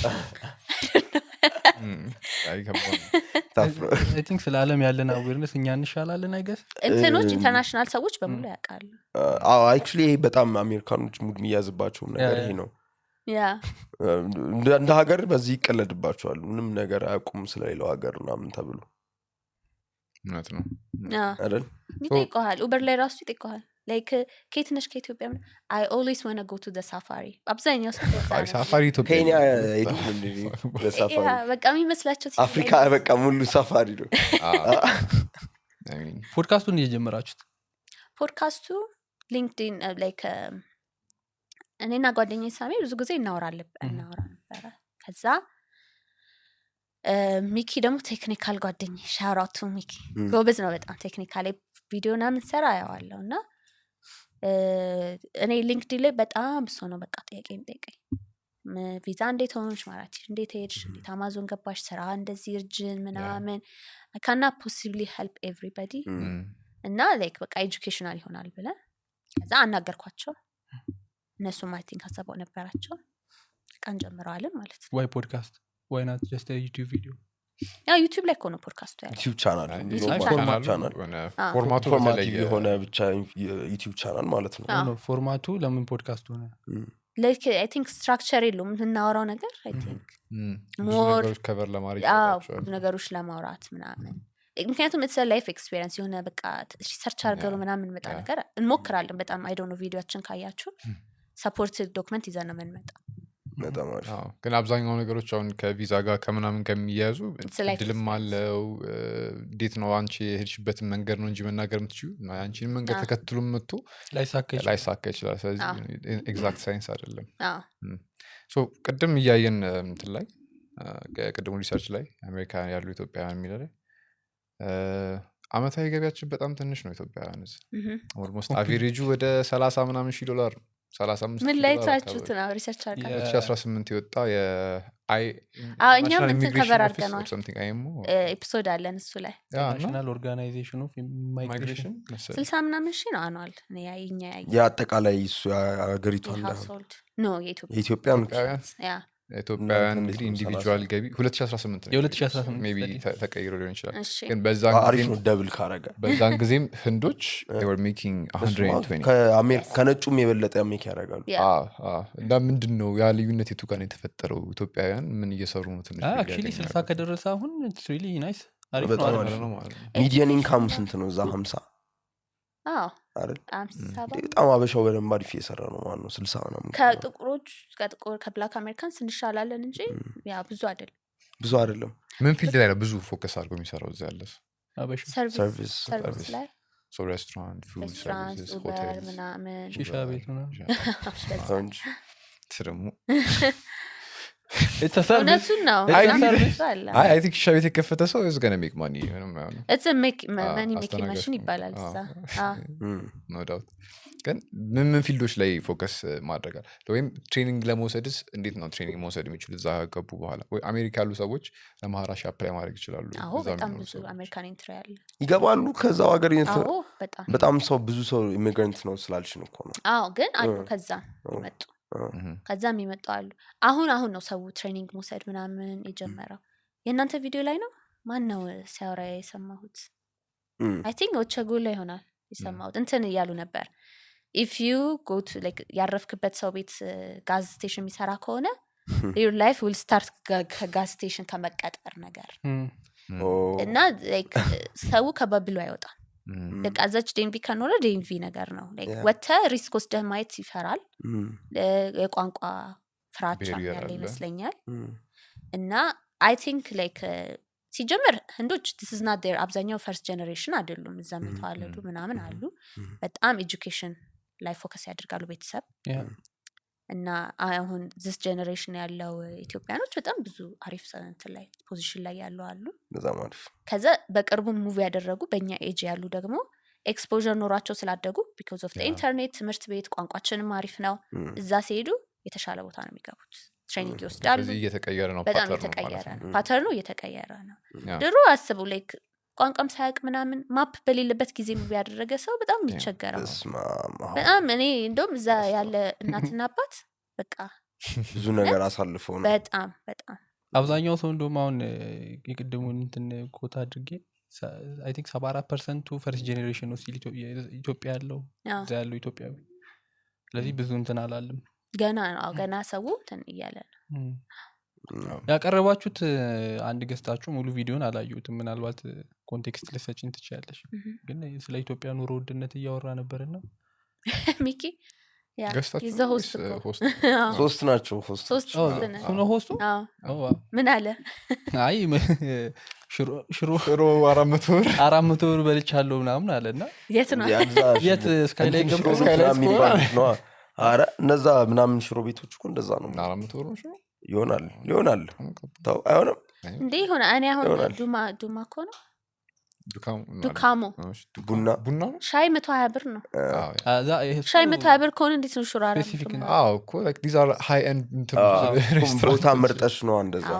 I think ስለ ዓለም ያለን አዌርነስ እኛ እንሻላለን አይገስ እንትኖች ኢንተርናሽናል ሰዎች በሙሉ ያውቃሉ actually በጣም አሜሪካኖች ሙድ የሚያዝባቸው ነገር ይሄ ነው እንደ ሀገር በዚህ ይቀለድባቸዋል ምንም ነገር አያውቁም ስለሌላው ሀገር ምናምን ተብሎ ማለት ነው አይደል ይጠይቀዋል ኡበር ላይ ራሱ ይጠይቀዋል like ከየትነሽ ከኢትዮጵያ I always want to go to the safari አብዛኛው ሳፋሪ ኢትዮጵያ ኬንያ ለሳፋሪ በቃ የሚመስላቸው አፍሪካ በቃ ሙሉ ሳፋሪ ነው ፖድካስቱን እየጀመራችሁት ፖድካስቱ ሊንክድኢን like እኔና ጓደኛዬ ሳሚ ብዙ ጊዜ እናወራ ነበር ከዛ ሚኪ ደግሞ ቴክኒካል ጓደኛዬ ሻራቱ ሚኪ ጎበዝ ነው በጣም ቴክኒካል ቪዲዮና ምን ሰራ ያዋለውና እኔ ሊንክድኢን ላይ በጣም ሰው ነው በቃ ጥያቄ የሚጠይቀኝ ቪዛ እንዴት ሆነሽ ማለት እንዴት ሄድሽ እንዴት አማዞን ገባሽ ስራ እንደዚህ እርጅን ምናምን I cannot possibly help everybody እና like በቃ ኤጁኬሽናል ይሆናል ብለ ከዛ አናገርኳቸው እነሱም I think ሀሳብ ነበራቸው ቀን ጀምረዋል ማለት ነው why podcast why not just a YouTube video ያው ዩቲዩብ ላይ ኮነ ፖድካስቱ ያለው ዩቲዩብ ቻናል ፎርማቱ የሆነ ብቻ ዩቲዩብ ቻናል ማለት ነው ፎርማቱ ለምን ፖድካስት ሆነ like I think structure የለውም እናወራው ነገር I think more cover ለማድረግ ነገሮች ለማውራት ምናምን ምክንያቱም it's a life experience የሆነ በቃ ሪሰርች አድርገው ምናምን መጣ ነገር እንሞክራለን በጣም I don't know ቪዲዮአችን ካያችሁ ሰፖርት ዶክመንት ይዘን ነው የምንመጣው በጣም አሪፍ ግን አብዛኛው ነገሮች አሁን ከቪዛ ጋር ከምናምን ከሚያያዙ ድልም አለው እንዴት ነው አንቺ ሄድሽበትን መንገድ ነው እንጂ መናገር የምትችዩ አንቺን መንገድ ተከትሎ መጥቶ ላይሳካ ይችላል ስለዚህ ኤግዛክት ሳይንስ አይደለም ሶ ቅድም እያየን እንትን ላይ ቅድሙ ሪሰርች ላይ አሜሪካ ያሉ ኢትዮጵያውያን የሚለው ላይ አመታዊ ገቢያችን በጣም ትንሽ ነው ኢትዮጵያውያን ኦልሞስት አቨሬጁ ወደ 30 ምናምን ሺህ ዶላር 35 ምን ላይ ታችሁት ነው ሪሰርች አድርገን 2018 የወጣ እኛም እንትን ከቨር አድርገናል ኤፒሶድ አለን እሱ ላይ ናሽናል ኦርጋናይዜሽን ኦፍ ማይግሬሽን 60 ምናምን ሺህ ነው አኗል እኛ የአጠቃላይ እሱ አገሪቱ ነው የኢትዮጵያን ኢትዮጵያውያን እንግዲህ ኢንዲቪጁዋል ገቢ 2018 ነው የ2018 ሜቢ ተቀይሮ ሊሆን ይችላል ግን በዛን አሪፍ ነው ደብል ካረጋ በዛን ጊዜም ህንዶች they were making 120 ከነጩም የበለጠ ሜክ ያደርጋሉ እና ምንድነው ያ ልዩነት የቱ ጋር ነው የተፈጠረው ኢትዮጵያውያን ምን እየሰሩ ነው ትንሽ actually 60 ከደረሰ አሁን it's really nice አሪፍ ነው ማለት ነው ሚዲያን ኢንካም ስንት ነው እዛ 50 በጣም አበሻው በደንብ አሪፍ እየሰራ ነው ማለት ነው 60 ነው ከጥቁሮች ከብላክ አሜሪካንስ እንሻላለን እንጂ ያ ብዙ አይደለም ምን ፊልድ ላይ ነው ብዙ ፎከስ አድርጎ የሚሰራው እዛ ያለስ ሰርቪስ ላይ ሶ ሬስቶራንት ፉድ ሬስቶራንት ሰርቪስስ ኡበር ሆቴልስ ምናምን ሺሻ ቤት ነው ትርሙ እውነቱን ነው አይ ቲንክ ሺሻ ቤት የከፈተ ሰው is gonna make money ምንም አይሆንም it's a money making machine ይባላል እዛ no doubt ግን ምን ፊልዶች ላይ ፎከስ ማድረጋል ወይም ትሬኒንግ ለመውሰድስ እንዴት ነው ትሬኒንግ መውሰድ የሚችሉ እዛ ገቡ በኋላ ወይ አሜሪካ ያሉ ሰዎች ለማህራሽ አፕላይ ማድረግ ይችላሉ አዎ በጣም ብዙ አሜሪካን ኢንትሪ ያለ ይገባሉ ከዛው ሀገር አዎ በጣም ሰው ብዙ ሰው ኢሚግራንት ነው ስላልሽን እኮ ነው አዎ ግን አሉ ከዛ ይመጡ ከዛም ይመጣሉ አሁን ነው ሰው ትሬኒንግ መውሰድ ምናምን የጀመረው የእናንተ ቪዲዮ ላይ ነው ማን ነው ሲያወራ የሰማሁት I think ኦቸጎላ ይሆናል የሰማሁት እንትን እያሉ ነበር if you go to like ያረፍክበት ሰው ቤት ጋዝ ስቴሽን የሚሰራ ከሆነ your life will start ጋዝ ስቴሽን ከመቀጠር ነገር እና like ሰው ከባብሉ አይወጣም like አዛች ዴንቪ ከኖረ ዴንቪ ነገር ነው like ወተ ሪስክ ወስደህ ማየት ይፈራል የቋንቋ ፍራቻ ያለ ይመስለኛል እና I think like ሲጀምር ህንዶች this is not their አብዛኛው first generation አይደሉም እዛ መተዋለዱ ምናምን አሉ በጣም ኤጁኬሽን ላይ ፎከስ ያደርጋሉ ቤተሰብ እና አሁን this generation ያለው ኢትዮጵያኖች በጣም ብዙ አሪፍ ሰንት ላይ ፖዚሽን ላይ ያለው አሉ በጣም አሪፍ ከዛ በቅርቡ ሙቭ ያደረጉ በእኛ ኤጅ ያሉ ደግሞ ኤክስፖዠር ኖራቸው ስላደጉ because of the internet ትምህርት ቤት ቋንቋችንም አሪፍ ነው እዛ ሲሄዱ የተሻለ ቦታ ነው የሚገቡት ትሬኒንግ ይወስዳሉ በዚህ እየተቀየረ ነው በጣም እየተቀየረ ነው ፓተርኑ እየተቀየረ ነው ድሮ አስቡ ላይክ ቋንቋም ሳያቅ ምናምን ማፕ በሌለበት ጊዜ ሙቭ ያደረገ ሰው በጣም ይቸገራል በጣም እኔ እንደውም እዛ ያለ እናትና አባት በቃ ብዙ ነገር አሳልፈው ነው በጣም አብዛኛው ሰው እንደውም አሁን የቅድሙን እንትን ኮታ አድርጌ I think 74% ፈርስት ጄኔሬሽን ነው ሲል ኢትዮጵያ ያለው እዛ ያለው ኢትዮጵያዊ ስለዚህ ብዙ እንትን አላለም ገና ሰው እንትን እያለ ነው ያቀረባችሁት አንድ ገስታችሁ ሙሉ ቪዲዮን አላየሁትም ምናልባት ኮንቴክስት ልሰጪኝ ትችያለሽ ግን ስለ ኢትዮጵያ ኑሮ ውድነት እያወራ ነበርና ሚኪ ያ ሶስት ናቸው ሆስቱ ምን አለ አይ ሽሮ 400 ብር በልቻለሁ ምናምን አለና የት ስካይላይ ገብቶ ነው አረ እነዛ ምናምን ሽሮ ቤቶች እኮ እንደዛ ነው 400 ብር ነው ይሆናል ታው አይሆንም እንዴ ሆነ እኔ አሁን ዱማ እኮ ነው ዱካሞ ቡና ሻይ 120 ብር ነው ሻይ 120 ብር ከሆነ እንዴት ነው ሽሮ አረ እኮ like these are high end ቦታ መርጠሽ ነው እንደዛ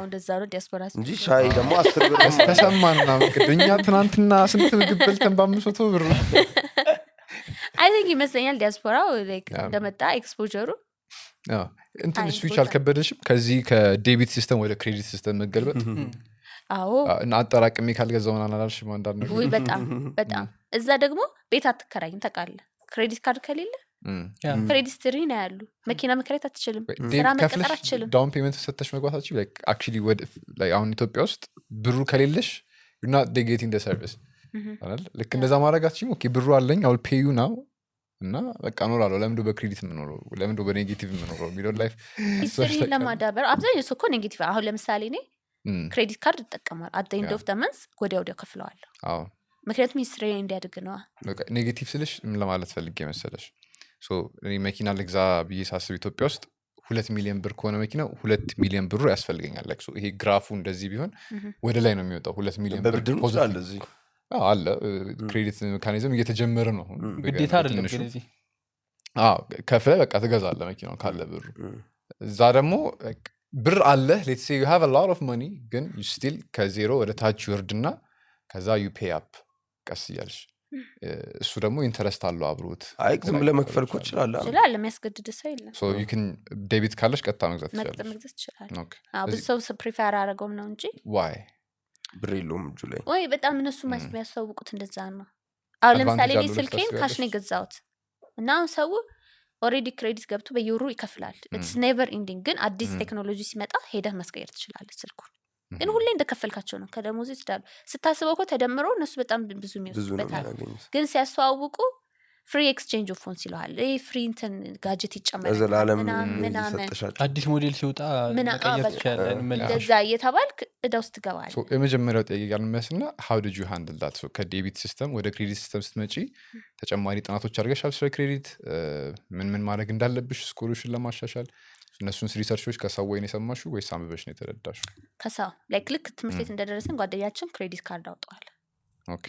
ነው ዲያስፖራ እንጂ ሻይ ደግሞ 10 ብር ተሰማና እኛ ትናንትና ስንት ምግብ በልተን በ500 ብር I think ይመስለኛል ዲያስፖራው like እንደመጣ ኤክስፖዠሩ እንትን ስዊች አልከበደሽም ከዚህ ከዴቢት ሲስተም ወደ ክሬዲት ሲስተም መገልበጥ እና አጠራቅሜ ካልገዛውን አላልሽም አንዳንድ ነገር ወይ በጣም እዛ ደግሞ ቤት አትከራይም ታውቃለህ ክሬዲት ካርድ ከሌለ ክሬዲት ስትሪ ነው ያሉ መኪና መከራየት አትችልም ስራ መቀጠር አትችልም ዳውን ፔመንት ሰጥተሽ መግባታችሁ like actually like አሁን ኢትዮጵያ ውስጥ ብሩ ከሌለሽ you're not getting the service አይደል ልክ እንደዛ ማድረጋችሁ ኦኬ ብሩ አለኝ I will pay you now እና በቃ ኖራለሁ ለምንድነው በክሬዲት የምኖረው ለምንድነው በኔጌቲቭ የምኖረው ሚሊዮን ላይፍ ሂስትሪ ለማዳበር አብዛኛው ሰው እኮ ኔጌቲቭ አሁን ለምሳሌ እኔ ክሬዲት ካርድ እጠቀማለሁ at the end of the month ወዲያው ከፍለዋለሁ ምክንያቱም ሂስትሪ እንዲያድግ ነው በቃ ኔጌቲቭ ስልሽ ምን ለማለት ፈልጌ መሰለሽ ሶ እኔ መኪና ልግዛ ብዬ ሳስብ ኢትዮጵያ ውስጥ 2 ሚሊዮን ብር ከሆነ መኪናው 2 ሚሊዮን ብሩ ያስፈልገኛል like so ይሄ ግራፉ እንደዚህ ቢሆን ወደ ላይ ነው የሚወጣው 2 ሚሊዮን ብር ፖዚቲቭ አለ ክሬዲት ሜካኒዝም እየተጀመረ ነው ግዴታ አይደለም ግን እዚህ ከፍለ በቃ ትገዛለህ መኪናው ካለ ብሩ እዛ ደግሞ ብር አለ let's say you have a lot of money ግን you still ከዜሮ ወደ ታች ይወርድና ከዛ you pay up ቀስ ይያልሽ እሱ ደግሞ ኢንተረስት አለው አብሮት አይ ዝም ብለህ መክፈል እኮ ትችላለህ የሚያስገድድ ሰው የለም so you can debit ካለሽ ቀጥታ መግዛት ትችላለህ ብዙ ሰው ፕሪፈር አደረገውም ነው እንጂ why ብሬሎም እጁ ላይ ወይ በጣም እነሱ የሚያሳውቁት እንደዛ ነው አሁን ለምሳሌ እኔ ስልኬን ካሽ ነው የገዛሁት እና አሁን ሰው ኦሬዲ ክሬዲት ገብቶ በዩሮ ይከፍላል it's never ending ግን አዲስ ቴክኖሎጂ ሲመጣ ሄደህ ማስቀየር ትችላለህ ስልኩን ግን ሁሌ እንደከፈልካቸው ነው ከደሞዝ ይስዳሉ ስታስበው እኮ ተደምሮ እነሱ በጣም ብዙ የሚወስዱበታል ግን ሲያስተዋውቁ ፍሪ ኤክስቼንጅ ኦፍ ፎንስ ይለዋል ፍሪ እንትን ጋጀት ይጨመራል ዘላለም ምናምን አዲስ ሞዴል ሲወጣ መቀየር ትችላለህ እንደዛ እየተባልክ እዳ ውስጥ ትገባለህ የመጀመሪያው ጥያቄ ጋር እንመለስና how did you handle that ከዴቢት ሲስተም ወደ ክሬዲት ሲስተም ስትመጪ ተጨማሪ ጥናቶች አድርገሻል ስለ ክሬዲት ምን ማድረግ እንዳለብሽ ስኮርሽን ለማሻሻል እነሱን ሪሰርቾች ከሰው ወይ ነው የሰማሽው ወይስ አንብበሽ ነው የተረዳሽው ከሰው ላይክ ልክ ትምህርት ቤት እንደደረሰን ጓደኛችን ክሬዲት ካርድ አውጣዋል ኦኬ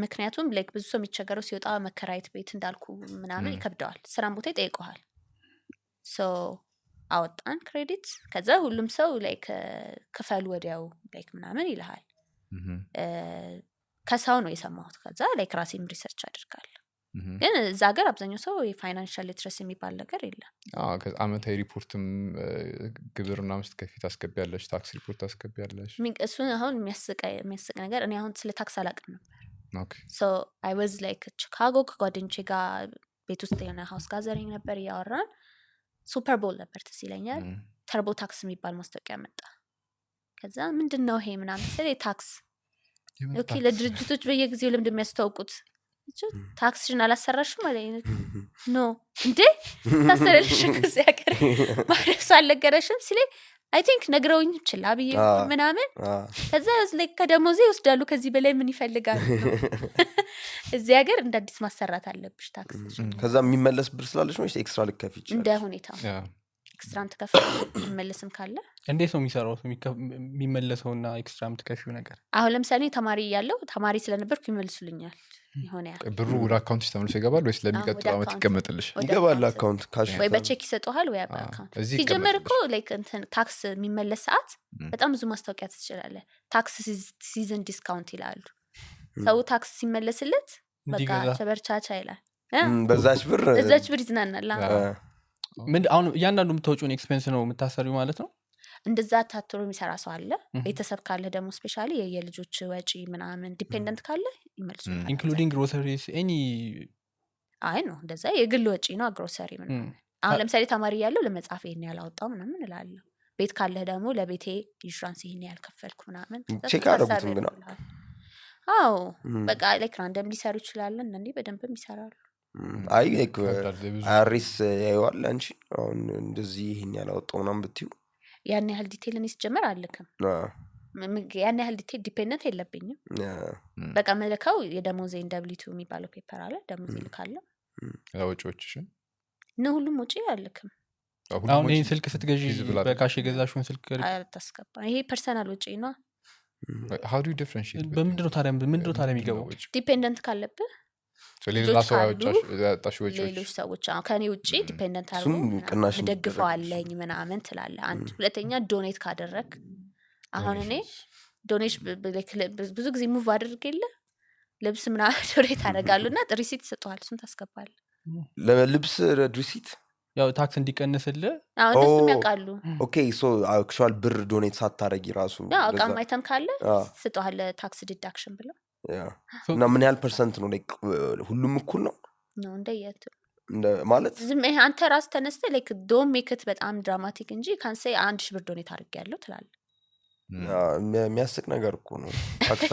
ምክንያቱም ላይክ ብዙ ሰው የሚቸገረው ሲወጣ መከራየት ቤት እንዳልኩ ምናምን ይከብደዋል ስራን ቦታ ይጠይቀዋል ሶ አወጣን ክሬዲት ከዛ ሁሉም ሰው ላይክ ክፈል ወዲያው ላይክ ምናምን ይልሃል ከሰው ነው የሰማሁት ከዛ ላይክ ራሴም ሪሰርች አድርጋለሁ ግን እዛ ሀገር አብዛኛው ሰው የፋይናንሻል ሊትረሲ የሚባል ነገር የለም አመታዊ ሪፖርትም ግብርና ውስጥ ከፊት አስገቢያለሽ ታክስ ሪፖርት አስገቢያለሽ እሱን አሁን የሚያስቅ ነገር እኔ አሁን ስለ ታክስ አላቅም ነበር so I was like ቺካጎ ከጓደኞቼ ጋር ቤት ውስጥ የሆነ ሃውስ ጋዘሪንግ ነበር እያወራን ሱፐር ቦል ነበር ትዝ ይለኛል ተርቦ ታክስ የሚባል ማስታወቂያ መጣ ከዛ ምንድነው ይሄ ምናምን ስለ ታክስ ኦኬ ለድርጅቶች በየጊዜው ለምን እንደሚያስተዋውቁት ታክስሽን አላሰራሽም ማለት ነው እንዴ ታሰረልሽ ከዚያቀር ማለት አልነገረሽም ሲል I think ነግረውኝ ይችላል ብዬ ምናምን ከዛ like ከደሞዜ ይወስዳሉ ከዚህ በላይ ምን ይፈልጋሉ እዚህ ሀገር እንደ አዲስ ማሰራት አለብሽ ታክስ ከዛ የሚመለስ ብር ስላለሽ ነው ኤክስትራ ልከፍ ይችላል እንደ ሁኔታው ኤክስትራም ተከፍል የሚመለስም ካለ እንዴት ነው የሚሰራው የሚመለሰውና ኤክስትራም ተከፊው ነገር አሁን ለምሳሌ ተማሪ ያለው ተማሪ ስለነበርኩ ይመልሱልኛል ይሆናል ብሩ ወደ አካውንትሽ ተመልሶ ይገባል ወይስ ለሚቀጥለው አመት ይቀመጥልሽ ይገባል አካውንት ካሽ ወይ በቼክ ይሰጣል ወይ በአካውንት ሲጀመር እኮ ላይክ እንትን ታክስ የሚመለስ ሰዓት በጣም ብዙ ማስታወቂያ ትችላለህ ታክስ ሲዝን ዲስካውንት ይላሉ ሰው ታክስ ሲመለስለት በቃ ተበርቻቻ ይላል በዛች ብር ይዝናናል ምን አሁን እያንዳንዱ የምታወጪውን ኤክስፔንስ ነው የምታሰሪው ማለት ነው እንደዛ ታትሮ የሚሰራ ሰው አለ ቤተሰብ ካለ ደግሞ ስፔሻሊ የልጆች ወጪ ምናምን ዲፔንደንት ካለ ይመልሱታል ኢንክሉዲንግ ግሮሰሪስ ኤኒ አይ ነው እንደዛ የግል ወጪ ነው ግሮሰሪ ምናምን አሁን ለምሳሌ ተማሪ ያለው ለመጻፍ ይሄን ያላወጣው ምናምን እላለሁ ቤት ካለ ደግሞ ለቤቴ ኢንሹራንስ ይሄን ያልከፈልኩ ምናምን ቼክ አደረጉትም ግን አዎ በቃ ላይክ ራንደም ሊሰሩ ይችላል እንዴ በደንብም ይሰራሉ አይ ላይክ አሪስ ያዩዋል አንቺ አሁን እንደዚህ ይሄን ያላወጣው ምናምን ብትዩ ያን ያህል ዲቴል እኔ ሲጀመር አልልክም ያን ያህል ዲቴል ዲፔንደንት የለብኝም በቃ መለካው የደሞዜ እንደብሊቱ የሚባለው ፔፐር አለ ደሞዜ ልካለሁ ወጪዎችሽን ነው ሁሉም ወጪ አልልክም አሁን ይሄን ስልክ ስትገዢ በካሽ የገዛሽውን ስልክ አታስገባ ይሄ ፐርሰናል ወጪ ነው how do you differentiate በምንድነው ታዲያ የሚገባው ዲፔንደንት ካለብህ ሌላ ሰው ያወጣሽ ወጪዎች ሌሎች ሰዎች ከኔ ውጪ ዲፔንደንት አርጎ ደግፈዋለኝ ምናምን ትላለህ አንድ ሁለተኛ ዶኔት ካደረክ አሁን እኔ ዶኔት ብዙ ጊዜ ሙቭ አድርጌለ ልብስ ምናምን ዶኔት አደርጋለሁና ሪሲት ይሰጣል እሱን ታስገባለህ ለልብስ ሪሲት ያው ታክስ እንዲቀንስልህ አሁን እሱም ያውቃሉ ኦኬ ሶ አክቹዋል ብር ዶኔት ሳታረጊ ራሱ ያው አቃም አይተም ካለ ስጠዋል ታክስ ዲዳክሽን ብለው እና ምን ያህል ፐርሰንት ነው ላይክ ሁሉም እኩል ነው እንደየት ማለት ዝም አንተ ራስ ተነስተ ላይክ ዶንት ሜክ ኢት በጣም ድራማቲክ እንጂ ካንሰ 1000 ብር ዶኔት አድርጌያለሁ ትላለህ የሚያስቅ ነገር እኮ ነው ታክስ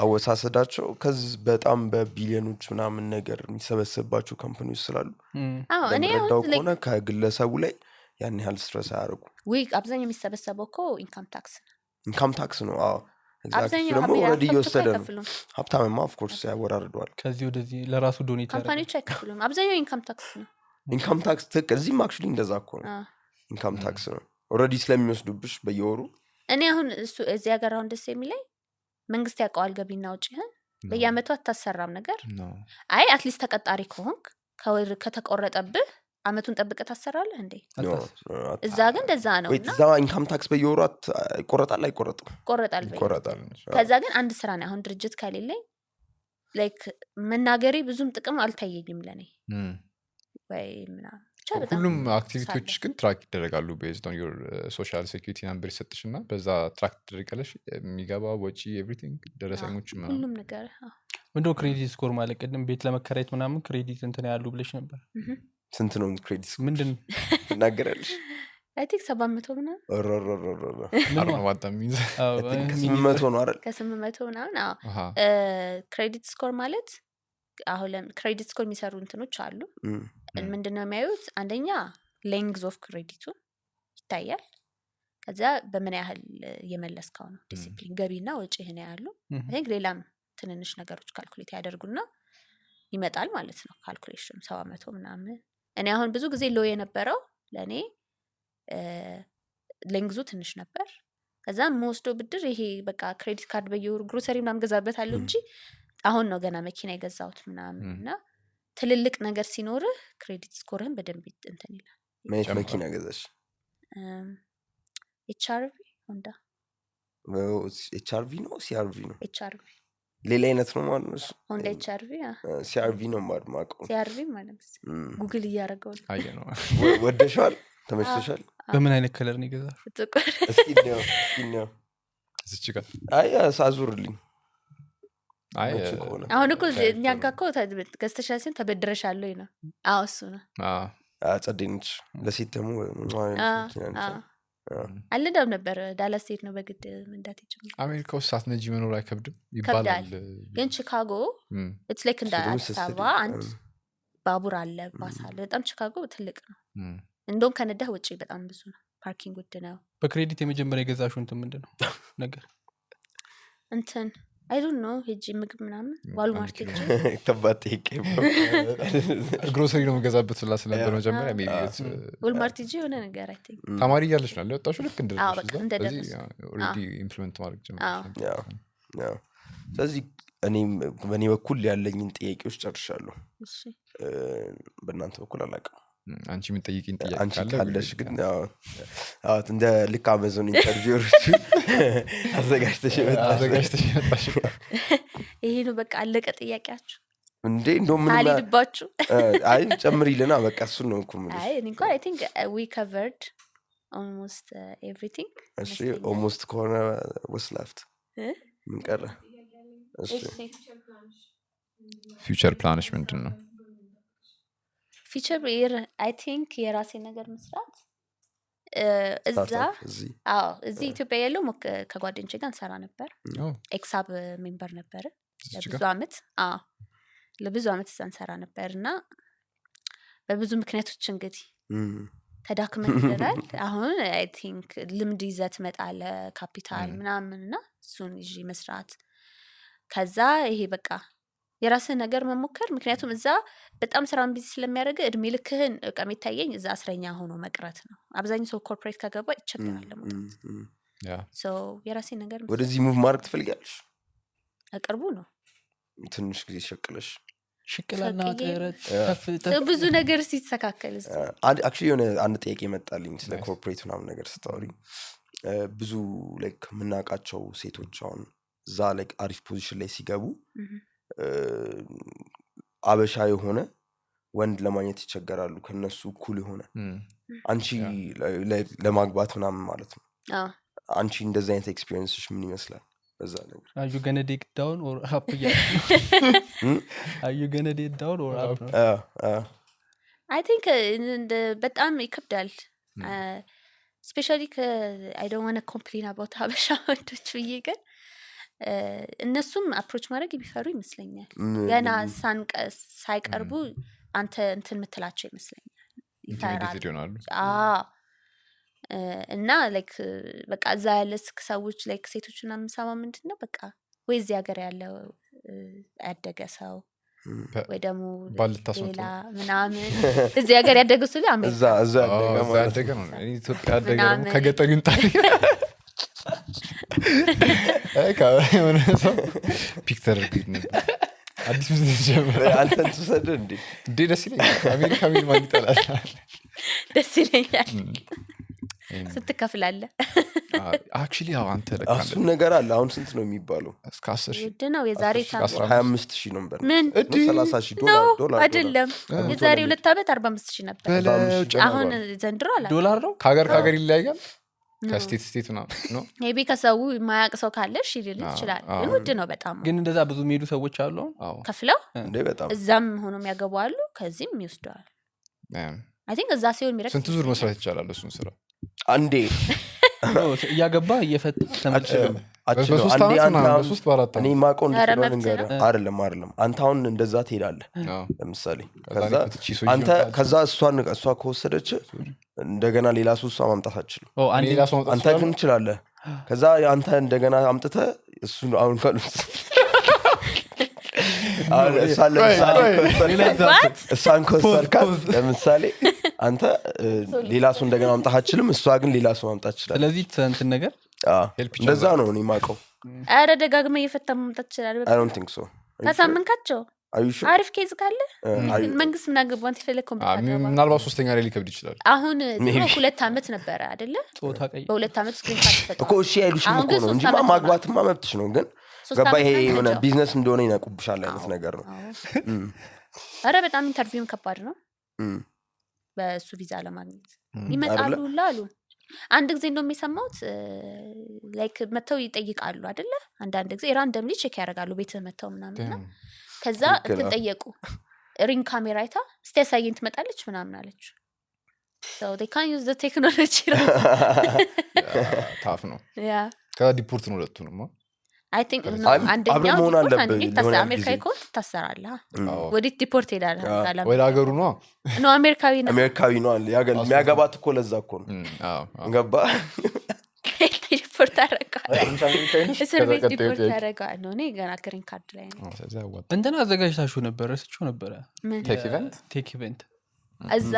አወሳሰዳቸው ከዚህ በጣም በቢሊዮኖች ምናምን ነገር የሚሰበሰብባቸው ካምፓኒዎች ስላሉ እኔ ሆነ ከግለሰቡ ላይ ያን ያህል ስትረስ አያደርጉ ወይ አብዛኛው የሚሰበሰበው እኮ ኢንካም ታክስ ነው አዎ exactly ደግሞ already እየወሰደ ነው ሀብታምማ of course ያወራርደዋል ከዚህ ወደዚህ ለራሱ ዶኔት ያደርጋል ካምፓኒዎች አይከፍሉም አብዛኛው ኢንካም ታክስ ነው ኢንካም ታክስ እዚህም actually እንደዛ እኮ ነው ኢንካም ታክስ ነው already ስለሚወስዱብሽ በየወሩ እኔ አሁን እዚህ ሀገር አሁን ደስ የሚለኝ መንግስት ያውቀዋል ገቢና ወጪህን በየአመቱ አታሰራም ነገር አይ አትሊስት ተቀጣሪ ከሆንክ ከተቆረጠብህ አመቱን ጠብቀህ ታሰራለህ እንዴ እዛ ግን እንደዛ ነው እና እዛ ኢንካም ታክስ በየወሩ ይቆረጣል አይቆረጥም ይቆረጣል ከዛ ግን አንድ ስራ ነው አሁን ድርጅት ከሌለኝ ላይክ መናገሬ ብዙም ጥቅም አልታየኝም ለኔ ወይ ምናምን ሁሉም አክቲቪቲዎች ግን ትራክ ይደረጋሉ based on your social security number ይሰጥሽና በዛ ትራክ ትደረጋለሽ የሚገባ ወጪ everything ደረሰኞች ሁሉም ነገር እንደው ክሬዲት ስኮር ማለት ቅድም ቤት ለመከራየት ምናምን ክሬዲት እንትን ያሉ ብለሽ ነበር ስንት ነው ክሬዲት ምንድን ትናገራለሽ I think 700 ምናምን አርማዋጣሚዝ ከ800 ነው አይደል ከ800 ምናምን ክሬዲት ስኮር ማለት አሁን ክሬዲት ስኮር የሚሰሩ እንትኖች አሉ ምንድነው የሚያዩት አንደኛ ሌንግዝ ኦፍ ክሬዲቱ ይታያል ከዛ በምን ያህል የመለስከው ነው ዲሲፕሊን ገቢና ወጪህን ያያሉ አይ ቲንክ ሌላም ትንንሽ ነገሮች ካልኩሌት ያደርጉና ይመጣል ማለት ነው ካልኩሌሽን 700 ምናምን እኔ አሁን ብዙ ጊዜ ሎ የነበረው ለኔ ሌንግዙ ትንሽ ነበር ከዛ ሞስዶ ብድር ይሄ በቃ ክሬዲት ካርድ በየወሩ ግሮሰሪ ምናምን ገዛበታለሁ እንጂ አሁን ነው ገና መኪና የገዛሁት ምናምንና ትልልቅ ነገር ሲኖርህ ክሬዲት ስኮርህን በደንብ እንትን ይላል መኪና ገዛሽ ኤችአርቪ ሆንዳ ኤችአርቪ ነው ሲአርቪ ነው ኤችአርቪ ሌላ አይነት ነው ማለት ነው ሆንዳ ኤችአርቪ ሲአርቪ ነው ማድማቀው ሲአርቪ ማለት ጉግል እያደረገው አየ ነው ወደሻል ተመችቶሻል በምን አይነት ከለር ነው ይገዛል ጥቁር እስኪ ነው እዚች ጋር አይ ሳዙርልኝ አይ አሁን እኮ እኛ ጋር እኮ ገዝተሻል ተበድረሻለሁ ነው አዎ እሱ ነው ጸደኝች ለሴት ደግሞ አልነዳም ነበር ዳላስ ሄድ ነው በግድ መንዳት ይችላል አሜሪካ ውስጥ ሳትነጂ መኖር አይከብድም ይባላል ግን ቺካጎ ኢትስ ላይክ እንደ አዲስ አበባ አንድ ባቡር አለ ባስ አለ በጣም ቺካጎ ትልቅ ነው እንደውም ከነዳህ ውጪ በጣም ብዙ ነው ፓርኪንግ ውድ ነው በክሬዲት የመጀመሪያ የገዛሽው እንትን ምንድነው ነገር እንትን I don't know ሄጂ ምግብ ምናምን ዋልማርት ሄጂ ተባተ ይቀም ግሮሰሪ ነው መገዛበት ስላ ስለነበር መጀመሪያ ሜቢ ዋልማርት ሄጂ የሆነ ነገር አይ ቲንክ ተማሪ እያለሽ ነው ለወጣሽ ልክ እንደዚህ ኦሬዲ ኢምፕሊመንት ማድረግ ጀመርሽ ያው ስለዚህ እኔም በእኔ በኩል ያለኝን ጥያቄዎች ጨርሻለሁ እሺ በእናንተ በኩል አላውቅም አንቺ ምን ጠይቂኝ ጥያቄ አንቺ ካለሽ ግን አዎ እንደ ልክ አማዞን ኢንተርቪውሮች አዘጋጅተሽ መጣሽ ይሄ ነው በቃ አለቀ ጥያቄያችሁ እንዴ እንደው ምን አልልባችሁ አይ ጨምሪልና በቃ እሱ ነው እኮ ምን አይ እኔ እንኳን I think we covered almost everything እሺ almost ከሆነ was left ምን ቀረ እሺ ፊውቸር ፕላንሽ ምንድነው ፊቸር I think የራሴ ነገር መስራት እዚህ ኢትዮጵያ ያለው ከጓደኞቼ ጋር እንሰራ ነበር ኤክሳብ ሜምበር ነበር ለብዙ አመት እንሰራ ነበርና በብዙ ምክንያቶች እንግዲህ ተዳክመን ይላል አሁን I think ልምድ ይዘት መጣለ ካፒታል ምናምንና እሱን ይዤ መስራት ከዛ ይሄ በቃ የራስህ ነገር መሞከር ምክንያቱም እዛ በጣም ስራን ቢዚ ስለሚያደርግ እድሜ ልክህን ቀሚታየኝ እዛ አስረኛ ሆኖ መቅረት ነው አብዛኛው ሰው ኮርፖሬት ከገባ ይቸገራል ለማለት ሶ የራሴ ነገር ወደዚህ ሙቭ ማድረግ ትፈልጋለሽ አቅርቡ ነው ትንሽ ጊዜ ሸቅለሽ ሽቅላና ጥረት ብዙ ነገር ሲተካከል አክቹሊ የሆነ አንድ ጥያቄ መጣልኝ ስለ ኮርፖሬት ምናምን ነገር ስታወሪ ብዙ ላይክ ምናቃቸው ሴቶች አሁን እዛ ላይክ አሪፍ ፖዚሽን ላይ ሲገቡ አበሻ የሆነ ወንድ ለማግኘት ይቸገራሉ ከነሱ ኩል የሆነ አንቺ ለማግባት ምናምን ማለት ነው አንቺ እንደዛ አይነት ኤክስፒሪየንስሽ ምን ይመስላል በዛ ነገር are you gonna dig down or up are you gonna dig down or up I think በጣም ይከብዳል especially I don't want to complain about አበሻ ወንዶች ብዬ ግን እነሱም አፕሮች ማድረግ ቢፈሩ ይመስለኛል ገና ሳይቀርቡ አንተ እንትን ምትላቸው ይመስለኛል ይታራሉ እና ላይክ በቃ እዛ ያለ ሰዎች ላይክ ሴቶችና ምሳማ ምንድነው በቃ ወይ እዚህ ሀገር ያለው ያደገ ሰው ወይ ደግሞ ሌላ ምናምን እዚህ ሀገር ያደገ ሰው አሜሪካ እዛ ያደገ ነው ኢትዮጵያ ያደገ ነው ከገጠር ይምጣል የሆነ ሰው ፒክተር አዲስ ቢዝነስ ጀመረ አንተን ትሰደ እንዴ ደስ ይለኛል አሜሪካ ምን ማን ይጠላል ደስ ይለኛል ስትከፍላለህ አክቹሊ ያው አንተ ለካ እሱ ነገር አለ አሁን ስንት ነው የሚባለው እስከ 10 ሺህ ነው የዛሬ 25000 ነበር ምን 30000 ዶላር አይደለም የዛሬ 2 አመት 45000 ነበር አሁን ዘንድሮ አላ ዶላር ነው ከሀገር ይለያያል ከስቴት ነው ሜቢ ከሰው የማያቅ ሰው ካለ እሺ ሊል ይችላል ግን ውድ ነው በጣም ግን እንደዛ ብዙ የሚሄዱ ሰዎች አሉ ከፍለው እንዴ በጣም እዛም ሆኖ የሚያገባሉ ከዚህም ይወስደዋል I think እዛ ሲሆን የሚረክ ስንት ዙር መስራት ይቻላል እሱን ስራ አንዴ እያገባ እየፈታ ተመልሰው አችሎ በሶስት አንዴ ዓመት አንተ ምናምን አሁን በሶስት በአራት እኔ ዓመት ማውቀው ኧረ እንደሆነ መብት ንገረህ ነው። አይደለም አንተ አሁን እንደዛ ትሄዳለህ አዎ። ለምሳሌ ከዛ ከዛ እኔ ፍትቼ ሰው አንተ ይዤ ከዛ እሷ ከወሰደች እንደገና ሌላ ሰው እሷ ማምጣት አትችልም እኔ ሌላ ሰው ማምጣት አንተ ግን እችላለሁ? ትችላለህ ከዛ አንተ እንደገና አምጥተህ እሱን አሁን ካልስ እሷን ለምሳሌ እሷን ከወሰድካት ለምሳሌ አንተ ሌላ ሰው እንደገና ማምጣት አትችልም እሷ ግን ሌላ ሰው ማምጣት ትችላለህ ስለዚህ እንትን ነገር እንደዛ ነው እኔ ማውቀው ኧረ ደጋግመህ እየፈታ ማምጣት ትችላለህ I don't think so ታሳምንካቸው Are you sure? አሪፍ ኬዝ ካለ መንግስት ምን አገባን ትፈልግ ኮምፒውተር ምናልባት ሶስተኛ ላይ ሊከብድ ይችላል አሁን ድሮ 2 ዓመት ነበረ አይደለ ጾታ ቀይ በ2 ዓመት ስክሪን ካርድ እኮ ተፈጥሯል እሺ አይሉሽም አሁን እኮ ግን ነው ሶስት እንጂ ዓመት ማግባትማ መብትሽ ነው ግን ሶስት ገባ ዓመት ይሄ ነው የሆነ የሚፈጀው። ቢዝነስ እንደሆነ ይነቁብሻል አይነት ነገር ነው ኧረ በጣም ኢንተርቪውም ከባድ ነው እም። በእሱ ቪዛ ለማግኘት ይመጣሉ ላሉ አንድ ጊዜ እንደውም የሰማሁት ላይክ መተው ይጠይቃሉ አይደለ አንዳንድ ጊዜ ራንደምሊ ቼክ ያደርጋሉ ቤትህ መተው ምናምን እና ከዛ ትክክል ነው። ተጠየቁ ሪንግ ካሜራ አይታ እስቲ ያሳየኝ ትመጣለች ምናምን አለች so they can't use the technology ታፍ ነው yeah ከዛ ዲፖርት ነው ሁለቱንም I think no አብረን አንደኛው መሆን ዲፖርት አለብህ አንዴ ለሆነ አሜሪካ ጊዜ። ይኮን ታሰራለህ ወዲት ዲፖርት ሄዳለህ ወደ ሀገሩ ነው ነው አሜሪካዊ ነው አሜሪካዊ ነው አለ የሚያገባት እኮ ለዛ እኮ ነው ገባ ዲፖርት አደረጋል እስር ቤት ዲፖርት ያደረጋል ነው እኔ ገና ግሪን ካርድ ላይ ነው እንትን አዘጋጅታችሁ ነበር ረስቼው ነበረ ቴክ ኢቨንት እዛ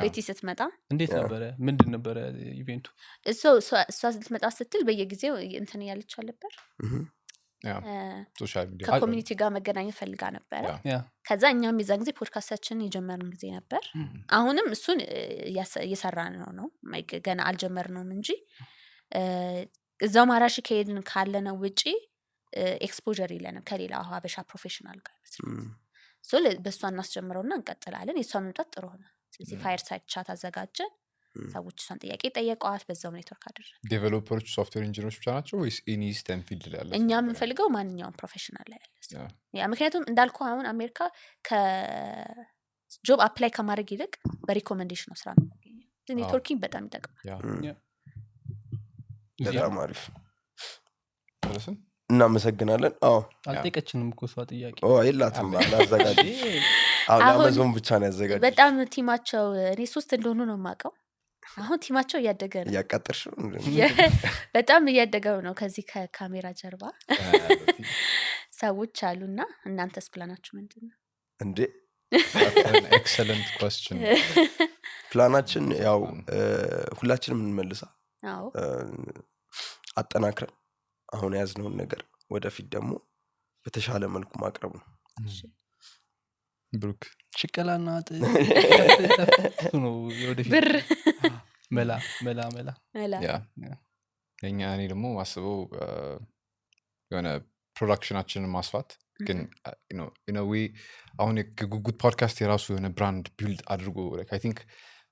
ቤቲ ስትመጣ እንዴት ነበረ ምንድን ነበረ ኢቨንቱ እሷ ስትመጣ ስትል በየጊዜው እንትን እያለች ነበር ሶሻል ሚዲያ ከኮሚኒቲ ጋር መገናኘት ፈልጋ ነበረ ከዛ እኛም የዛን ጊዜ ፖድካስታችን የጀመርን ጊዜ ነበር አሁንም እሱን እየሰራን ነው ገና አልጀመርነውም እንጂ እዛው ማራሽ ከሄድን ካለነው ውጪ ኤክስፖዠር የለንም ከሌላ ሀበሻ ፕሮፌሽናል ጋር በእሷ እናስጀምረውና እንቀጥላለን የእሷ መምጣት ጥሩ ሆነ ስለዚህ ፋየር ሳይት ቻት አዘጋጀን ሰዎች እሷን ጥያቄ ጠየቀዋት በዛው ኔትወርክ አደረግን ዴቨሎፐሮች ሶፍትዌር ኢንጂነሮች ብቻ ናቸው ወይስ ኤኒ ስቴም ፊልድ ላይ ያለ እኛ የምንፈልገው ማንኛውም ፕሮፌሽናል ላይ ያለ ያ ምክንያቱም እንዳልኩ አሁን አሜሪካ ከጆብ አፕላይ ከማድረግ ይልቅ በሪኮሜንዴሽን ነው ስራ የምናገኘው ኔትወርኪንግ በጣም ይጠቅማል በጣም አሪፍ እናመሰግናለን አልጠየቀችንም እኮ እሷ ጥያቄ የላትም አላዘጋጅ አሁን አማዞን ብቻ ነው ያዘጋጅ በጣም ቲማቸው እኔ 3 እንደሆኑ ነው የማውቀው አሁን ቲማቸው እያደገ ነው እያቃጠርሽ በጣም እያደገ ነው ከዚህ ከካሜራ ጀርባ ሰዎች አሉና እናንተስ ፕላናችሁ ምንድነው እንዴ ኤክሰለንት ኳስችን ፕላናችን ያው ሁላችንም እንመልሳ አጠናክረን አሁን ያዝነውን ነገር ወደፊት ደግሞ በተሻለ መልኩ ማቅረብ ነው ብሩክ ሽቀላና ነው ወደፊት ብር መላ የኛ እኔ ደግሞ ማስበው የሆነ ፕሮዳክሽናችንን ማስፋት ግን አሁን የጉጉት ፖድካስት የራሱ የሆነ ብራንድ ቢልድ አድርጎ አይ ቲንክ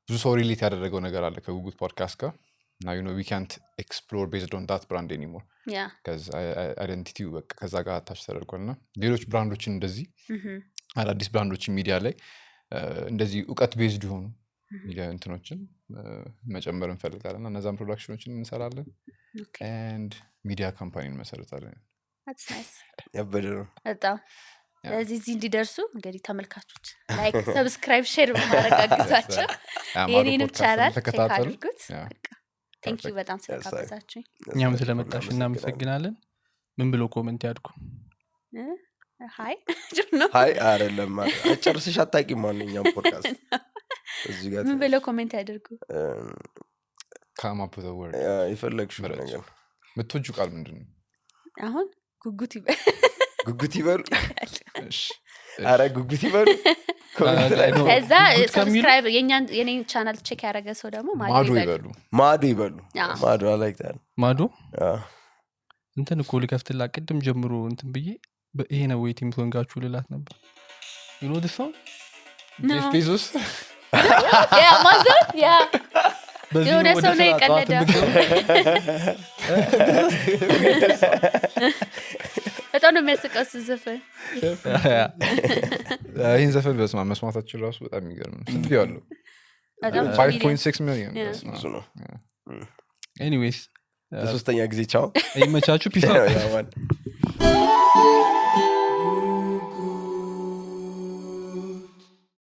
ብዙ ሰው ሪሌት ያደረገው ነገር አለ ከጉጉት ፖድካስት ጋር now we can't explore based on that brand anymore because identity ከዛ ጋር ታች ተደርጓልና ሌሎች ብራንዶችን እንደዚህ አዳዲስ ብራንዶችን ሚዲያ ላይ እንደዚህ ዕውቀት ቤዝድ ሆኑ ሚዲያ እንትኖችን መጨመር እንፈልጋለን እነዛም ፕሮዳክሽኖችን እንሰራለን and media company እንመሰርታለን that's nice ያበደ ነው በጣም ለዚህ እንዲደርሱ እንግዲህ ተመልካቾች ላይክ ሰብስክራይብ ሼር ማረጋግጣቸው የኔንም ቻናል ተከታተሉት Thank you በጣም ስለጋበዛችሁኝ እኛም ስለመጣሽ እናመሰግናለን ምን ብሎ ኮሜንት ያድርጉ ሃይ ሃይ አይደለም አጨርስሽ አታውቂም ማንኛውም ፖድካስት እዚህ ጋር ምን ብሎ ኮሜንት ያድርጉ come up with a word ይፈልግሽው ነገር ምትወጁ ቃል ምንድነው አሁን ጉጉት ይበሉ አረ ጉጉት ይበሉ ከዛ ሰብስክራይብ የኔን ቻናል ቼክ ያደረገ ሰው ደግሞ ማዶ ይበሉ ማዶ I like that ማዶ እንትን እኮ ልከፍትላ ቅድም ጀምሮ እንትን ብዬ ይሄ ነው ወይ ቲም ሶንጋችሁ ልላት ነበር you know this song Jeff Bezos ማዞ የሆነ ሰው ነው የቀለደ በጣም ነው የሚያስቀው ዘፈን ይህን ዘፈን በስማ መስማታችን ራሱ በጣም የሚገርም ነው ስንት ያለው 5.6 ሚሊዮን anyways ለሶስተኛ ጊዜ ቻው ይመቻችሁ ፒስ